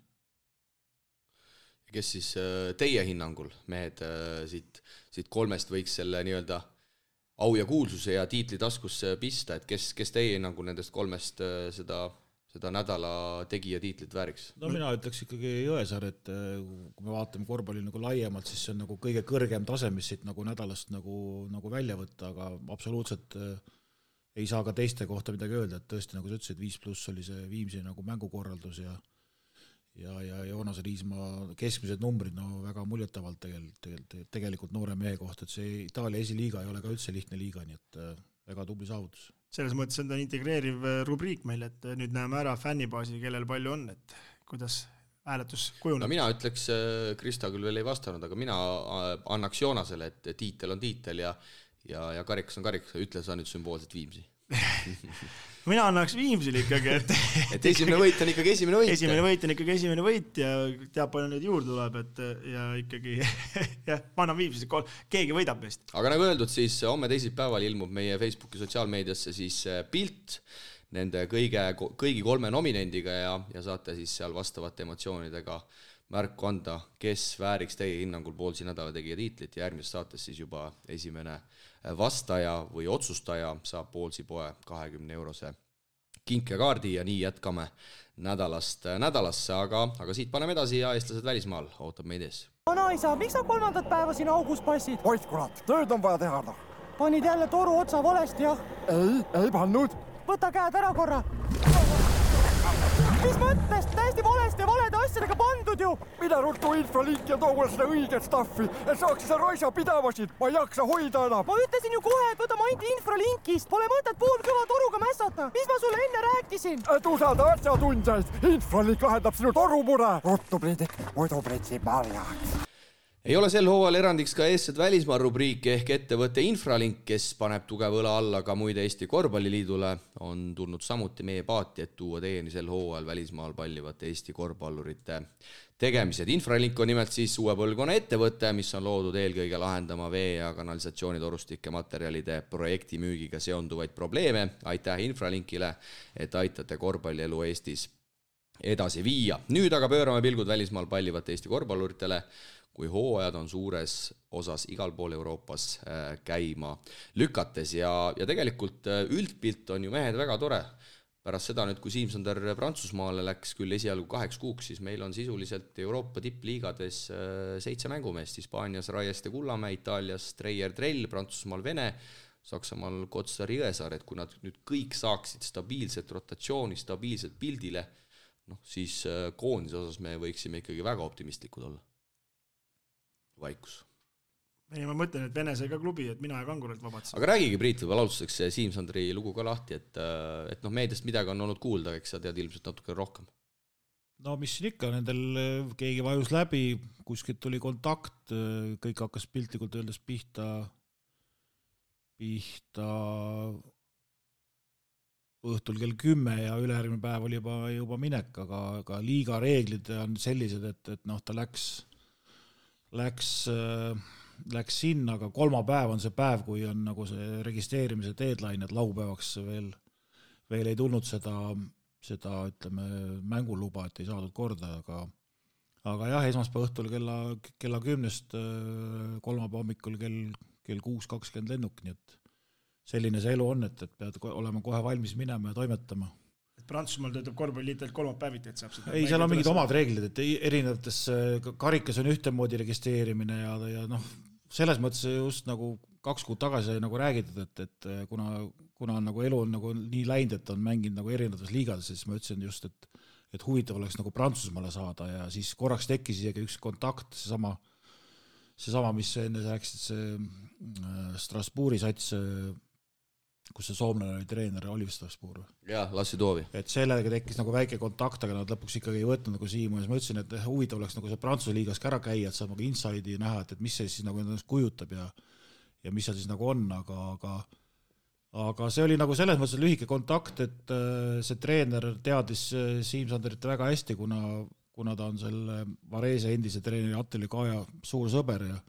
Kes siis teie hinnangul, mehed, siit kolmest võiks selle nii-öelda au ja kuulsuse ja tiitli taskusse pista, et kes teie hinnangul nendest kolmest seda nädala tegija tiitlit vääriks? No mina ütleks ikkagi Jõesaar, et kui me vaatame korvpalli nagu laiemalt, siis see on nagu kõige kõrgem tase, mis siit nagu nädalast nagu välja võtta, aga absoluutselt ei saa ka teiste kohta midagi öelda, et tõesti, nagu sa ütlesid, 5+ oli see Viimsi nagu mängukorraldus ja Joonas Riismaa keskmised numbrid, väga muljetavalt tegelikult noore mehe kohta, et see Itaalia esiliiga ei ole ka üldse lihtne liiga, nii et väga tubli saavutus. Selles mõttes on ta integreeriv rubriik meil, et nüüd näeme ära fännibaasi, kellel palju on, et kuidas hääletus kujuneb. No mina ütleks, Krista küll veel ei vastanud, aga mina annaks Joonasele, et tiitel on tiitel ja karikas on karikas, ütle sa nüüd sümboolselt Viimsi. Mina annaks Viimsile ikkagi, et esimene võit on ikkagi esimene võit. Esimene võit on ikkagi esimene võit ja teab palju neid juurde tuleb, et ja ikkagi ma annan Viimsile, keegi võidab meist. Aga nagu öeldud, siis homme teisipäeval ilmub meie Facebooki sotsiaalmeediasse siis pilt nende kõigi kolme nominendiga ja saate siis seal vastavate emotsioonidega märku anda, kes vääriks teie hinnangul poolsi nädala tegija tiitlit ja järgmises saates siis juba esimene vastaja või otsustaja saab poolsi poe 20-eurose kinkekaardi ja nii jätkame nädalast nädalasse, aga siit paneme edasi ja eestlased välismaal ootab meid ees. Vanaisa, miks sa 3. päeva siin augus passid? Oid kurat, tööd on vaja teha. Panid jälle toru otsa valesti, jah? Ei pannud. Võta käed ära korra. Mis mõttes? Täiesti valesti ja valede asjadega pandud ju! Mida ruttu infralink ja too seda õiget staffi, et saaks seda roisa pidavasid, ma ei jaksa hoida enam. Ma ütlesin ju kohe, et võta maindi infralinkist, pole mõtet poolkõva toruga mässata. Mis ma sulle enne rääkisin? Et usalda asjatundjaid, infralink lahendab sinu torumure. Ruttu pridik, muidu pritsib marjaks. Ei ole sel hooval erandiks ka eestsed välismaa rubriik ehk ettevõtte Infralink, kes paneb tugeva õla alla ka muide Eesti Korvpalliliidule, on tulnud samuti meie paati, et tuua teieni sel hooval välismaal pallivate Eesti korvpallurite tegemised. Infralink on nimelt siis uue põlvkonna ettevõte, mis on loodud eelkõige lahendama vee- ja kanalisatsioonitorustike materjalide projektimüügiga seonduvaid probleeme. Aitäh Infralinkile, et aitate korvpallielu Eestis edasi viia. Nüüd aga pöörame pilgud välismaal pallivate Eesti korvpalluritele, kui hooajad on suures osas igal pool Euroopas käima lükates ja tegelikult üldpilt on ju mehed väga tore. Pärast seda nüüd, kui Siim Sander Prantsusmaale läks küll esialgu 8 kuuks, siis meil on sisuliselt Euroopa tippliigades 7 mängumeest, Hispaanias Raieste Kullamäe, Itaalias Treier Trell, Prantsusmaal Vene, Saksamaal Kotsar Jõesaar, et kui nad nüüd kõik saaksid stabiilset rotatsiooni, stabiilset pildile, siis koondise osas me võiksime ikkagi väga optimistlikud olla. Vaikus. Ei, ma mõtlen, et Vene sai ka klubi, et mina ja Kanguralt vabatsin. Aga räägigi, Priit, võib alustuseks Siim Sandri lugu ka lahti, et meediast midagi on olnud kuulda, eks sa tead ilmselt natuke rohkem. no mis siin ikka, nendel keegi vajus läbi, kuskilt tuli kontakt, kõik hakkas piltlikult öeldes pihta õhtul kell 10 ja ülejärgmine päev oli juba minek, aga liiga reeglid on sellised, et noh, ta läks sinna, aga kolmapäev on see päev, kui on nagu see registreerimise deadline, et laupäevaks veel ei tulnud seda ütleme, mänguluba, et ei saadud korda, aga jah, esmaspäeva õhtul kella 10-st kolmapäeva hommikul kell 6:20 lennuk, nii et selline see elu on, et pead olema kohe valmis minema ja toimetama. Et Prantsusmaal töötab korvpalliliitelt kolmapäeviti, et saab seda... Ei, seal on mingid omad reeglid, et erinevates karikas on ühtemoodi registreerimine ja noh, selles mõttes just nagu 2 kuud tagasi nagu räägitud, et kuna on nagu elu on nagu nii läinud, et on mänginud nagu erinevates liigades, siis ma ütlesin just, et huvitav oleks nagu Prantsusmaale saada ja siis korraks tekkis isegi üks kontakt, seesama, mis enne rääkisid, see Strasbourgi sats, kus see soomlane oli treener, Oliver Strasbourg. Jaa, Lassi Toovi. Et sellega tekkis nagu väike kontakt, aga nad lõpuks ikkagi ei võtnud nagu Siimu ja ma ütlesin, et huvitav oleks nagu see Prantsuse liigas ära käia, et saab nagu inside'i näha, et mis see siis nagu ennast kujutab ja mis seal siis nagu on, aga see oli nagu selles mõttes lühike kontakt, et see treener teadis Siim Sanderit väga hästi, kuna ta on selle Varese endise treeneri Attili Kaja suur sõber ja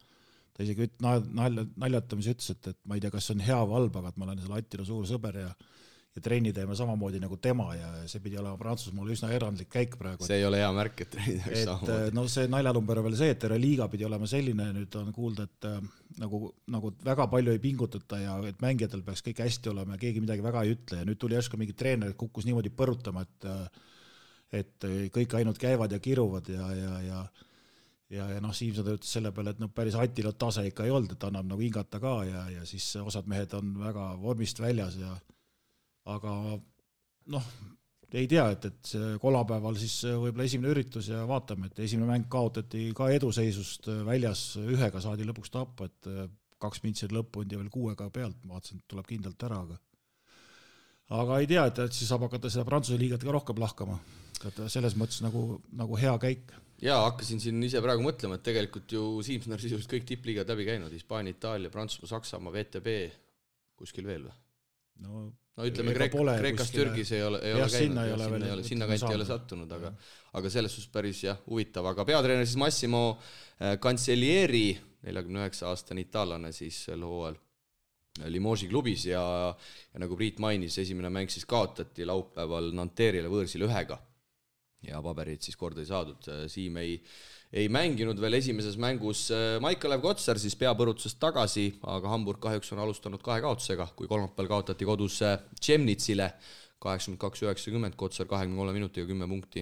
ta isegi naljatamis ütles, et ma ei tea, kas see on hea või halb, aga et ma olen selle Attila suur sõber ja trenni teeme samamoodi nagu tema ja see pidi olema Prantsusmaal üsna erandlik käik praegu. See ei ole hea märk, et trenni teeks samamoodi. No see naljalumber on veel see, et liiga pidi olema selline, nüüd on kuulda, et nagu väga palju ei pingutata ja et mängijatel peaks kõik hästi olema ja keegi midagi väga ei ütle ja nüüd tuli järsku mingi treener, kukkus niimoodi põrutama, et kõik ainult käivad ja kiruvad ja noh, Siim Sander ütles selle peale, et päris Attila tase ikka ei olnud, et annab nagu hingata ka ja siis osad mehed on väga vormist väljas aga noh, ei tea, et see kolmapäeval siis võib-olla esimene üritus ja vaatame, et esimene mäng kaotati ka eduseisust väljas, 1-ga saadi lõpuks tappa, et 2 mintsid lõppunud ja veel 6-ga pealt, ma vaatasin, et tuleb kindlalt ära, aga ei tea, et siis saab hakata seda Prantsuse liigat ka rohkem lahkama, et selles mõttes nagu hea käik. Jaa, hakkasin siin ise praegu mõtlema, et tegelikult ju Siim Sander sisuliselt kõik tippliigad läbi käinud, Hispaania, Itaalia, Prantsusmaa, Saksamaa, VTB, kuskil veel või? No ütleme, Kreekas, Türgis ei ole käinud, sinna kanti ei ole sattunud, aga selles suhtes päris huvitav, aga peatreener siis Massimo Cancellieri, 49-aastane itaallane siis sel hooajal Limoges klubis ja nagu Priit mainis, esimene mäng siis kaotati laupäeval Nanterre'ile võõrsil 1-ga ja paberid siis korda ei saadud. Siim ei mänginud veel esimeses mängus. Maikalev Kotsar siis peapõrutusest tagasi, aga Hamburg kahjuks on alustanud 2 kaotusega, kui kolmapäeval kaotati kodus Tšemnitsile 82-90, Kotsar 23 minutiga 10 punkti,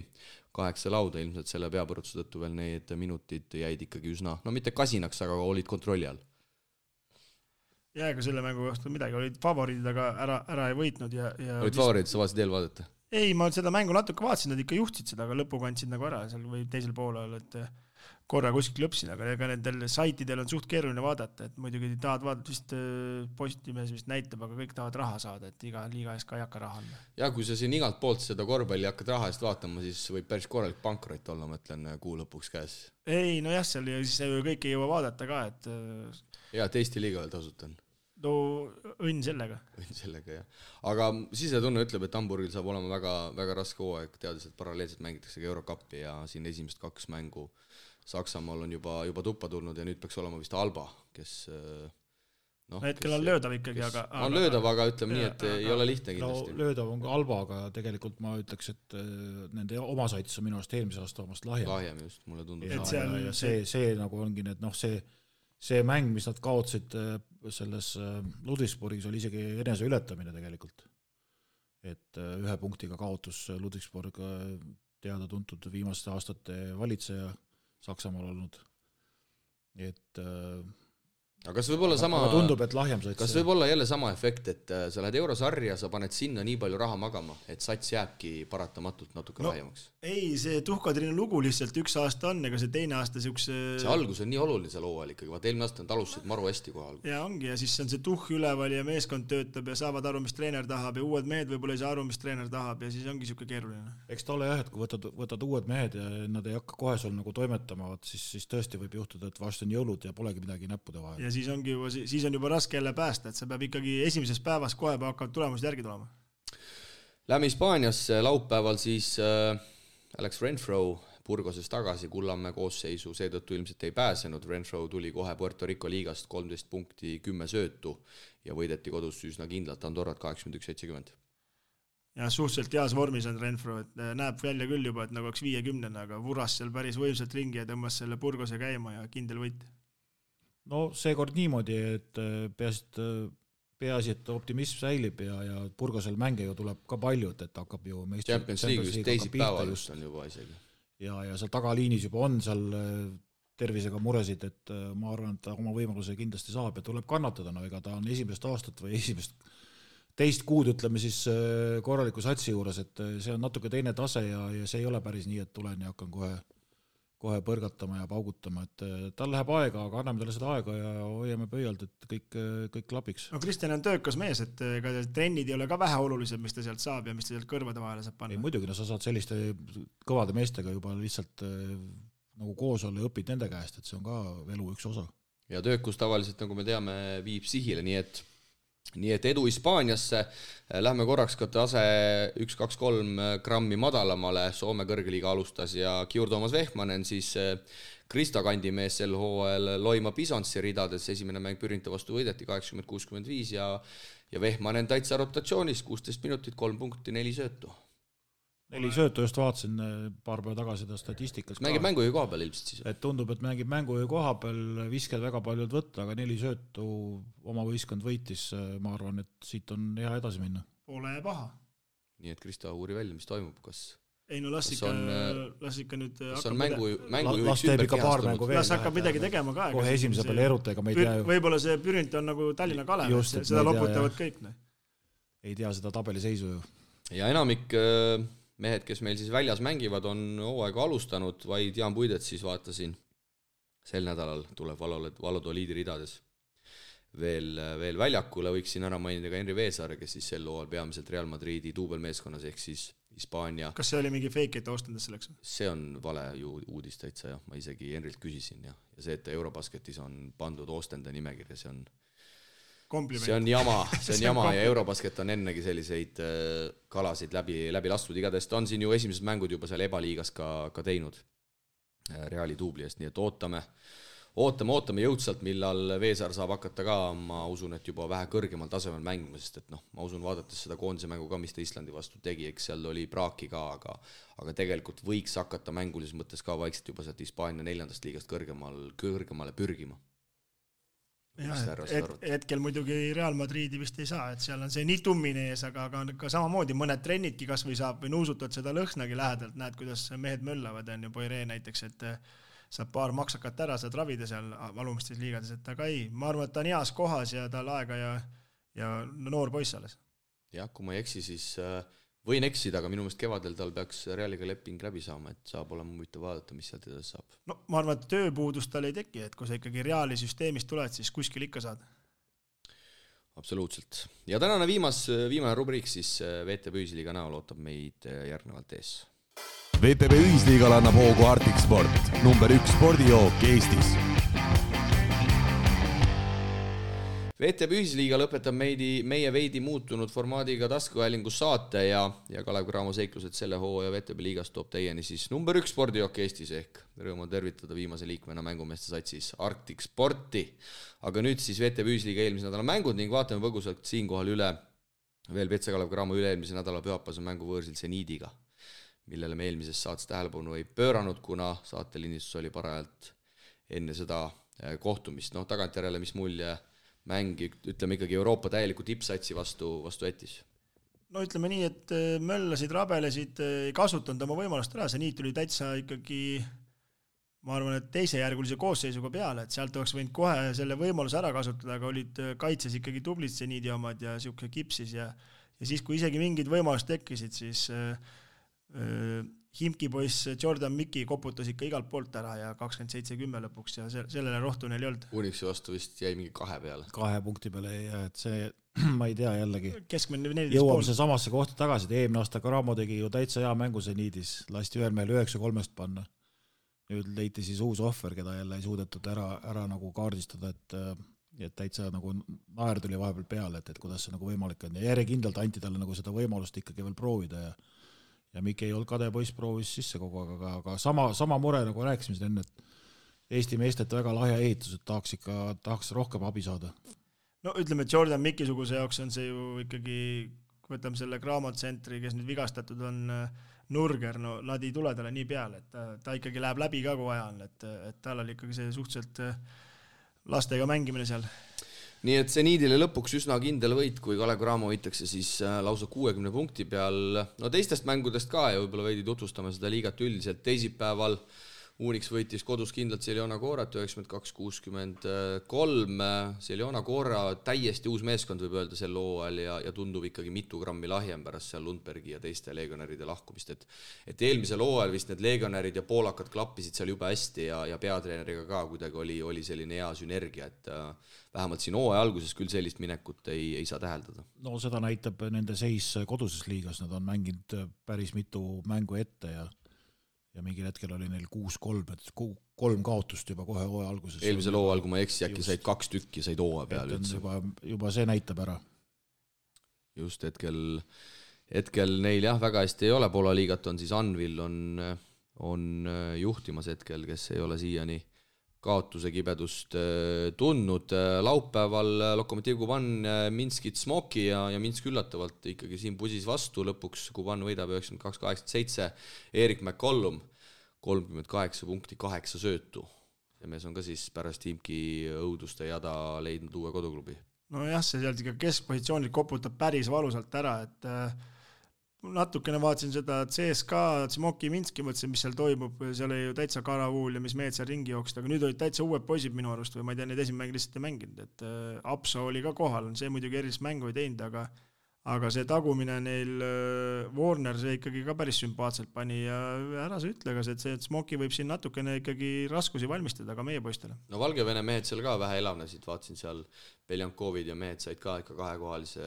8 lauda, ilmselt selle peapõrutuse tõttu veel need minutid jäid ikkagi üsna, no mitte kasinaks, aga olid kontrolli all. Jääga selle mängu kohta midagi, olid favoriidid, aga ära ei võitnud ja olid favoriidid, sa vaatasid eelvaadata? Ei, ma seda mängu natuke vaatasin, nad ikka juhtsid seda, aga lõpuga andsid nagu ära seal või teisel poolel, et korra kuskil lõpsin, aga ega nendel saitidel on suht keeruline vaadata, et muidugi tahad vaadata vist Postimees vist näitab, aga kõik tahavad raha saada, et iga liiga eest ka ei hakka raha anda. Ja kui sa siin igalt poolt seda korvpalli hakkad raha eest vaatama, siis võib päris korralik pankrot olla, mõtlen kuu lõpuks käes. Ei, no jah, seal siis kõik ei jõua vaadata ka, et... Ja, et Eesti liiga veel tasutan. No õnn sellega. Õnn sellega, jah. Aga sisetunne ütleb, et Hamburgil saab olema väga, väga raske hooaeg, teades, et paralleelselt mängitakse Eurocup'i ja siin esimest 2 mängu Saksamaal on juba tuppa tulnud ja nüüd peaks olema vist Alba, kes... No, hetkel on löödav ikkagi, aga... On löödav, aga ütleme nii, et ei ole lihtne kindlasti. No, löödav on ka Alba, aga tegelikult ma ütleks, et nende oma saitis on minu arust eelmise aasta omast lahjem. Lahjem just, mulle tundub. Ja see nagu ongi, et noh, see mäng, mis nad kaotsid selles Ludwigsburgis, oli isegi enese ületamine tegelikult. Et 1 punktiga kaotus Ludwigsburg teada tuntud viimaste aastate valitseja Saksamaal olnud. Et aga kas võib olla sama, tundub, et lahjem sats. Kas võib olla jälle sama efekt, et sa lähed eurosarja, sa paned sinna nii palju raha magama, et sats jääbki paratamatult natuke lahjemaks? Ei, see tuhkatrine lugu lihtsalt üks aasta on, ega see teine aasta siukse... See algus on nii oluline seal hooajal ikkagi, vaat eelmine aasta on alustasid maru hästi kohe algus. Ja ongi, ja siis on see tuhk üleval ja meeskond töötab ja saavad aru, mis treener tahab ja uued mehed võib-olla ei saa aru, mis treener tahab ja siis ongi siuke keeruline. Eks ta ole jah, et kui võtad uued mehed ja nad ei hakka kohe sul nagu toimetama, siis tõesti võib juhtuda, et vast on jõulud ja polegi midagi näppude vahel. Ja siis on juba raske jälle päästa, et sa peab ikkagi esimeses päevas kohe hakkavad tulemused järgi tulema. Lähme Hispaaniasse laupäeval siis Alex Renfro Burgoses tagasi, Kullamäe koosseisu seetõttu ilmselt ei pääsenud. Renfro tuli kohe Puerto Rico liigast 13 punkti, 10 söötu ja võideti kodus üsna kindlalt Andorrat 81-70. Ja suhteliselt heas vormis on Renfro, et näeb välja küll juba, et nagu oleks 50, aga vuras seal päris võimsalt ringi ja tõmbas selle Burgose käima ja kindel võit. No seekord niimoodi, et peaasi, et optimism säilib ja Burgosel mänge ju tuleb ka palju, et hakkab ju Champions League just teisipäeval just on juba isegi. Ja seal tagaliinis juba on seal tervisega muresid, et ma arvan, et ta oma võimaluse kindlasti saab ja tuleb kannatada, no ega ta on esimest aastat või teist kuud, ütleme siis korraliku satsi juures, et see on natuke teine tase ja see ei ole päris nii, et tulen ja hakkan kohe põrgatama ja paugutama, et tal läheb aega, aga anname talle seda aega ja hoiame pöialt, et kõik klapiks. No Kristjan on töökas mees, et ega trennid ei ole ka vähe olulised, mis ta sealt saab ja mis ta sealt kõrvade vahele saab panna. Ei, muidugi, no sa saad selliste kõvade meestega juba lihtsalt nagu koos olla ja õpid nende käest, et see on ka elu üks osa. Ja töökus tavaliselt, nagu me teame, viib sihile, nii et edu Hispaaniasse. Lähme korraks ka tase 1-2-3 grammi madalamale. Soome kõrgeliiga alustas ja Kiur Toomas Vehmanen, siis Krista kandimees sel hooajal Loima Bisonsi ridades. Esimene mäng Pürinta vastu võideti 80-65 ja Vehmanen täitsa rotatsioonis, 16 minutit, 3 punkti, 4 söötu. 4 söötu just vaatasin paar päeva tagasi seda statistikas. Mängib mängujuhi koha peal ilmselt siis? Et tundub, et mängib mängujuhi koha peal, visked väga paljud võtta, aga 4 söötu oma võistkond võitis. Ma arvan, et siit on hea edasi minna. Pole paha. Nii et Krista uuri välja, mis toimub, kas... Ei no las ikka nüüd... Kas on mängujuhiks las teeb ikka paar mängu veel. Las hakkab midagi tegema ka. Kohe esimese peale erutega me ei tea ju. Võib-olla see Pürint on nagu Tallinna Kalev, seda loputavad kõik. Ei tea seda tabeliseisu ju. Ja enamik mehed, kes meil siis väljas mängivad, on hooaega alustanud, vaid Jaan Puidet siis vaatasin. Sel nädalal tuleb Valladoliidi ridades veel väljakule. Võiksin ära mainida ka Henri Veesaare, kes siis sel hooajal peamiselt Real Madridi duubelmeeskonnas ehk siis Hispaania. Kas see oli mingi fake, et ostendast selleks? See on vale ju uudis täitsa, jah. Ma isegi Henrilt küsisin ja see, et Eurobasketis on pandud ostenda nimekirja, see on jama ja Eurobasket on ennegi selliseid kalasid läbi lastud. Igatahes ta on siin ju esimesed mängud juba seal ebaliigas ka teinud Reali duubli eest, nii et ootame jõudsalt, millal Veesaar saab hakata ka, ma usun, et juba vähe kõrgemal tasemel mängima, sest et ma usun, vaadates seda koondise mängu ka, mis ta Islandi vastu tegi, eks seal oli praaki ka, aga tegelikult võiks hakata mängulises mõttes ka vaikselt juba sealt Hispaania 4. liigast kõrgemale pürgima. Hetkel muidugi Real Madridi vist ei saa, et seal on see nii tummine ees, aga ka samamoodi mõned trennidki kas või saab või nuusutad seda lõhnagi lähedalt, näed, kuidas mehed möllavad, on ju Poiree näiteks, et saab paar maksakat ära, saad ravida seal valumistes liigades, et aga ei, ma arvan, et ta on heas kohas ja tal aega ja noor poiss alles. Jah, kui ma ei eksi, siis võin eksida, aga minu meelest kevadel tal peaks Realiga leping läbi saama, et saab olema huvitav vaadata, mis sealt edasi saab. No ma arvan, et tööpuudust tal ei teki, et kui sa ikkagi Reali süsteemist tuled, siis kuskil ikka saad. Absoluutselt. Ja tänane viimane rubriik siis VTB Ühisliiga näol ootab meid järgnevalt ees. VTB Ühisliigal annab hoogu Arctic Sport, number 1 spordijook Eestis. VTB Ühisliiga lõpetab meie veidi muutunud formaadiga taskuhäälingus saate ja Kalev Cramo seiklused selle hooaja VTB liigast toob teieni siis number 1 spordijook Eestis ehk rõõm on tervitada viimase liikmena mängumeeste satsis Arctic Sporti. Aga nüüd siis VTB Ühisliiga eelmise nädala mängud ning vaatame põgusalt siinkohal üle veel VTB Kalev Cramo üle-eelmise nädala pühapäevase mängu võõrsil Zenidiga, millele me eelmises saates tähelepanu ei pööranud, kuna saatelindistus oli parajalt enne seda kohtumist. Tagantjärele, mis mulje mäng, ütleme ikkagi Euroopa täieliku tippsatsi vastu jättis? No ütleme nii, et möllasid, rabelesid, ei kasutanud oma võimalust ära, see niit tuli täitsa ikkagi ma arvan, et teisejärgulise koosseisuga peale, et sealt oleks võinud kohe selle võimaluse ära kasutada, aga olid kaitses ikkagi tublid seniidi omad ja siuke kipsis ja siis, kui isegi mingid võimalused tekkisid, siis Himki poiss Jordan Miki koputas ikka igalt poolt ära ja 27-10 lõpuks ja sellele rohtu neil ei olnud. Unixi vastu vist jäi mingi 2 peale. 2 punkti peale ja et see, ma ei tea jällegi. Keskmine 14 jõuame see samasse kohta tagasi, et eelmine aasta Karamo tegi ju täitsa hea mängu seniidis, lasti ühel meil 9-3 panna. Nüüd leiti siis uus ohver, keda jälle ei suudetud ära nagu kaardistada, et täitsa nagu naer tuli vahepeal peale, et kuidas see nagu võimalik on ja järjekindlalt anti talle nagu seda võimalust ikkagi veel proovida ja Mikki ei olnud kade poiss, proovis sisse kogu aeg, aga sama mure nagu rääkisime siin enne, et Eesti meestelt väga lahja ehitus, et tahaks rohkem abi saada. No ütleme, et Jordan Mikki-suguse jaoks on see ju ikkagi, kui võtame selle Graamo-tsentri, kes nüüd vigastatud on Nurger, no nad ei tule talle nii peale, et ta ikkagi läheb läbi ka kui vaja on, et tal oli ikkagi see suhteliselt lastega mängimine seal. Nii et seniidile lõpuks üsna kindel võit, kui Kalev Cramo võitakse siis lausa 60 punkti peal. No teistest mängudest ka ja võib-olla veidi tutvustame seda liigat üldiselt. Teisipäeval Unix võitis kodus kindlalt Celiona Corat 92-63. Celiona Cora täiesti uus meeskond võib öelda sel hooajal ja tundub ikkagi mitu grammi lahjem pärast seal Lundbergi ja teiste legionäride lahkumist. Et eelmisel hooajal vist need legionärid ja poolakad klappisid seal juba hästi ja peatreeneriga ka kuidagi oli selline hea sünergia, et vähemalt siin hooaja alguses küll sellist minekut ei saa täheldada. No seda näitab nende seis koduses liigas, nad on mänginud päris mitu mängu ette ja mingil hetkel oli neil 6-3, et 3 kaotust juba kohe hooaja alguses. Eelmisel hooajal, kui ma eksi, äkki said 2 tükki, said hooaja peale üldse. Juba see näitab ära. Just hetkel neil jah, väga hästi ei ole. Poola liigat on siis Anvil on juhtimas hetkel, kes ei ole siiani kaotuse kibedust tundnud. Laupäeval Lokomotiv Kuban Minskit Smoki ja Minsk üllatavalt ikkagi siin pusis vastu. Lõpuks Kuban võidab 92-87. Erik McCollum 38 punkti, 8 söötu. See mees on ka siis pärast Himki õuduste jada leidnud uue koduklubi. No jah, see sealt ikka keskpositsioonil koputab päris valusalt ära, et natukene vaatasin seda CSKA, Smoki Minski, mõtlesin, mis seal toimub, seal oli ju täitsa Karavuul ja mis mehed seal ringi jooksid, aga nüüd olid täitsa uued poisid minu arust või ma ei tea, need esimene mäng lihtsalt ei mänginud, et Apso oli ka kohal, see muidugi erilist mängu ei teinud, aga see tagumine neil Warner, see ikkagi ka päris sümpaatselt pani ja ära sa ütle, et see Smoki võib siin natukene ikkagi raskusi valmistada ka meie poistele. No Valgevene mehed seal ka vähe elavnesid, vaatasin seal Beljankovid ja mehed said ka ikka 2-kohalise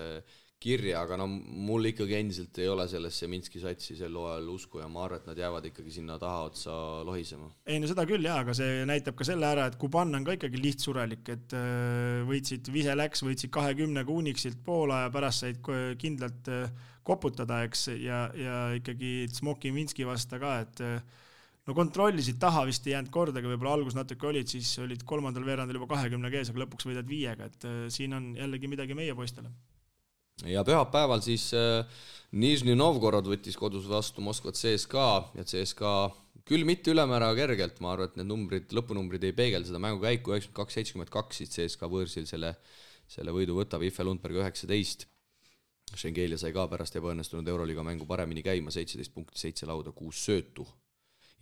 kirja, aga no mul ikkagi endiselt ei ole sellesse Minski satsi sel hooajal usku ja ma arvan, et nad jäävad ikkagi sinna taha otsa lohisema. Ei, no seda küll jah, aga see näitab ka selle ära, et Kuban on ka ikkagi lihtsurelik, et võitsid võitsid 20 Unixilt Poola ja pärast said kindlalt koputada, eks, ja ikkagi Smoki Minski vasta ka, et no kontrollisid taha vist ei jäänud kordagi, võib-olla algus natuke olid, siis olid 3. veerandil juba 20 kees, aga lõpuks võidad 5, et siin on jällegi midagi meie poistele. Ja pühapäeval siis Nižni Novgorod võttis kodus vastu Moskvat CSKA ja CSKA küll mitte ülemäära kergelt, ma arvan, et need lõpunumbrid ei peegel seda mängu käiku 92-72, siis CSKA võõrsil selle võidu võtab, Iffe Lundberg 19. Schengelia sai ka pärast ebaõnnestunud Euroliiga mängu paremini käima, 17 punkti, 7 lauda, 6 söötu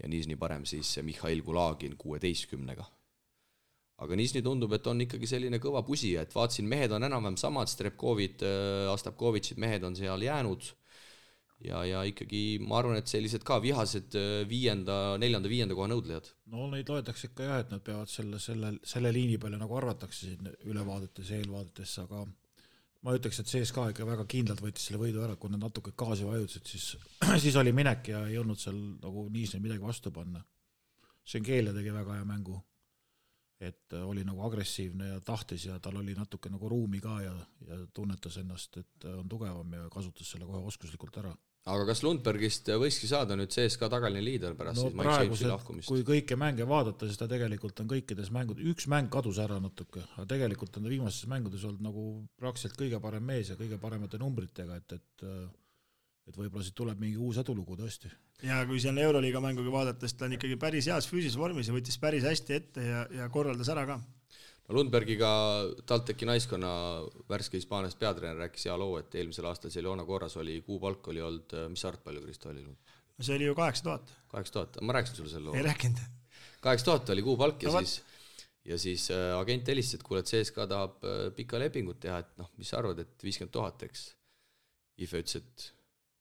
ja Nižni parem siis Mihhail Kulagin 16-ga. Aga Nižni tundub, et on ikkagi selline kõva pusija, et vaatsin, mehed on enam-vähem samad, Strepkovid, Astapkovitšid, mehed on seal jäänud ja ikkagi ma arvan, et sellised ka vihased 4.-5. koha nõudlejad. No neid loetakse ikka jah, et nad peavad selle liini peale nagu arvatakse siin ülevaadetes ja eelvaadetes, aga ma ütleks, et CSKA ikka väga kindlalt võitis selle võidu ära, kui nad natuke gaasi vajutasid, siis oli minek ja ei olnud seal nagu Nižni midagi vastu panna. Schengelia tegi väga hea mängu. Et oli nagu agressiivne ja tahtis ja tal oli natuke nagu ruumi ka ja tunnetas ennast, et on tugevam ja kasutas selle kohe oskuslikult ära. Aga kas Lundbergist võiski saada nüüd CSKA tagaline liider pärast siis Mike Jamesi lahkumist? Kui kõike mänge vaadata, siis ta tegelikult on kõikides mängud, üks mäng kadus ära natuke, aga tegelikult on ta viimases mängudes olnud nagu praktiliselt kõige parem mees ja kõige paremate numbritega, et võib-olla siit tuleb mingi uus edulugu tõesti. Ja kui seal Euroliiga mänguga vaadates, ta on ikkagi päris heas füüsis vormis ja võttis päris hästi ette ja korraldas ära ka. No Lundbergiga TalTechi naiskonna värske Hispaaniast peatreener rääkis hea loo, et eelmisel aastal Celiona Coras oli kuupalk oli olnud, mis arvt palju Kristo oli? No see oli ju 8000. 8000, ma rääkisin sulle selle loo. Ei rääkinud. 8000 oli kuupalk ja siis agent helistas, et kuule, et CSKA tahab pika lepingut teha, et noh, mis sa arvad, et 50 000, eks. Ife ütles, et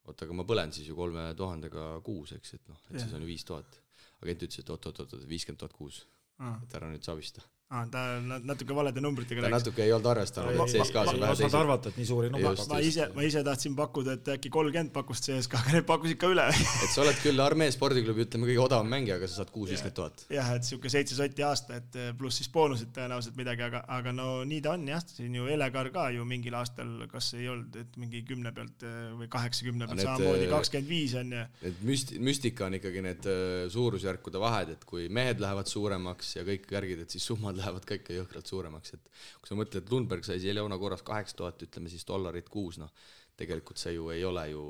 oota, aga ma põlen siis ju 3000 kuus, eks, et noh, et siis on ju 5000. Agent ütles, et oot, 50 000 kuus, et ära nüüd savista. Ta natuke valede numbritega rääkis. Ta natuke ei olnud arvestanud, et CSKA on vähe teised. Ma arvata, et nii suuri numbrid. Ma ise tahtsin pakkuda, et äkki 30 pakust CSKA, aga need pakkusid ka üle. Et sa oled küll Armee spordiklubi, ütleme, kõige odavam mängija, aga sa saad 6-50 000. Jah, et siuke 7 sotti aasta, et pluss siis boonusid tõenäoliselt midagi, aga no nii ta on jah, siin ju Elegar ka ju mingil aastal, kas ei olnud, et mingi 10 pealt või 80 pealt samamoodi 25 on ja... Need müstika on ikkagi need suurusjärkude vahed, et kui mehed lähevad suuremaks ja kõik järgid, et siis summad lähevad ka ikka jõhkralt suuremaks, et kui sa mõtled, et Lundberg sai Leona korras 8000, ütleme siis $, kuus, noh, tegelikult see ju ei ole ju,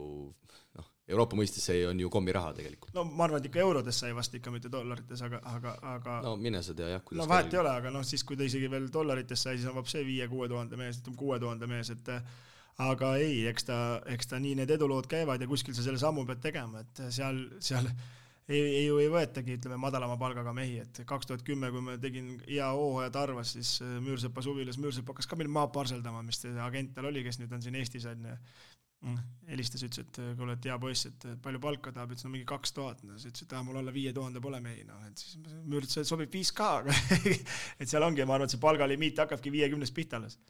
noh, Euroopa mõistes see on ju kommiraha tegelikult. No ma arvan, et ikka eurodes sai vast ikka mitte dollarites, aga... No mine sa tea, jah, kuidas... No vahet ei ole, aga noh, siis kui ta isegi veel dollarites sai, siis on vab see 5-6 000 mees, 6000 mees, et aga ei, eks ta nii need edulood käivad ja kuskil sa selle sammu pead tegema, et seal ei võetagi, ütleme, madalama palgaga mehi, et 2010, kui ma tegin IAO ja Tarvas, siis Müürsepa suvilas, Müürsepa hakkas ka meil maa parseldama, mis agent tal oli, kes nüüd on siin Eestis, helistas, ütles, et kuule, et hea poiss, et palju palka tahab, ütles, no mingi 2000, siis ütles, et mul alla 5000 pole mehi, no, et siis Müürsepa sobib 5K, et seal ongi, ma arvan, et see palgalimiit hakkabki 50 pihta alles.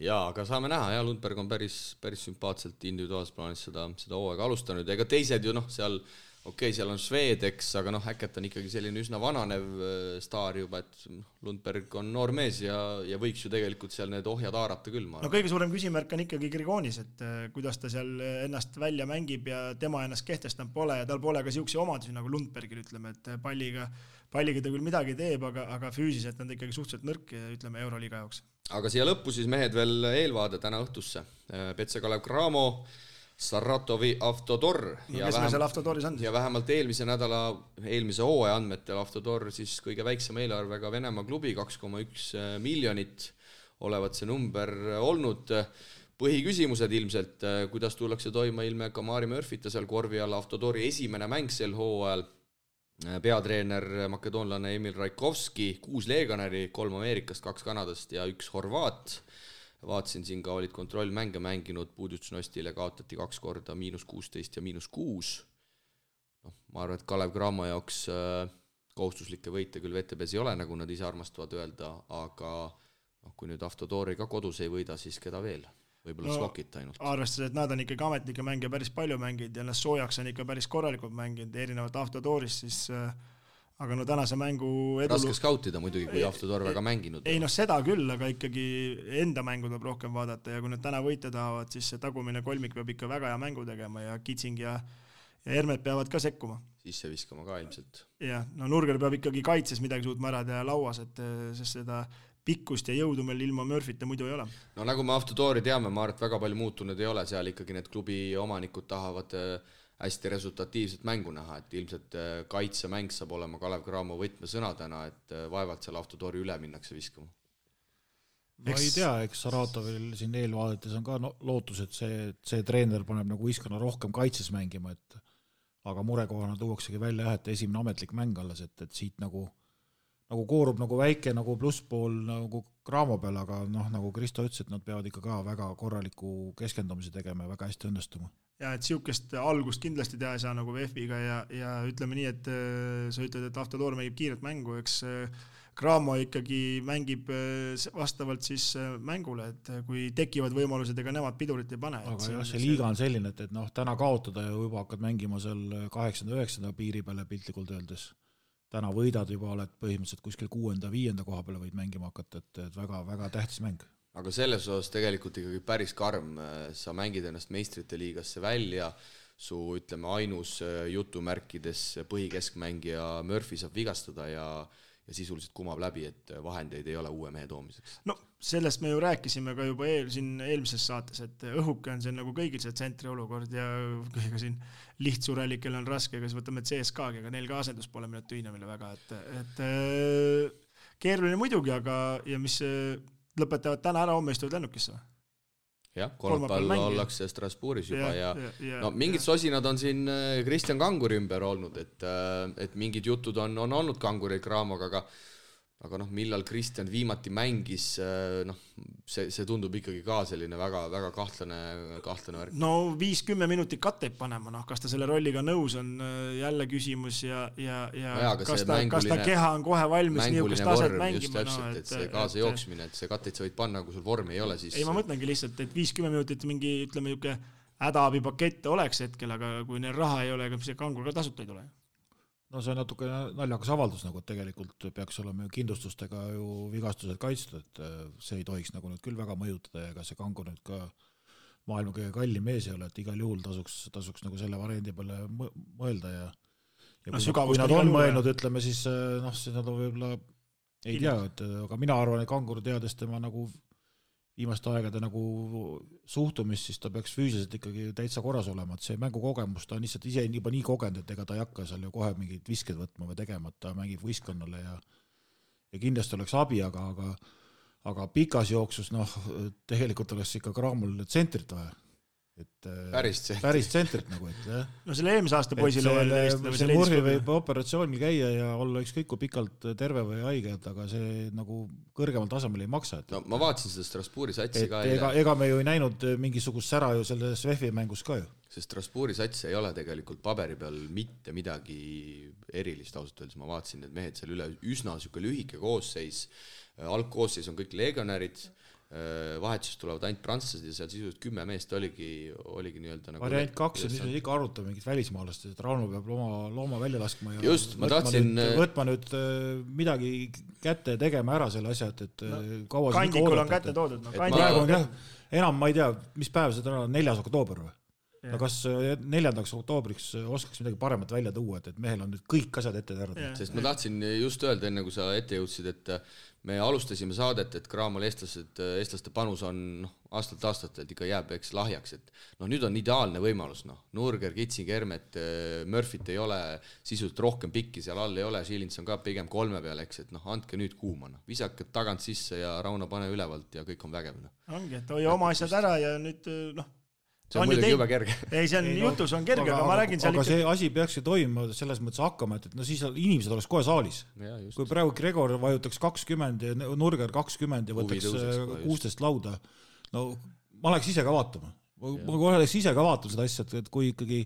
Jaa, aga saame näha, ja Lundberg on päris sümpaatselt individuaalses plaanis seda hooaega alustanud, ega teised ju, noh, seal seal on Svedeks, aga noh, Häkket on ikkagi selline üsna vananev staar juba, et Lundberg on noor mees ja võiks ju tegelikult seal need ohjad haarata küll. No kõige suurem küsimärk on ikkagi Grigonis, et kuidas ta seal ennast välja mängib ja tema ennast kehtestanud pole ja tal pole ka siukse omadusi nagu Lundbergil, ütleme, et palliga ta küll midagi teeb, aga füüsiliselt on ta ikkagi suhteliselt nõrk, ütleme, Euroliiga jaoks. Aga siia lõppu siis mehed veel eelvaade täna õhtusse. Petse Kalev Cramo, Saratovi Avtodor ja vähemalt eelmise hooaja andmetel Avtodor siis kõige väiksema eelarvega Venemaa klubi, 2,1 miljonit olevat see number olnud. Põhiküsimused ilmselt, kuidas tullakse toima ilme Kamari Murphyta seal korvi all, Avtodori esimene mäng sel hooajal, peatreener makedoonlane Emil Raikovski, 6 leeganäri, 3 Ameerikast, 2 Kanadast ja 1 Horvaat. Vaatasin siin ka olid kontrollmänge mänginud, Puudutšnostile kaotati 2 korda -16 ja -6. No, ma arvan, et Kalev Cramo jaoks kohustuslikke võite küll VTBs ei ole, nagu nad ise armastavad öelda, aga kui nüüd Avtodori ka kodus ei võida, siis keda veel? Võib-olla Slokit ainult. Arvestades, et nad on ikkagi ametnike mänge päris palju mänginud ja nad soojaks on ikka päris korralikult mänginud, erinevalt Avtodorist, siis... Aga no tänase mängu raske skautida muidugi, kui Avtodor väga mänginud. Ei, seda küll, aga ikkagi enda mängu tuleb rohkem vaadata ja kui nad täna võita tahavad, siis see tagumine kolmik peab ikka väga hea mängu tegema ja Kitsing ja Hermet peavad ka sekkuma. Sisse viskama ka ilmselt. Ja, no Nurger peab ikkagi kaitses midagi suutma ära teha lauas, sest seda pikkust ja jõudu meil ilma Murphyta muidu ei ole. No nagu me Avtodori teame, ma arvan, et väga palju muutunud ei ole, seal ikkagi need klubi omanikud tahavad hästi resultatiivset mängu näha, et ilmselt kaitsemäng saab olema Kalev Cramo võtmesõnadena, et vaevalt seal Avtodori üle minnakse viskama. Ma ei tea, eks Saratovil siin eelvaadetes on ka lootus, et see treener paneb nagu Iskana rohkem kaitses mängima, aga murekohana tuuaksegi välja, et esimene ametlik mäng alles, et siit nagu koorub nagu väike nagu plusspool nagu Cramo peal, aga nagu Kristo ütles, et nad peavad ikka ka väga korraliku keskendumise tegema ja väga hästi õnnestuma. Ja et siukest algust kindlasti teha ei saa nagu VF-iga ja ütleme nii, et sa ütled, et Avtodor mängib kiiret mängu, eks Cramo ikkagi mängib vastavalt siis mängule, et kui tekivad võimalused, ega nemad pidurit ei pane. Aga jah, see liiga on selline, et täna kaotada ja juba hakkad mängima seal 8-9 piiri peale piltlikult öeldes. Täna võidad juba oled põhimõtteliselt kuskil 6-5 koha peale võid mängima hakata, et väga tähtis mäng. Aga selles osas tegelikult ikkagi päris karm, sa mängid ennast meistrite liigasse välja, su ütleme ainus jutumärkides põhikeskmängija Murphy saab vigastada ja sisuliselt kumab läbi, et vahendeid ei ole uue mehe toomiseks. No sellest me ju rääkisime ka juba eelmises saates, et õhuke on see nagu kõigil see tsentri olukord ja kõiga siin lihtsurelikel on raske, kas võtame CSKA-gi, aga neil ka asendus pole minna tüünamile väga, et keeruline muidugi, aga ja mis lõpetavad täna ära, homme istuvad lennukisse või? jah, kolmapäeval ollakse Strasbourgis juba ja no mingid sosinad on siin Kristjan Kanguri ümber olnud, et mingid jutud on olnud Kanguri Craamoga, aga noh, millal Kristjan viimati mängis, noh, see tundub ikkagi ka selline väga, väga kahtlane värk. No 5-10 minutit katteid panema, noh, kas ta selle rolliga nõus on, jälle küsimus ja kas ta keha on kohe valmis niisugust taset mängima. Just täpselt, et see kaasa jooksmine, et see katteid sa võid panna, kui sul vormi ei ole, siis... Ei, ma mõtlengi lihtsalt, et 5-10 minutit mingi, ütleme, hädaabipakette oleks hetkel, aga kui neil raha ei ole, ega see Kangur ka tasuta ei tule. No see on natuke naljakas avaldus, nagu tegelikult peaks olema ju kindlustustega ju vigastused kaitstud, et see ei tohiks nagu nüüd küll väga mõjutada ja ega see Kangur nüüd ka maailma kõige kallim mees ei ole, et igal juhul tasuks nagu selle variandi peale mõelda ja kui nad on mõelnud, ütleme siis, noh, siis nad on võib-olla ei tea, aga mina arvan, et Kangur teades tema nagu viimaste aegade nagu suhtumist, siis ta peaks füüsiliselt ikkagi täitsa korras olema, et see mängukogemus, ta on lihtsalt ise juba nii kogenud, et ega ta ei hakka seal ju kohe mingid visked võtma või tegema, et ta mängib võistkonnale ja kindlasti oleks abi, aga pikas jooksus, noh, tegelikult oleks ikka Craamol tsentrit vaja. Päris tsentrit nagu, et jah. No selle eelmise aasta poisile see Murhi võib operatsioonil käia ja olla ükskõik kui pikalt terve või haige, aga see nagu kõrgemal tasemel ei maksa. No ma vaatasin seda Strasbourgi satsi ka. Ega me ju ei näinud mingisugust sära ju selles VEF-i mängus ka ju. See Strasbourgi sats ei ole tegelikult paberi peal mitte midagi erilist ausalt öeldes. Ma vaatasin, et mehed seal üle üsna süke lühike koosseis. Algkoosseis on kõik legionärid. Vahetusest tulevad ainult prantslased ja seal sisuliselt 10 meest oligi nii-öelda nagu variant 2 on siis ikka arutada mingit välismaalast, et Rauno peab looma välja laskma ja just, ma tahtsin võtma nüüd midagi kätte tegema ära selle asja, et kaua Kandikul on kätte toodud. Praegu on jah, enam ma ei tea, mis päev seda on, 4. oktoober või? No kas 4. oktoobriks oskaks midagi paremat välja tuua, et mehel on nüüd kõik asjad ette terved. Sest ma tahtsin just öelda, enne kui sa ette jõudsid, et me alustasime saadet, et Craamol eestlaste panus on aastalt ikka jääb eks lahjaks, et nüüd on ideaalne võimalus, Nurger, Kitsing, Hermet, Murphyt ei ole, sisult rohkem pikki seal all ei ole, Schilins on ka pigem 3 peal, eks, et andke nüüd kuuma, visake tagant sisse ja Rauno pane ülevalt ja kõik on vägev. Ongi, et hoia oma asjad ära ja nüüd see on muidugi juba kerge. Ei, see on jutus on kerge, aga ma räägin seal aga see asi peakski toimuma selles mõttes hakkama, et siis inimesed oleks kohe saalis. Kui praegu Gregor vajutaks 20 ja Nurger 20 ja võtaks 16 lauda, no ma oleks ise ka vaatama. Ma oleks ise ka vaatama seda asja, et kui ikkagi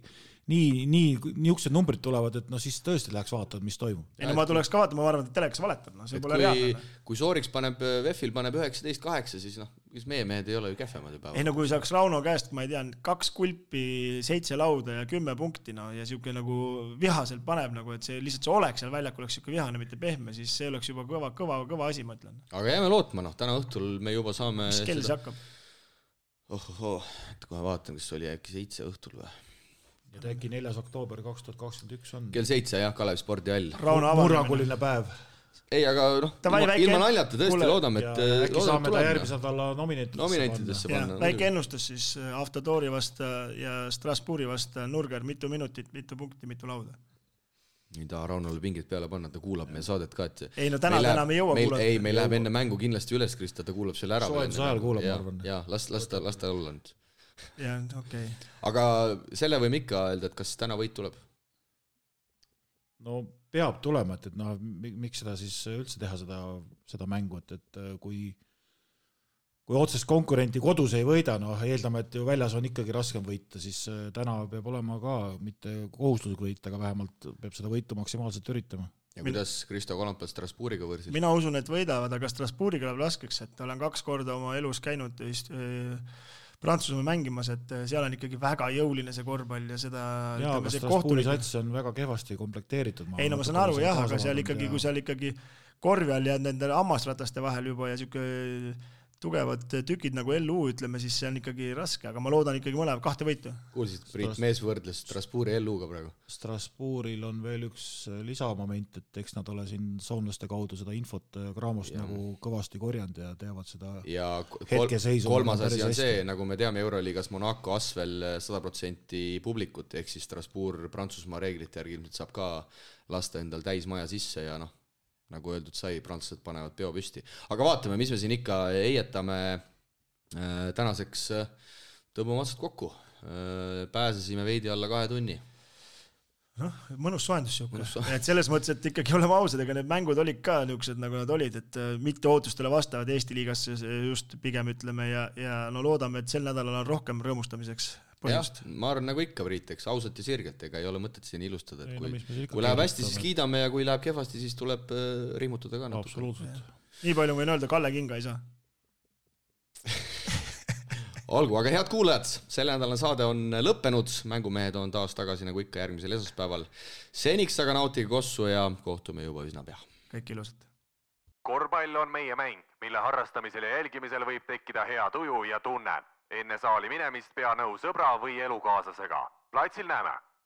niisugused numbrid tulevad, et siis tõesti läheks vaatama, mis toimub. Ei, ma tuleks ka vaatama, ma arvan, et telekas valetab, see pole reaalne. Kui Sooriks VEF-il paneb 19-8, siis meie mehed ei ole ju kähvemad juba. Ei, kui saaks Rauno käest, ma ei tea, 2 kulpi, 7 lauda ja 10 punkti, ja siuke nagu vihaselt paneb, et see lihtsalt see oleks seal väljak oleks siuke vihane, mitte pehme, siis see oleks juba kõva asi, ma ütlen. Aga jääme lootma, täna õhtul me juba saame... Mis kell see hakkab? Kohe vaatan, kas oli äkki 7 õhtul või? Ja äkki 4. oktoober 2021 on. Kell 7, jah, Kalev spordihall. Murranguline päev. Ei, aga ilma naljata tõesti loodame, et äkki saame ta järgmise nädala nominentidesse panna. Väike ennustus siis Avtodori vasta ja Strasbourgi vasta Nurger, mitu minutit, mitu punkti, mitu lauda. Ei taha Raunole pingid peale panna, ta kuulab meie saadet ka, et ei, täna me jõua kuulata. Ei, meil läheb enne mängu kindlasti üles, Krista, ta kuulab selle ära. Soojenduse ajal kuulab, ma arvan. Ja, las ta olla nüüd. Ja, okei. Aga selle võime ikka öelda, et kas täna võit tuleb? No peab tulema, et miks seda siis üldse teha seda mängu, et kui otsest konkurenti kodus ei võida, eeldame, et ju väljas on ikkagi raskem võita, siis täna peab olema ka mitte kohustuslik võita, aga vähemalt peab seda võitu maksimaalselt üritama. Ja kuidas Kristo Kolampel Strasbourgiga võrsid? Mina usun, et võidavad, aga Strasbourgiga läheb raskeks, et olen 2 korda oma elus käinud Prantsusmaa mängimas, et seal on ikkagi väga jõuline see korvpall ja seda... Jaa, aga Strasbourgi sats on väga kehvasti komplekteeritud. Ei, ma saan aru, jah, aga seal ikkagi, kui seal ikkagi korvi all ja nende hammasrataste vahel juba ja siuke tugevad tükid nagu LU, ütleme, siis see on ikkagi raske, aga ma loodan ikkagi mõlema 2 võitu. Kuulsid, Priit Mees võrdles Strasbourgi LU-ga praegu. Strasbourgil on veel üks lisamoment, et eks nad ole siin soomlaste kaudu seda infot Craamost nagu kõvasti korjanud ja teavad seda hetkeseisu. Kolmas asi on see, nagu me teame Euroliigas Monaco Asvel 100% publikut, ehk siis Strasbourg Prantsusmaa reeglite järgi ilmselt saab ka lasta endal täismaja sisse ja nagu öeldud sai, prantslased panevad peo püsti. Aga vaatame, mis me siin ikka eietame. tänaseks tõmbame otsad kokku. Pääsesime veidi alla 2 tunni. Noh, mõnus soendus siuke. Et selles mõttes, et ikkagi oleme ausad, ega need mängud olid ka niisugused, nagu nad olid, et mitte ootustele vastavad Eesti liigasse just pigem ütleme ja no loodame, et sel nädalal on rohkem rõõmustamiseks põhjust. Ja, ma arvan nagu ikka, Priit, eks ausalt ja sirgelt, ega ei ole mõtet siin ilustada, et kui läheb hästi, siis kiidame ja kui läheb kehvasti, siis tuleb rihmutada ka natuke. Absoluutselt. Nii palju võin öelda, Kalle Kinga ei saa. Olgu, aga head kuulajad, selle nädalane saade on lõppenud, mängumehed on taas tagasi nagu ikka järgmisel esmaspäeval. Seniks aga nautige kossu ja kohtume juba üsna pea. Kõik ilusat. Korvpall on meie mäng, mille harrastamisel ja jälgimisel võib tekkida hea tuju ja tunne. Enne saali minemist pea nõu sõbra või elukaaslasega. Platsil näeme!